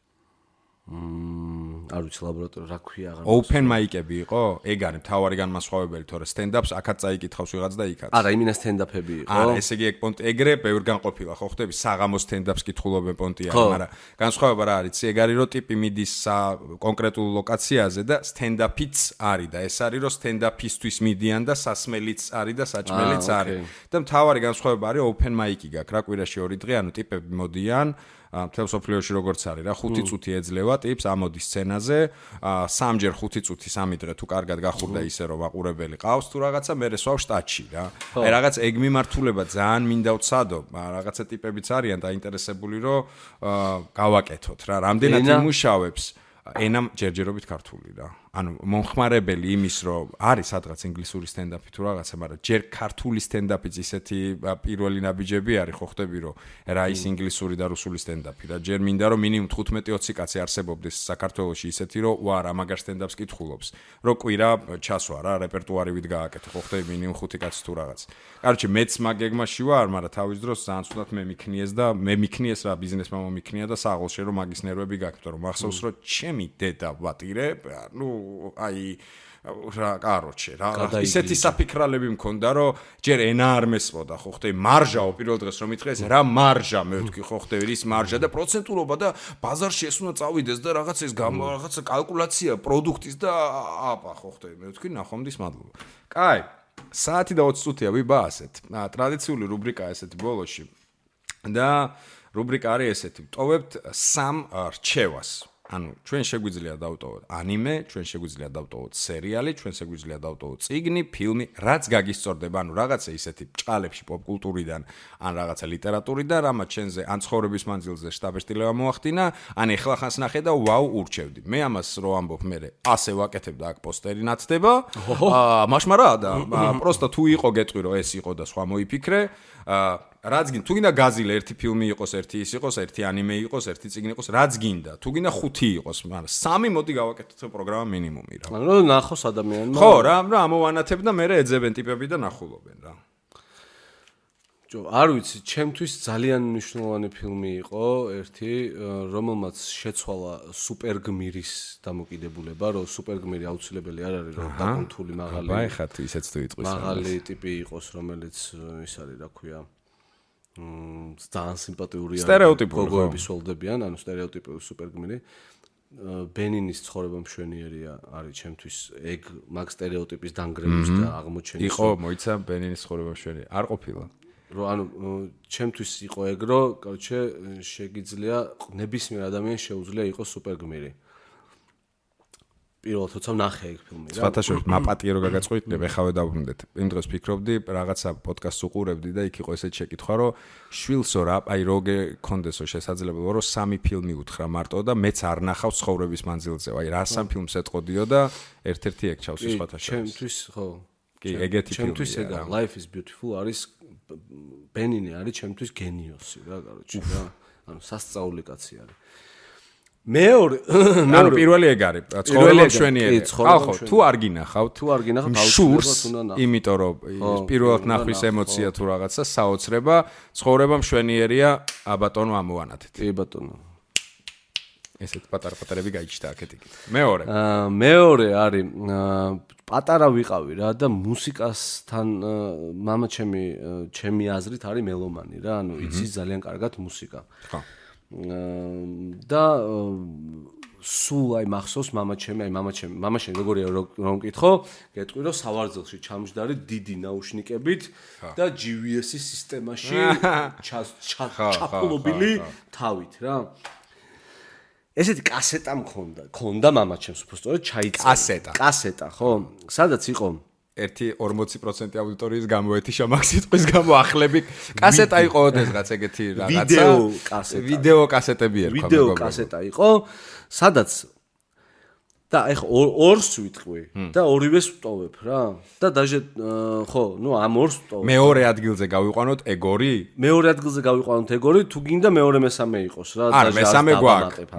არ ვიცი ლაბორატორია რა ქვია აღარ ოპენ მაიკები იყო ეგ არის მთავარი განმასხვავებელი თორე სტენდაპს აქაც წაიკითხავს ვიღაც და იქაც არა იმინა სტენდაპები იყო არა ესე იგი ეგ პონტი ეგრე ბევრ განყოფილა ხო ხვდები საღამოს სტენდაპს კითხულობენ პონტი არის მაგრამ განსხვავება რა არის ეგ არის რომ ტიპი მიდის კონკრეტულ ლოკაციაზე და სტენდაპიც არის და ეს არის რომ სტენდაპისთვის მიდიან და სასმელიც არის და საჭმელიც არის და მთავარი განსხვავება არის ოპენ მაიკი გაქვს რა კვირაში 2 დღე ანუ ტიპები მოდიან მთელ სოფლიოში როგორც არის რა 5 წუთი ეძლევა ტიპს ამოდის სცენაზე 3ჯერ 5 წუთი 3 დღე თუ კარგად გახურდა ისე რომ მაყურებელი ყავს თუ რაღაცა მე სვავ შტატში რა აი რაღაც ეგ მიმართულება ძალიან მინდა ვცადო რაღაცა ტიპებიც არიან დაინტერესებული რომ გავაკეთოთ რა რამდენად იმუშავებს ენამ ჯერჯერობით ქართული რა. ანუ მომხმარებელი იმის რომ არის სადღაც ინგლისური სტენდაპი თუ რაღაცა, მაგრამ ჯერ ქართული სტენდაპიც ისეთი პირველი ნაბიჯები არის, ხო ხდები რომ რა ის ინგლისური და რუსული სტენდაპი და ჯერ მინდა რომ მინიმუმ 15-20 კაცი არსებობდეს საქართველოში ისეთი რომ რა მაგარ სტენდაპს კითხულობს, რომ კვირა ჩასვა რა, რეპერტუარივით გააკეთე, ხო ხდები მინიმუმ 5 კაცი თუ რაღაც. კაროჩე მეც მაგ გეგმაში ვარ, მაგრამ თავის დროს ძალიან ცუდად მე მიქნიეს რა ბიზნესმა მომიქნია და საღოლში რომ მაგის ნერვები გაქვს, რომ მახსოვს რომ ჩემი დედა ვატირე, ნუ აი რა კაროჩე რა ისეთი საფიქრალები მქონდა რომ ჯერ ენა არ მესმოდა ხო ხტე მარჟაო პირველ დღეს რომ მითხეს რა მარჟა მე ვთქვი ხო ხტე ის მარჟა და პროცენტულობა და ბაზარში ეს უნდა წავიდეს და რაღაც ეს რაღაცა კალკულაცია პროდუქტის და აპა ხო ხტე მე ვთქვი ნახვამდის მადლობა. კაი საათი და 20 წუთია ვიბა ასეთ ტრადიციული რუბრიკა ესეთი ბოლოში და რუბრიკა არის ესეთი ვტოვებთ სამ რჩევას. ანუ ჩვენ შეგვიძლია დავტოვოთ ანიმე, ჩვენ შეგვიძლია დავტოვოთ სერიალი, ჩვენ შეგვიძლია დავტოვოთ წიგნი, ფილმი, რაც გაგისწორდება, ანუ რაღაცა ისეთი ჭყალებში პოპკულტურიდან, ან რაღაცა ლიტერატურიდან, რამაც ჩვენზე ან ცხოვრების მანძილზე შტაბ-შტილება მოახდინა, ან ეხლა ხანს ნახე და ვაუ ურჩევდი. მე ამას რო ამბობ მე ასე ვაკეთებ და აქ პოსტერი ნაცდება. მაშმარა და პროსტა თუ იყო გეტყვი რომ ეს იყო და სხვა მოიფიქრე. რაც გინდა, თუ გინდა გაზილე ერთი ფილმი იყოს, ერთი ის იყოს, ერთი ანიმე იყოს, ერთი წიგნი იყოს, რაც გინდა. თუ გინდა 5 იყოს, მაგრამ 3 მოდი გავაკეთოთ პროგრამა მინიმუმი რა. ანუ ნახოს ადამიანმა. ხო, რა ამოვანათებ და მე ეძებენ ტიპები და ნახულობენ რა. არ ვიცი, ჩემთვის ძალიან მნიშვნელოვანი ფილმი იყო ერთი, რომელმაც შეცვალა სუპერგმირის დამოკიდებულება, რომ სუპერგმირი აუცილებელი არ არის, რომ დაკონთული მაღალი. აი ხა თუ ისეც თუ იტყვის. მაღალი ტიპი იყოს, რომელიც ის არის, რა ქვია, ძალიან სიმპათიური გოგოების ველდებიან, ანუ სტერეოტიპური სუპერგმირი. ბენინის ცხოვრება მშვენიერია არის ჩემთვის ეგ მაგ სტერეოტიპის დანგრევის და აღმოჩენის. იყო, მოიცა ბენინის ცხოვრება მშვენიერი. არ ყოფილა. რომ ანუ ჩემთვის იყო ეგ, რომ კორჩე შეგიძლია ნებისმიერ ადამიანს შეუძლია იყოს სუპერგმირი. პირველად თორსა ნახე ეგ ფილმი რა. სხვათაშორის მაპატიერო გაგაწყვეტნებ, ეხავე დავბრუნდეთ. იმ დროს ფიქრობდი, რაღაცა პოდკასტს უყურებდი და იქ იყო ესეთი შეკითხვა, რომ შვილსო რა, აი როგე კონდესო შესაძლებლობა, რომ 3 ფილმი უთხრა მარტო და მეც არ ნახავ ცხოვრების მანძილზე. აი რა 3 ფილმს ეტყოდიო და ერთ-ერთი ეგ ჩავს სხვათაშორის. ჩემთვის ხო. კი, ეგეთი ფილმი. ჩემთვის ეგა Life is Beautiful არის ბენინი არის ჩემთვის გენიოსი რა, კაროჩი რა. ანუ სასწაული კაცი არის. მეორე პირველი ეგ არის ცხოვრება მშვენიერი. ხო, თუ არ გინახავთ, შურს, იმიტომ რომ პირველად ნახვის ემოცია თუ რაღაცა საოცრება, ცხოვრება მშვენიერია, აბატონო ამოვანათეთ. კი ბატონო. ესეთ პატარ-პატარები გაიჩნდა აქეთ-იქით. მეორე არის პატარა ვიყავი რა და მუსიკასთან მამა ჩემი აზრით არის მელომანი რა, ანუ იცის ძალიან კარგად მუსიკა. ხო. და სულ აი მახსოვს მამაჩემი როგორია რომ მკითხო, გეტყვი რომ სავარძელში ჩამჯდარი დიდი ნაუშნიკებით და GVS-ის სისტემაში ჩაფულობილი თავით რა. ესეთი კასეტა მქონდა მამაჩემს უბრალოდ ჩაიწერა. კასეტა, ხო? სადაც იყო 40% აუდიტორიის გამოეთიშა მაგ სიტყვის გამო ახლები. კასეტა იყო ოდესღაც ეგეთი რაღაცა. ვიდეო კასეტები ერქვა მეგობრებო. ვიდეო კასეტა იყო, სადაც და ეხა ორს ვიტყვი და ორივეს ვტოვებ რა. და დაჟე ხო, ნუ ამ ორს ვტოვებ. მეორე ადგილზე გავიყვანოთ ეგორი? მეორე ადგილზე გავიყვანოთ ეგორი, თუ გინდა მეორე მესამე იყოს რა. არა,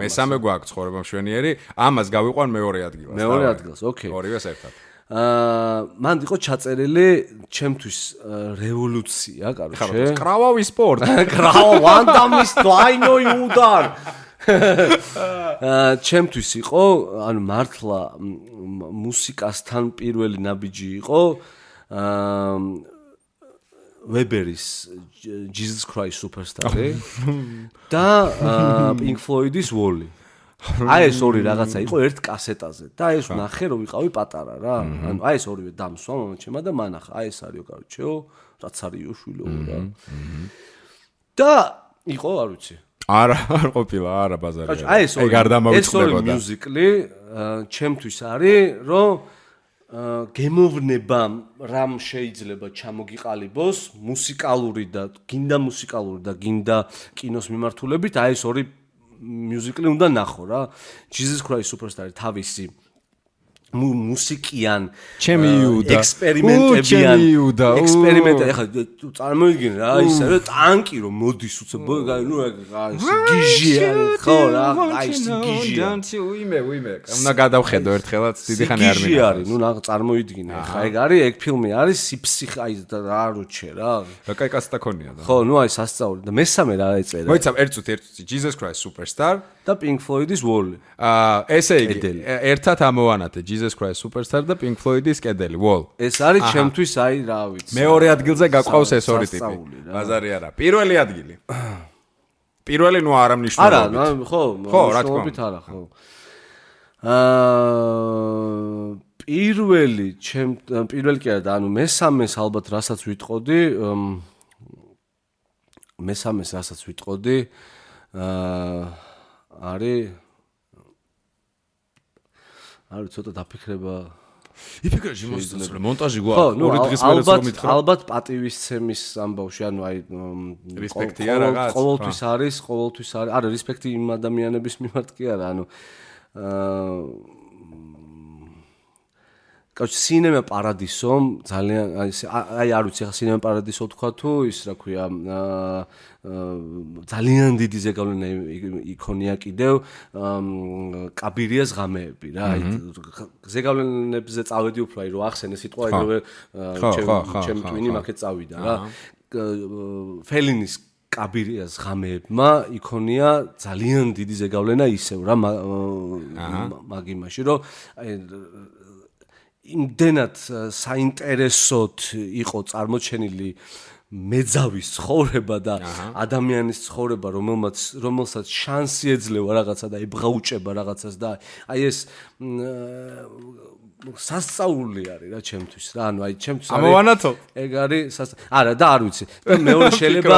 მესამე გვაქვს ცხოვრება მშვენიერი, ამას გავიყვან მეორე ადგილას. მეორე ადგილას, ოკეი. ორივეს ერთად. მან იყო ჩაწერილი ჩემთვის რევოლუცია, კაროჩე. კრავავი სპორტ. ვანდამის დაინო იუდარ. ჩემთვის იყო, ანუ მართლა მუსიკასთან პირველი ნაბიჯი იყო ვებერის Jesus Christ Superstar და Pink Floyd-ის Wall-ი. აი ეს ორი რაღაცა იყო ერთ კასეტაზე და ეს ნახე რომ ვიყავი პატარა რა. ანუ აი ეს ორივე დამსვა მომჩემა და მანახა. აი ეს არისო კაროჩეო, რაც არისო შვილო რა. და იყო, არ ვიცი. არა ყოფილა, არა ბაზარი. აი ეს ორი მიუზიკლი ჩემთვის არის, რომ გემოვნება რამ შეიძლება ჩამოგიყალიბოს მუსიკალური და გინდა კინოს მიმართულებით, აი ეს ორი მიუზიკლი უნდა ნახო რა. Jesus Christ Superstar თავისი მუსიკიან ჩემი იუდა ექსპერიმენტებიან ექსპერიმენტი ახლა წარმოიდგინე რა ისე რა ტანკი რომ მოდის უცებ ნუ გიჟია ხო რა აი გიჟია უიმე უნდა გადავხედო ერთხელაც დიდი ხანი არ მინდა არის ნუ წარმოიდგინე ხა ეგ არის ეგ ფილმი არის სიფსიხე აი რა როჩე რა კაი კასტა ქონია და ხო ნუ აი სასწაული და მესამე რა ეწერა მოიცა ერთ Jesus Christ Superstar და Pink Floyd-ის Wall ესე იგი ერთად ამოვანათე Jesus Christ Superstar და Pink Floyd-ის კედელი Wall ეს არის ჩემთვის აი რა ვიცი მეორე ადგილზე გაყავს ეს ორი ტიპი ბაზარი არა პირველი ადგილი პირველი ნუ არ ამნიშნულობთ არა ხო რა თქმა უნდა არა ხო პირველი კი არა და ანუ მესამეს ალბათ რასაც ვიტყოდი არის ცოტა დაფიქრება იფიქრე მოსწრე მონტაჟი გვაქვს ორი დღის მერე რომ მითხრა ალბათ პატივისცემის ამბავში ანუ აი რესპექტია რაღაც ყოველთვის არის არა რესპექტი იმ ადამიანების მიმართ კი არა ანუ კაუჩ სინემა პარადისომ ძალიან აი არ ვიცი ხა სინემა პარადისო თქვა თუ ის რა ქვია ძალიან დიდი ზეგავლენა იქონია კიდევ კაბირიას ღამეები რა აი ზეგავლენებზე წავედი უფრო აი რო ახსენე სიტყვა ეგრევე ჩემი ტვინი მაგეთ წავიდა რა ფელინის კაბირიას ღამეებმა იქონია ძალიან დიდი ზეგავლენა ისევ რა მაგ იმაში რომ აი იმდენად საინტერესოდ იყო წარმოჩენილი მეძავის ცხოვრება და ადამიანის ცხოვრება, რომელსაც შანსი ეძლევა რაღაცა და ებღაუჭება რაღაცას და აი ეს სასწაული არის რა ჩემთვის რა ანუ აი ჩემთვის ამოვანათო ეგ არის არა და არ ვიცი და მეორე შეიძლება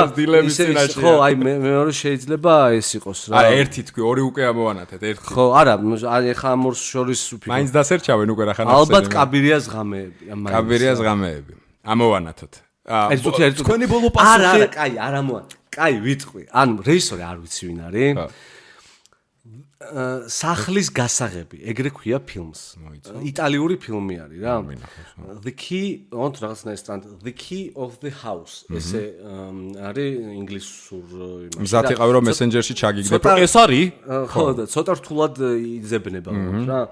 ხო აი მეორე შეიძლება ეს იყოს რა არა ერთი თქვი ორი უკვე ამოვანათეთ ერთი ხო არა ეხა ამ ორს შორის უფიქრე მაინც დასერჩავენ უკვე რა ხან ალბათ კაბირიას ღამეები ამოვანათოთ თქვენი ბოლო პასუხი არა კაი არ ამოვანათე კაი ვიტყვი ანუ რეჟისორი არ ვიცი ვინ არის სახლის გასაღები, ეგრე ქვია ფილმს. იტალიური ფილმი არის რა. The Key of the House. ესე არის ინგლისურ იმაში. მზად იყავი რომ მესენჯერში ჩაგიგდებ. ეს არის? ხო, და ცოტა რთულად იძებნება რა.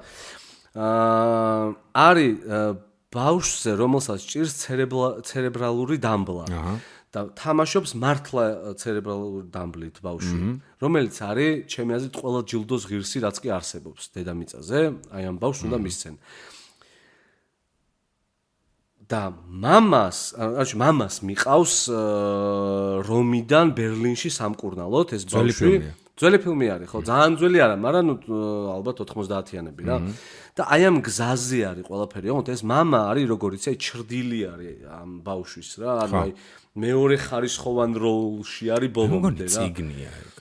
არის ბავშვზე, რომელსაც ჭირს ცერებრალური დამბლა. და თამაშობს მართლა ცერებრალური დამბლით ბავშვი, რომელიც არის ჩემი აზრით ყველა ჯილდოს ღირსი, რაც კი არსებობს დედამიწაზე, აი ამ ბავშვს უნდა მისცენ. და მამას მიყავს რომიდან ბერლინში სამკურნალოდ ეს ბავშვი. ძველი ფილმი არის, ხო, ძალიან ძველი არა, მაგრამ ალბათ 90-იანები რა. და აი ამ გზაზე არის ყველაფერი, ოღონდ ეს მამა არის როგორიც აი ჩრდილი არის ამ ბავშვის რა, ანუ აი მეორე ხარისხოვან როლში არის ბოლომდე რა. ციგნია ეგ.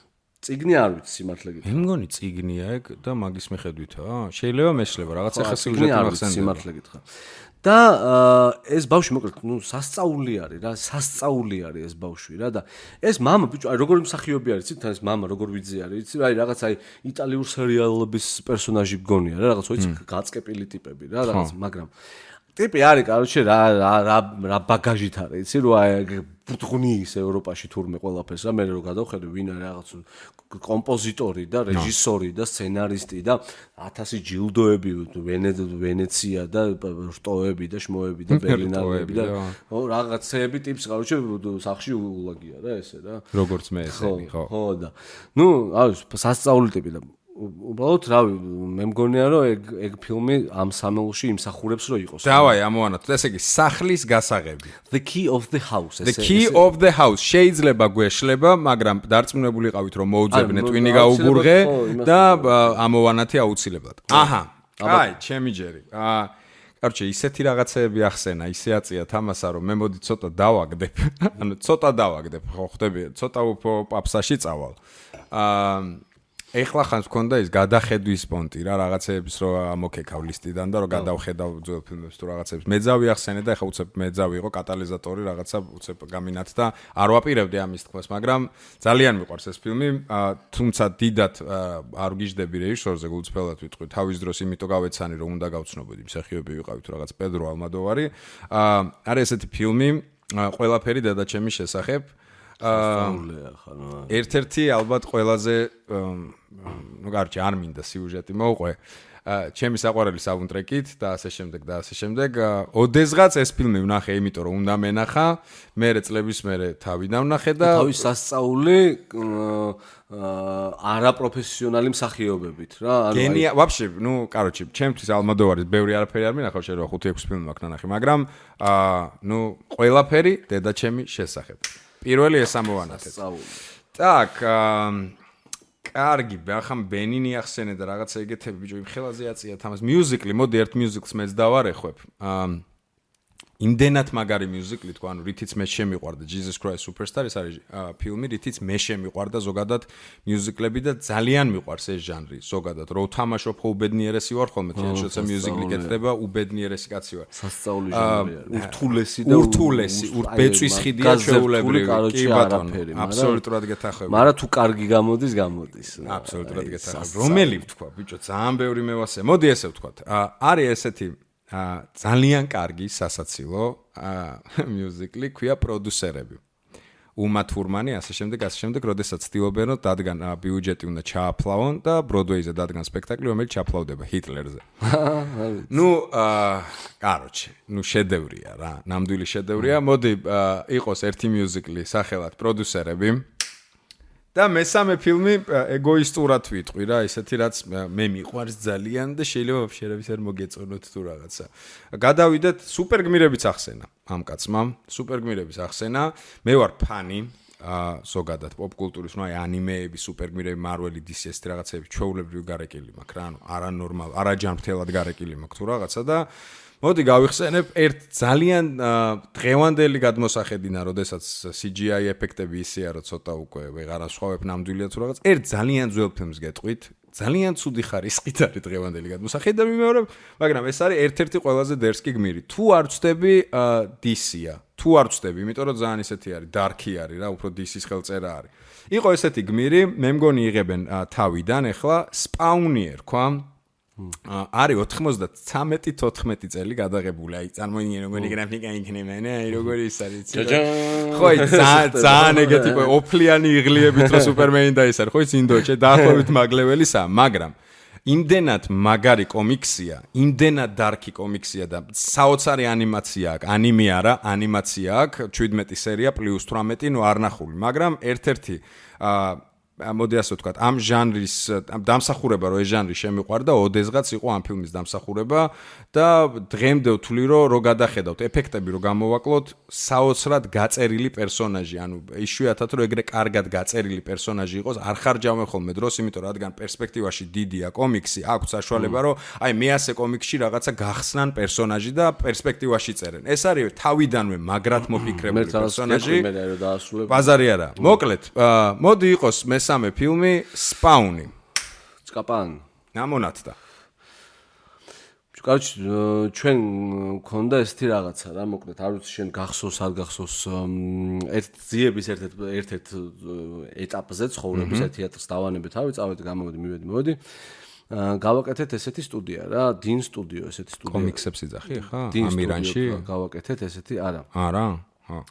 ციგნი არ ვიცი სიმართლე გითხრა. მე მგონი ციგნია ეგ და მაგის მიხედვითაა. შეიძლება მეშლება რაღაცა ხა სიუჟეტი მახსენდება. სიმართლე გითხრა. და ეს ბავშვი მოკლედ სასწაული არის რა, სასწაული არის ეს ბავშვი რა და ეს მამა ბიჭო, აი როგორი მსახიობი არის, იცით, ეს მამა როგორ ვიძე არის, იცით, აი რაღაც აი იტალიურ სერიალების პერსონაჟი გონია რა, რაღაც ვიცი, გაწკეპილი ტიპები რა, რაღაც, მაგრამ ტიპი არის, короче, რა ბაგაჟით არის, იცი, რო აი ბუთხნი ის ევროპაში თურმე ყველაფერს რა, მე რო გადავხედე ვინ არის რაღაც კომპოზიტორი და რეჟისორი და სცენარისტი და 1000 ჯილდოები ვენეცია და რტოები და შმოები და ბერლინალები და რაღაცეები ტიპს, короче, სახში ულაგია რა ესე რა. როგორც მე ესენი, ხო. ხო და ნუ, აი, სასწაული ტიპი და უბრალოდ რავი, მე მგონია რომ ეგ ფილმი ამ სამეულში იმსახურებს რომ იყოს. დავაი, ამოვანათოთ. ესე იგი, სახლის გასაღები. The Key of the House. The Key of the House. შეიძლება გვეშლება, მაგრამ დარწმუნებული ყავით რომ მოუძებნე ტვინი გაუგურღე და ამოვანათი აუცილებლად. აჰა. აი, ჩემი ჯერი. короче, ისეთი რაღაცეები ახსენა, ისე აწია თამასა რომ მე მოდი ცოტა დავაგდებ. ანუ ცოტა დავაგდებ, ხო ხდები, ცოტა უფრო პაპსაში წავალ. ეხლა ხანს მქონდა ის გადახედვის პონტი რა რაღაცეების რო ამოქეკავ ლისტიდან და რო გადავხედავ ძველ ფილმებს თუ რაღაცეებს მეძავი ახსენე და ეხლა უცებ მეძავი იყო კატალიზატორი რაღაცა უცებ გამინათდა არ ვაპირებდი ამის თქმას მაგრამ ძალიან მიყვარს ეს ფილმი თუმცა დიდად არ გიждები რეჟისორზე გულწრფელად ვიტყვი თავის დროს იმიტომ გავეცანი რომ უნდა გავცნობოდი მსახიობი ვიყავი თუ რაღაც პედრო ალმოდოვარი არის ესეთი ფილმი ყველაფერი დედაჩემის შესახებ ერთ-ერთი ალბათ ყველაზე ну короче არ მინდა სიუჟეტი მოუყვე ჩემი საყვარელი საუნდტრეკით და ასე შემდეგ ოდესღაც ეს ფილმი ვნახე იმიტომ რომ უნდა მენახა მერე წლების მერე თავი დავნახე და თავის სასწაული არაპროფესიონალი მსახიობებით რა გენია вообще ну короче ჩემთვის ალმოდოვარის ბევრი არაფერი არ მინახავ შეიძლება 5-6 ფილმი მაქვს ნანახი მაგრამ ну ყველაფერი დედაჩემი შესახებ პირველი ეს ამოვანათეთ. Так, კარგი, ახლა ბენინი ახსენე და რაღაცა ეგეთები ბიჭო იმ ხელაზე აწია თამას მიუზიკლი, მოდი ერთ მიუზიკლს მეც დავარეხვებ. იმდენად მაგარი მიუზიკლი თქვა, ანუ რითიც მე შემიყვარდა Jesus Christ Superstar ეს არის ფილმი, რითიც მე შემიყვარდა ზოგადად მიუზიკლები და ძალიან მიყვარს ეს ჟანრი ზოგადად. რო თამაშობ ხო უბედნიერესი ვარ ხოლმე, თქო, შოცა მიუზიკლი კეთდება, უბედნიერესი კაცი ვარ. სასწაული ჟანრია. ურთულესი და ურთულესი, ბეწვის ხიდია ჩვეულებრივი. კი ბატონო, აბსოლუტურად გეთახები. მაგრამ თუ კარგი გამოდის. აბსოლუტურად გეთახები. რომელი ვთქვა, ბიჭო, ძალიან ბევრი მევასე. მოდი ესე ვთქვათ. არის ესეთი ძალიან კარგი სასაცილო მიუზიკლი ქვია პროდიუსერები. უმა თურმანი ასე შემდეგ, როდესაც ცდილობენ რომ დადგან ბიუჯეტი უნდა ჩააფლავონ და ბროდვეიზე დადგან სპექტაკლი, რომელიც ჩაფლავდება ჰიტლერზე. ну, короче, შედევრია რა, ნამდვილი შედევრია. მოდი იყოს ერთი მიუზიკლი სახელად პროდიუსერები. და მესამე ფილმი ეგოისტურად ვიტყვი რა, ისეთი რაც მე მიყვარს ძალიან და შეიძლება ვაფშერების არ მოგეწონოთ თუ რაღაცა. გადავიდეთ სუპერგმირების ახსენა ამ კაცმა, სუპერგმირების ახსენა. მე ვარ ფანი ზოგადად პოპკულტურის, აი ანიმეები, სუპერგმირები, მარველი, DC ეს რაღაცები ჩვეულებრივი გარეკილი მაქვს რა, ანუ არანორმალ, არაჯანმრთელად გარეკილი მაქვს თუ რაღაცა და მოდი გავიხსენებ ერთ ძალიან დღევანდელი გადმოსახედინა, როდესაც CGI ეფექტები ისეა, რომ ცოტა უკვე ვეღარ ასხვავებ ნამდვილია თუ რაღაც. ერთ ძალიან ძველ ფილმს გეტყვით, ძალიან ცუდი ხარისხით არის დღევანდელი გადმოსახედი და მიმეორებ, მაგრამ ეს არის ერთ-ერთი ყველაზე დერსკი გმირი. თუ არ ვწდები DC-ა, თუ არ ვწდები, იმიტომ რომ ძალიან ისეთი არის, dark-ი არის რა, უფრო DC-ის ხელწერა არის. იყო ესეთი გმირი, მე მგონი იღებენ თავიდან, ეხლა Spawni ერქვა. არის 93-14 წელი გადაღებული. აი, წარმოიდგინე როგორი გრაფიკა იქნება, აი, როგორი ის არის. ხო, ძალიან ეგეთი ოფლიანი იღლიებით რო სუპერმენი და ის არის, ხო, ინდოეთში დაახლოებით მაგლეველისა, მაგრამ იმდენად მაგარი კომიქსია, იმდენად დარკი კომიქსია და საოცარი ანიმაცია აქვს, ანიმე არა, ანიმაცია აქვს, 17 სერია + 18, ნუ არ ნახული, მაგრამ ერთ-ერთი მოდი ასე ვთქვათ, ამ ჟანრის დამსახურება რო ეს ჟანრი შემიყვარდა, ოდესღაც იყო ამ ფილმის დამსახურება და დღემდე ვთვლი რომ გადახედავთ ეფექტები რო გამოვაკლოთ, საოცრად გაწერილი პერსონაჟი, ანუ იშვიათად რომ ეგრე კარგად გაწერილი პერსონაჟი იყოს, არ ხარჯავენ ხოლმე დროს, იმიტომ რადგან პერსპექტივაში დიდია კომიქსი, აქვს საშუალება რომ აი მე ასე კომიქსში რაღაცა გახსნან პერსონაჟი და პერსპექტივაში წერენ. ეს არის თავიდანვე მაგრად მოფიქრებული პერსონაჟი. ბაზარი არა. მოკლედ, მოდი იყოს მესამე ფილმი Spawni. Წკაპან. ნამონათდა. Короче, ჩვენ მქონდა ესეთი რაღაცა რა, მოკლედ, არ ვიცი შენ გახსოვს, არ გახსოვს ერთ ძიების ერთ-ერთ ეტაპზე ცხოვრების თეატრს დავანებე თავი, წავედი, გამოვედი, მივედი. გავაკეთეთ ესეთი სტუდია რა, Din Studio ესეთი სტუდია. კომიქსებს იძახი ხა? ამირანში გავაკეთეთ ესეთი, არა. არა? ჰა.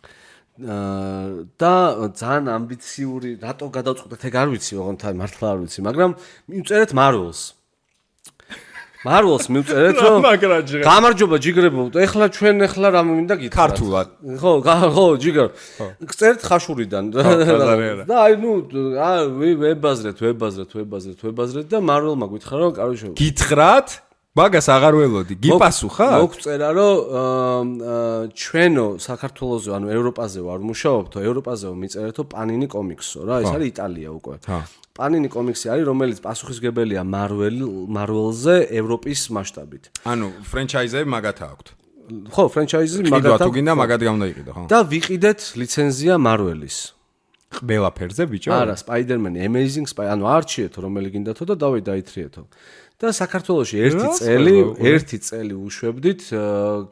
და ძალიან ამბიციური, რატო გადავწყვეტეთ ეგ არ ვიცი, ოღონდ მართლა არ ვიცი, მაგრამ მივწერეთ Marvels მივწერეთ რომ გამარჯობა ჯიგრებო, ეხლა ჩვენ რა მინდა გითხრათ? ქართულად. ხო, ჯიგერ. გწერეთ ხაშურიდან. და აი ნუ ვებაზრეთ და Marvel-მა გითხრა რომ კაროშო. გითხრათ? მაგას აღარ ველოდი. გიპასუხა? მოგწერა რომ ჩვენო საქართველოზე, ანუ ევროპაზე ვარ მუშაობთო, ევროპაზე მიწერეთო Panini Comics-ო რა, ეს არის იტალია უკვე. Panini Comics-ი არის, რომელიც პასუხისგებელია Marvel-ზე ევროპის მასშტაბით. ანუ ფრენჩაიზები მაგათა აქვთ. ხო, ფრენჩაიზი მაგათა. თუ გინდა მაგად გამოდაიყიდო, ხო? და ვიყიდეთ ლიცენზია Marvel-ის. ყველაფერზე ბიჭო? არა, Spider-Man Amazing ანუ არჩიეთო რომელი გინდათო და დავით დაითრიეთო. და საქართველოში ერთი წელი უშვებდით,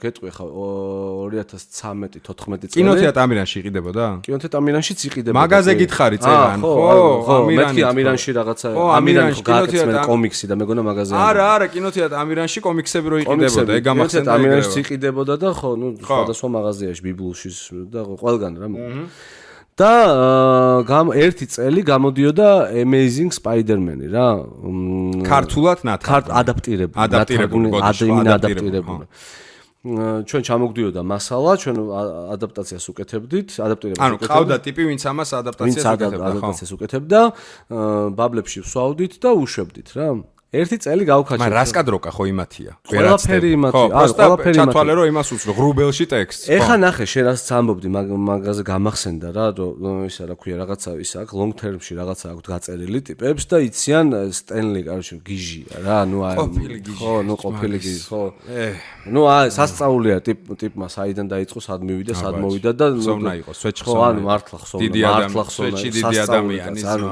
გეტყვი ხა 2013-14 წელი. კინოთეატრ ამირანში იყიდებოდა? კინოთეატრ ამირანში იყიდებოდა. მაღაზე გითხარი წერან, ხო, მეთქი ამირანში რაღაცა ამირანში გააკეთებენ კომიქსი და მეგონა მაღაზე. არა, კინოთეატრ ამირანში კომიქსები რო იყიდებოდა, ეგ გამახსენდა. ამირანში იყიდებოდა და ხო, სხვადასხვა მაღაზიაში, ბიბლუში და ყველგან რა. და ერთი წელი გამოდიოდა Amazing Spider-Man-ი რა. ქართულად ადაპტირებული. ჩვენ ჩამოგდიოდა მასალა, ჩვენ ადაპტაციას უკეთებდით, ანუ ყავდა ტიპი, ვინც ამას ადაპტაციას უკეთებდა, ბაბლებში ვსვავდით და უშვებდით რა. ერთი წელი გავქაჩეთ. მაგრამ რას კადროკა ხო იმათია? ყველაფერი იმათია. ყველაფერი იმათია. ჩათვალე რომ იმას უცნო ღრუბელში ტექსტს. ეხა ნახე, შენ რას ამბობდი, მაგაზე გამახსენდა რა, რომ ისა რა ქვია, რაღაცა ის აქვს long term-ში რაღაცა აქვს გაწერილი ტიპებს და იციან სტენლი, კაროჩე, გიჟია რა, ნუ აი. ხო, ნუ ყოფილი გიჟი, ხო. ნუ აი, სასწაულია ტიპმა საიდან დაიწყო, სად მივიდა, სად მოვიდა და ხსოვნა იყო, სვეჩხსოვნა. ხო, ანუ მართლა ხსოვნა, სვეჩი დიდი ადამიანის. ანუ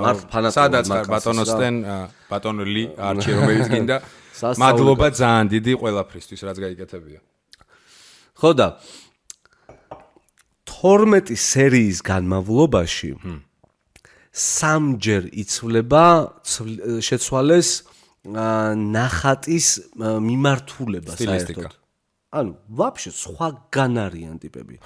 სადაც ბატონო სტენ ბატონო ლი არჩი რომელიც გინდა მადლობა ძალიან დიდი ყველაფრისთვის რაც გაიკეთებია. ხო და 12 სერიის განმავლობაში სამჯერ იცვლება შეცვალეს ნახატის მიმართულება საერთოდ. ანუ ვაფშე სხვაგან არიან ტიპები.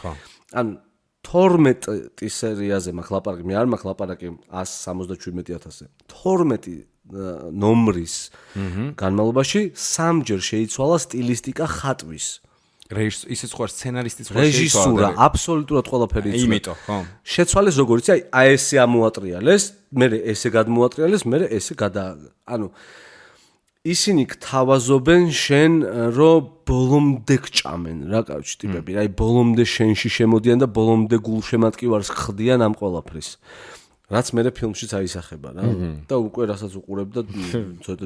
ანუ 12 სერიაზე მაქვს ლაპარაკი, მე არ მაქვს ლაპარაკი 177,000-ზე. 12 ნომრის განმავლობაში სამჯერ შეიცვალა სტილისტიკა ხატვის. ისიც ხო სცენარისტიც ხო რეჟისურა, აბსოლუტურად ყველაფერი იცვლება. იმიტომ, ხო. შეცვალეს როგორიც აი ესე ამოატრიალეს, მე ესე გადმოატრიალეს, მე ესე ანუ ისინი გთავაზობენ შენ რომ ბოლომდე გჭამენ რა კავშირი ტიპები, აი ბოლომდე შენში შემოდიან და ბოლომდე გულშემატკივარს ხდიან ამ ყველაფრის. რაც მე ფილმშიც აისახება რა და უკვე რასაც უყურებ და ცოტა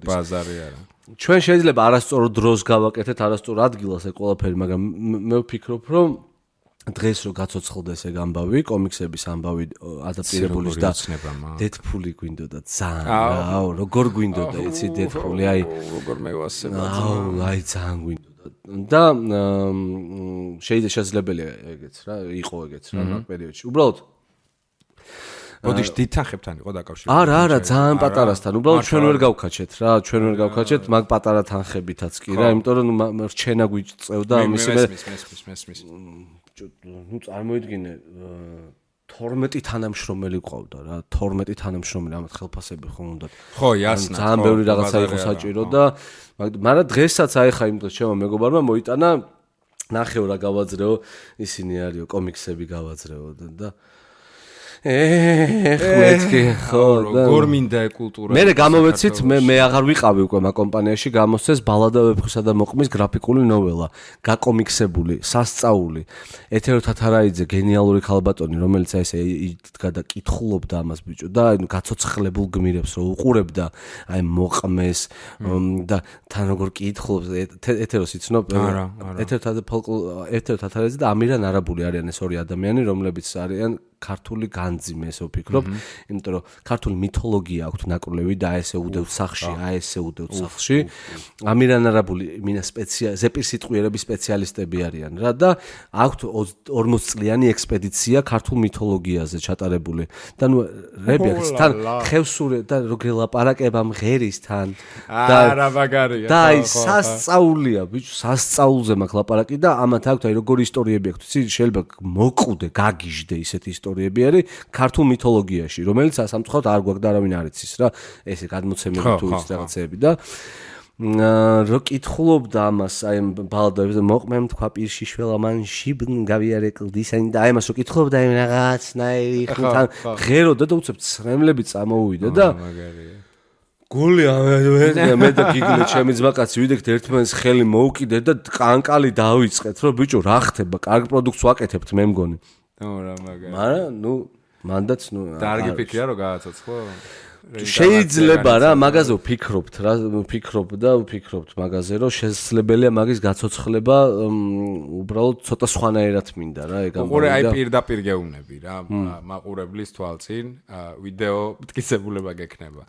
ბაზარი არა. ჩვენ შეიძლება არასწორ დროს გავაკეთეთ, არასწორ ადგილას ეგ ყველაფერი, მაგრამ მე ვფიქრობ რომ დღეს რო გაცოცხლდეს ეგ ამბავი, კომიქსების ამბავი ადაპტირებულის და დედფული გვინდოდა ძალიან რა, როგორ გვინდოდა იცი დედფული, აი როგორ მევასება. აი ძალიან გვინდოდა და შეიძლებაია ეგეც რა, იყო ეგეც რა მაგ პერიოდში. უბრალოდ ოდიშ დითანხებთან იყო დაკავშირებული. არა, ძალიან პატარასთან. უბრალოდ ჩვენ ვერ გავქაჩეთ რა, ჩვენ ვერ გავქაჩეთ მაგ პატარა თანხებითაც კი რა, იმიტომ რომ რჩენა გვიწევდა ამის მე. ნუ წარმოიდგინე 12 თანამშრომელი ყავდა რა, 12 თანამშრომელი, ამათ ხელფასები ხო უნდათ. ხო, იასნა. ძალიან ბევრი რაღაცა იყო საჭირო და მაგრამ დღესაც აი ხა იმ დროს ჩემო მეგობარმა მოიტანა ნახეო რა გავაძრეო, ისინი არისო კომიქსები გავაძრეო და მეთქი ხო როგორ მინდა კულტურა. მე გამოვეცით, მე აღარ ვიყავი უკვე მაგ კომპანიაში, გამოსცეს ბალადა ვეფხვისა და მოყმის გრაფიკული ნოველა, გაკომიქსებული, სასწაული. ეთერო თათარაიძე გენიალური ქალბატონი, რომელიც აი ესე იდგა და კითხულობდა ამას ბიჭო და აი გაცოცხლებულ გმირებს რო უყურებდა, აი მოყმეს და თან როგორ კითხულობს ეთეროს იცნობ? ეთერო თათარაიძე და ამირან არაბული არიან ეს ორი ადამიანი, რომლებიც არიან ქართული განძიმე, ესე ვფიქრობ, იმიტომ რომ ქართული მითოლოგია აქვთ ნაკროლევი და ესე უდევთ სახლში, ამირან არაბული მინა ზეპირ სიტყვიერების სპეციალისტები არიან რა და აქვთ 40 წლიანი ექსპედიცია ქართულ მითოლოგიაზე ჩატარებული. და ნუ რებიაქს თან ხევსურე და როგორ ლაპარაკება მღერისთან და არა მაგარია. და აი სასწაულია, ბიჭო, სასწაულზე მაქვს ლაპარაკი და ამათ აქვთ აი როგორი ისტორიები აქვთ, იცი, შეიძლება მოკვდე, გაგიჟდე ისეთი ისტორიები არის ქართულ მითოლოგიაში, რომელიც სამწუხაროდ არ გვაქვს და არავინ არ იცის რა, ესე გადმოცემები თუ ის რაღაცეები და რო კითხულობდა ამას, აი ბალადებს მოყმემ თქვა პირში შველა მან შიბნ გავიარე კლდისანი და აი ამას რო კითხულობდა აი რაღაცნაირი ხუთან ღეროდა და უცებ ცრემლები წამოუვიდა და გული მე და გიგლე ჩემი ძმაკაცი ვიდექთ ერთმანეთს ხელი მოუკიდეთ და კანკალი დავიწყეთ რომ ბიჭო რა ხდება, კარგ პროდუქტს ვაკეთებთ მე მგონი. რა მაგარი. მაგრამ ნუ მანდაც ნუ დარგი ფიქრია რომ გააცოცხლო? შეიძლება რა მაგაზე ვფიქრობთ რა ვფიქრობთ მაგაზე რომ შესაძლებელია მაგის გაცოცხლება უბრალოდ ცოტა სხვანაირად მინდა რა ეგ ამბავი და უყურე აი პირდაპირ გეუბნები რა მაყურებლის თვალწინ ვიდეო მტკიცებულება გექნება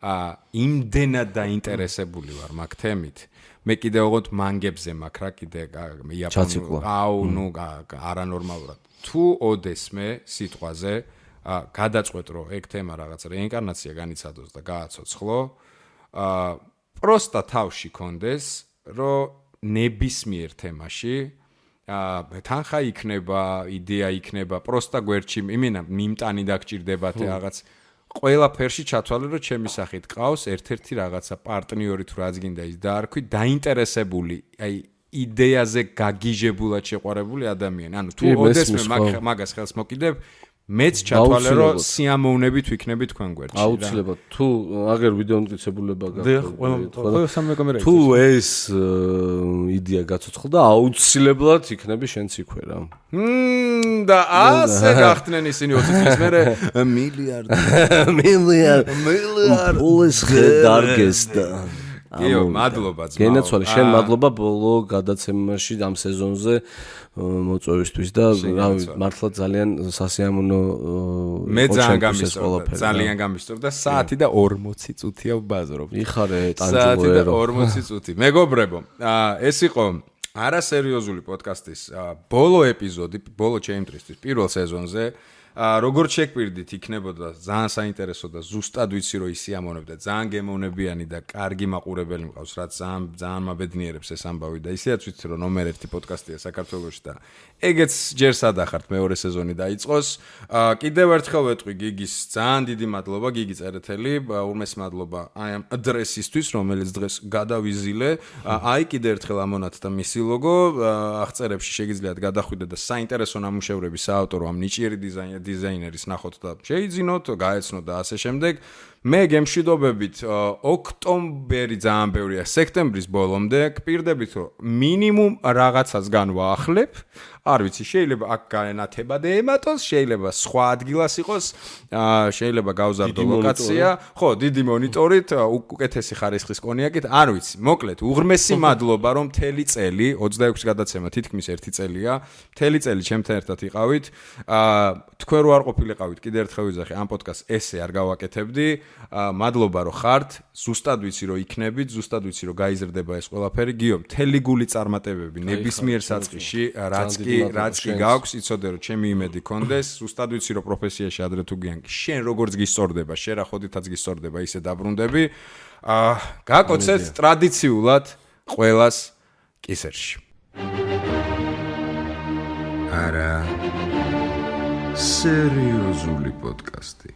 იმდენად დაინტერესებული ვარ მაგ თემით მე კიდე ოღონდ მანგებზე მაქვს რა კიდე იაპონურ არანორმალურად თუ ოდესმე სიტყვაზე გადაწყვეტ რომ ეგ თემა რაღაც რეინკარნაცია განიცადოს და გააცოცხლო პროსტა თავში კონდეს რომ ნებისმიერ თემაში თანხა იქნება იდეა იქნება პროსტა გვერდში იმენა მიმტანი დაგჭირდებათ რაღაც ყველაფერში ჩათვალე რომ ჩემი სახით ყავს ერთ-ერთი რაღაცა პარტნიორი თუ რაც გინდა ის დაარქვი დაინტერესებული აი იდეაზე გაგიჟებულად შეყვარებული ადამიანი ანუ თუ ოდესმე მაგას ხელს მოკიდებ მეც ჩათვალე რომ სიამოვნებით ვიქნები თქვენ გვერდში რა აუცილებლად თუ აგერ ვიდეო მტკიცებულება გაქვს თუ ეს იდეა გაცოცხლდა აუცილებლად იქნები შენც იქვე რა და ასე გახდნენ ისინი 20 წლის მერე მილიარდ პულის დარგესდა იო მადლობა ძმაო გენაცვალე შენ მადლობა ბოლო გადაცემაში ამ სეზონზე მოწვევისთვის და რავი მართლა ძალიან სასიამოვნო მე ძალიან გამისწორდა და საათი და 40 წუთია ვბაზრობ იხარე ტანჯულო 40 წუთი მეგობრებო ეს იყო არასერიოზული პოდკასტის ბოლო ეპიზოდი ბოლო ჩემთვის პირველ სეზონზე როგორც შეგვირდით იქნებოდა ძალიან საინტერესო და ზუსტად ვიცი რომ ისიამოვნებდა ძალიან გემოვნებიანი და კარგი მაყურებელი მყავს რაც ძალიან მაბედნიერებს ეს ამბავი და ისედაც ვიცი რომ ნომერ 1 პოდკასტია საქართველოში და ეგეც ჯერ სადახართ მეორე სეზონი დაიწყოს კიდევ ერთხელ ვეთყვი გიგის ძალიან დიდი მადლობა გიგი წერეთელი ურმეს მადლობა აი ამ ადრესისთვის რომელიც დღეს გადავიზილე აი კიდევ ერთხელ ამონათ და მისი ლოგო აღწერებში შეგიძლიათ გადახვიდეთ და საინტერესო ნამუშევრების საავტორო ამ ნიჭიერი დიზაინერის ნახოთ და შეიძინოთ, გაეცნოთ და ასე შემდეგ. მე გემშვიდობებით ოქტომბერი ძალიან ბევრია, სექტემბრის ბოლომდე გპირდებით რომ მინიმუმ რაღაცას განვაახლებ. არ ვიცი, შეიძლება აქ განათებადე ემატოს, შეიძლება სხვა ადგილას იყოს, შეიძლება გავზარდო ლოკაცია, ხო, დიდი მონიტორით, უკეთესი ხარისხის კონიაკით, არ ვიცი. მოკლედ, უღრმესი მადლობა რომ მთელი წელი, 26 გადაცემა თითქმის 1 წელია, მთელი წელი ჩემთან ერთად იყავით. თქვენ რო არ ყოფილიყავით, კიდევ ერთხელ ვიძახი, ამ პოდკასტს ესე არ გავაკეთებდი. მადლობა რომ ხართ, ზუსტად ვიცი რომ იქნებით, ზუსტად ვიცი რომ გაიზრდება ეს ყველაფერი. გიო, მთელი გული წარმატებები ნებისმიერ საწყისში, რაც კი გაქვს, იცოდე რომ ჩემი იმედი კონდეს, ზუსტად ვიცი რომ პროფესიაში ადრე თუ გიანკი, შენ როგორც გისწორდება, შენ რა ხოდითაც გისწორდება, ისე დაბრუნდები. გაკოცეთ ტრადიციულად ყველას კისერში. არა სერიოზული პოდკასტი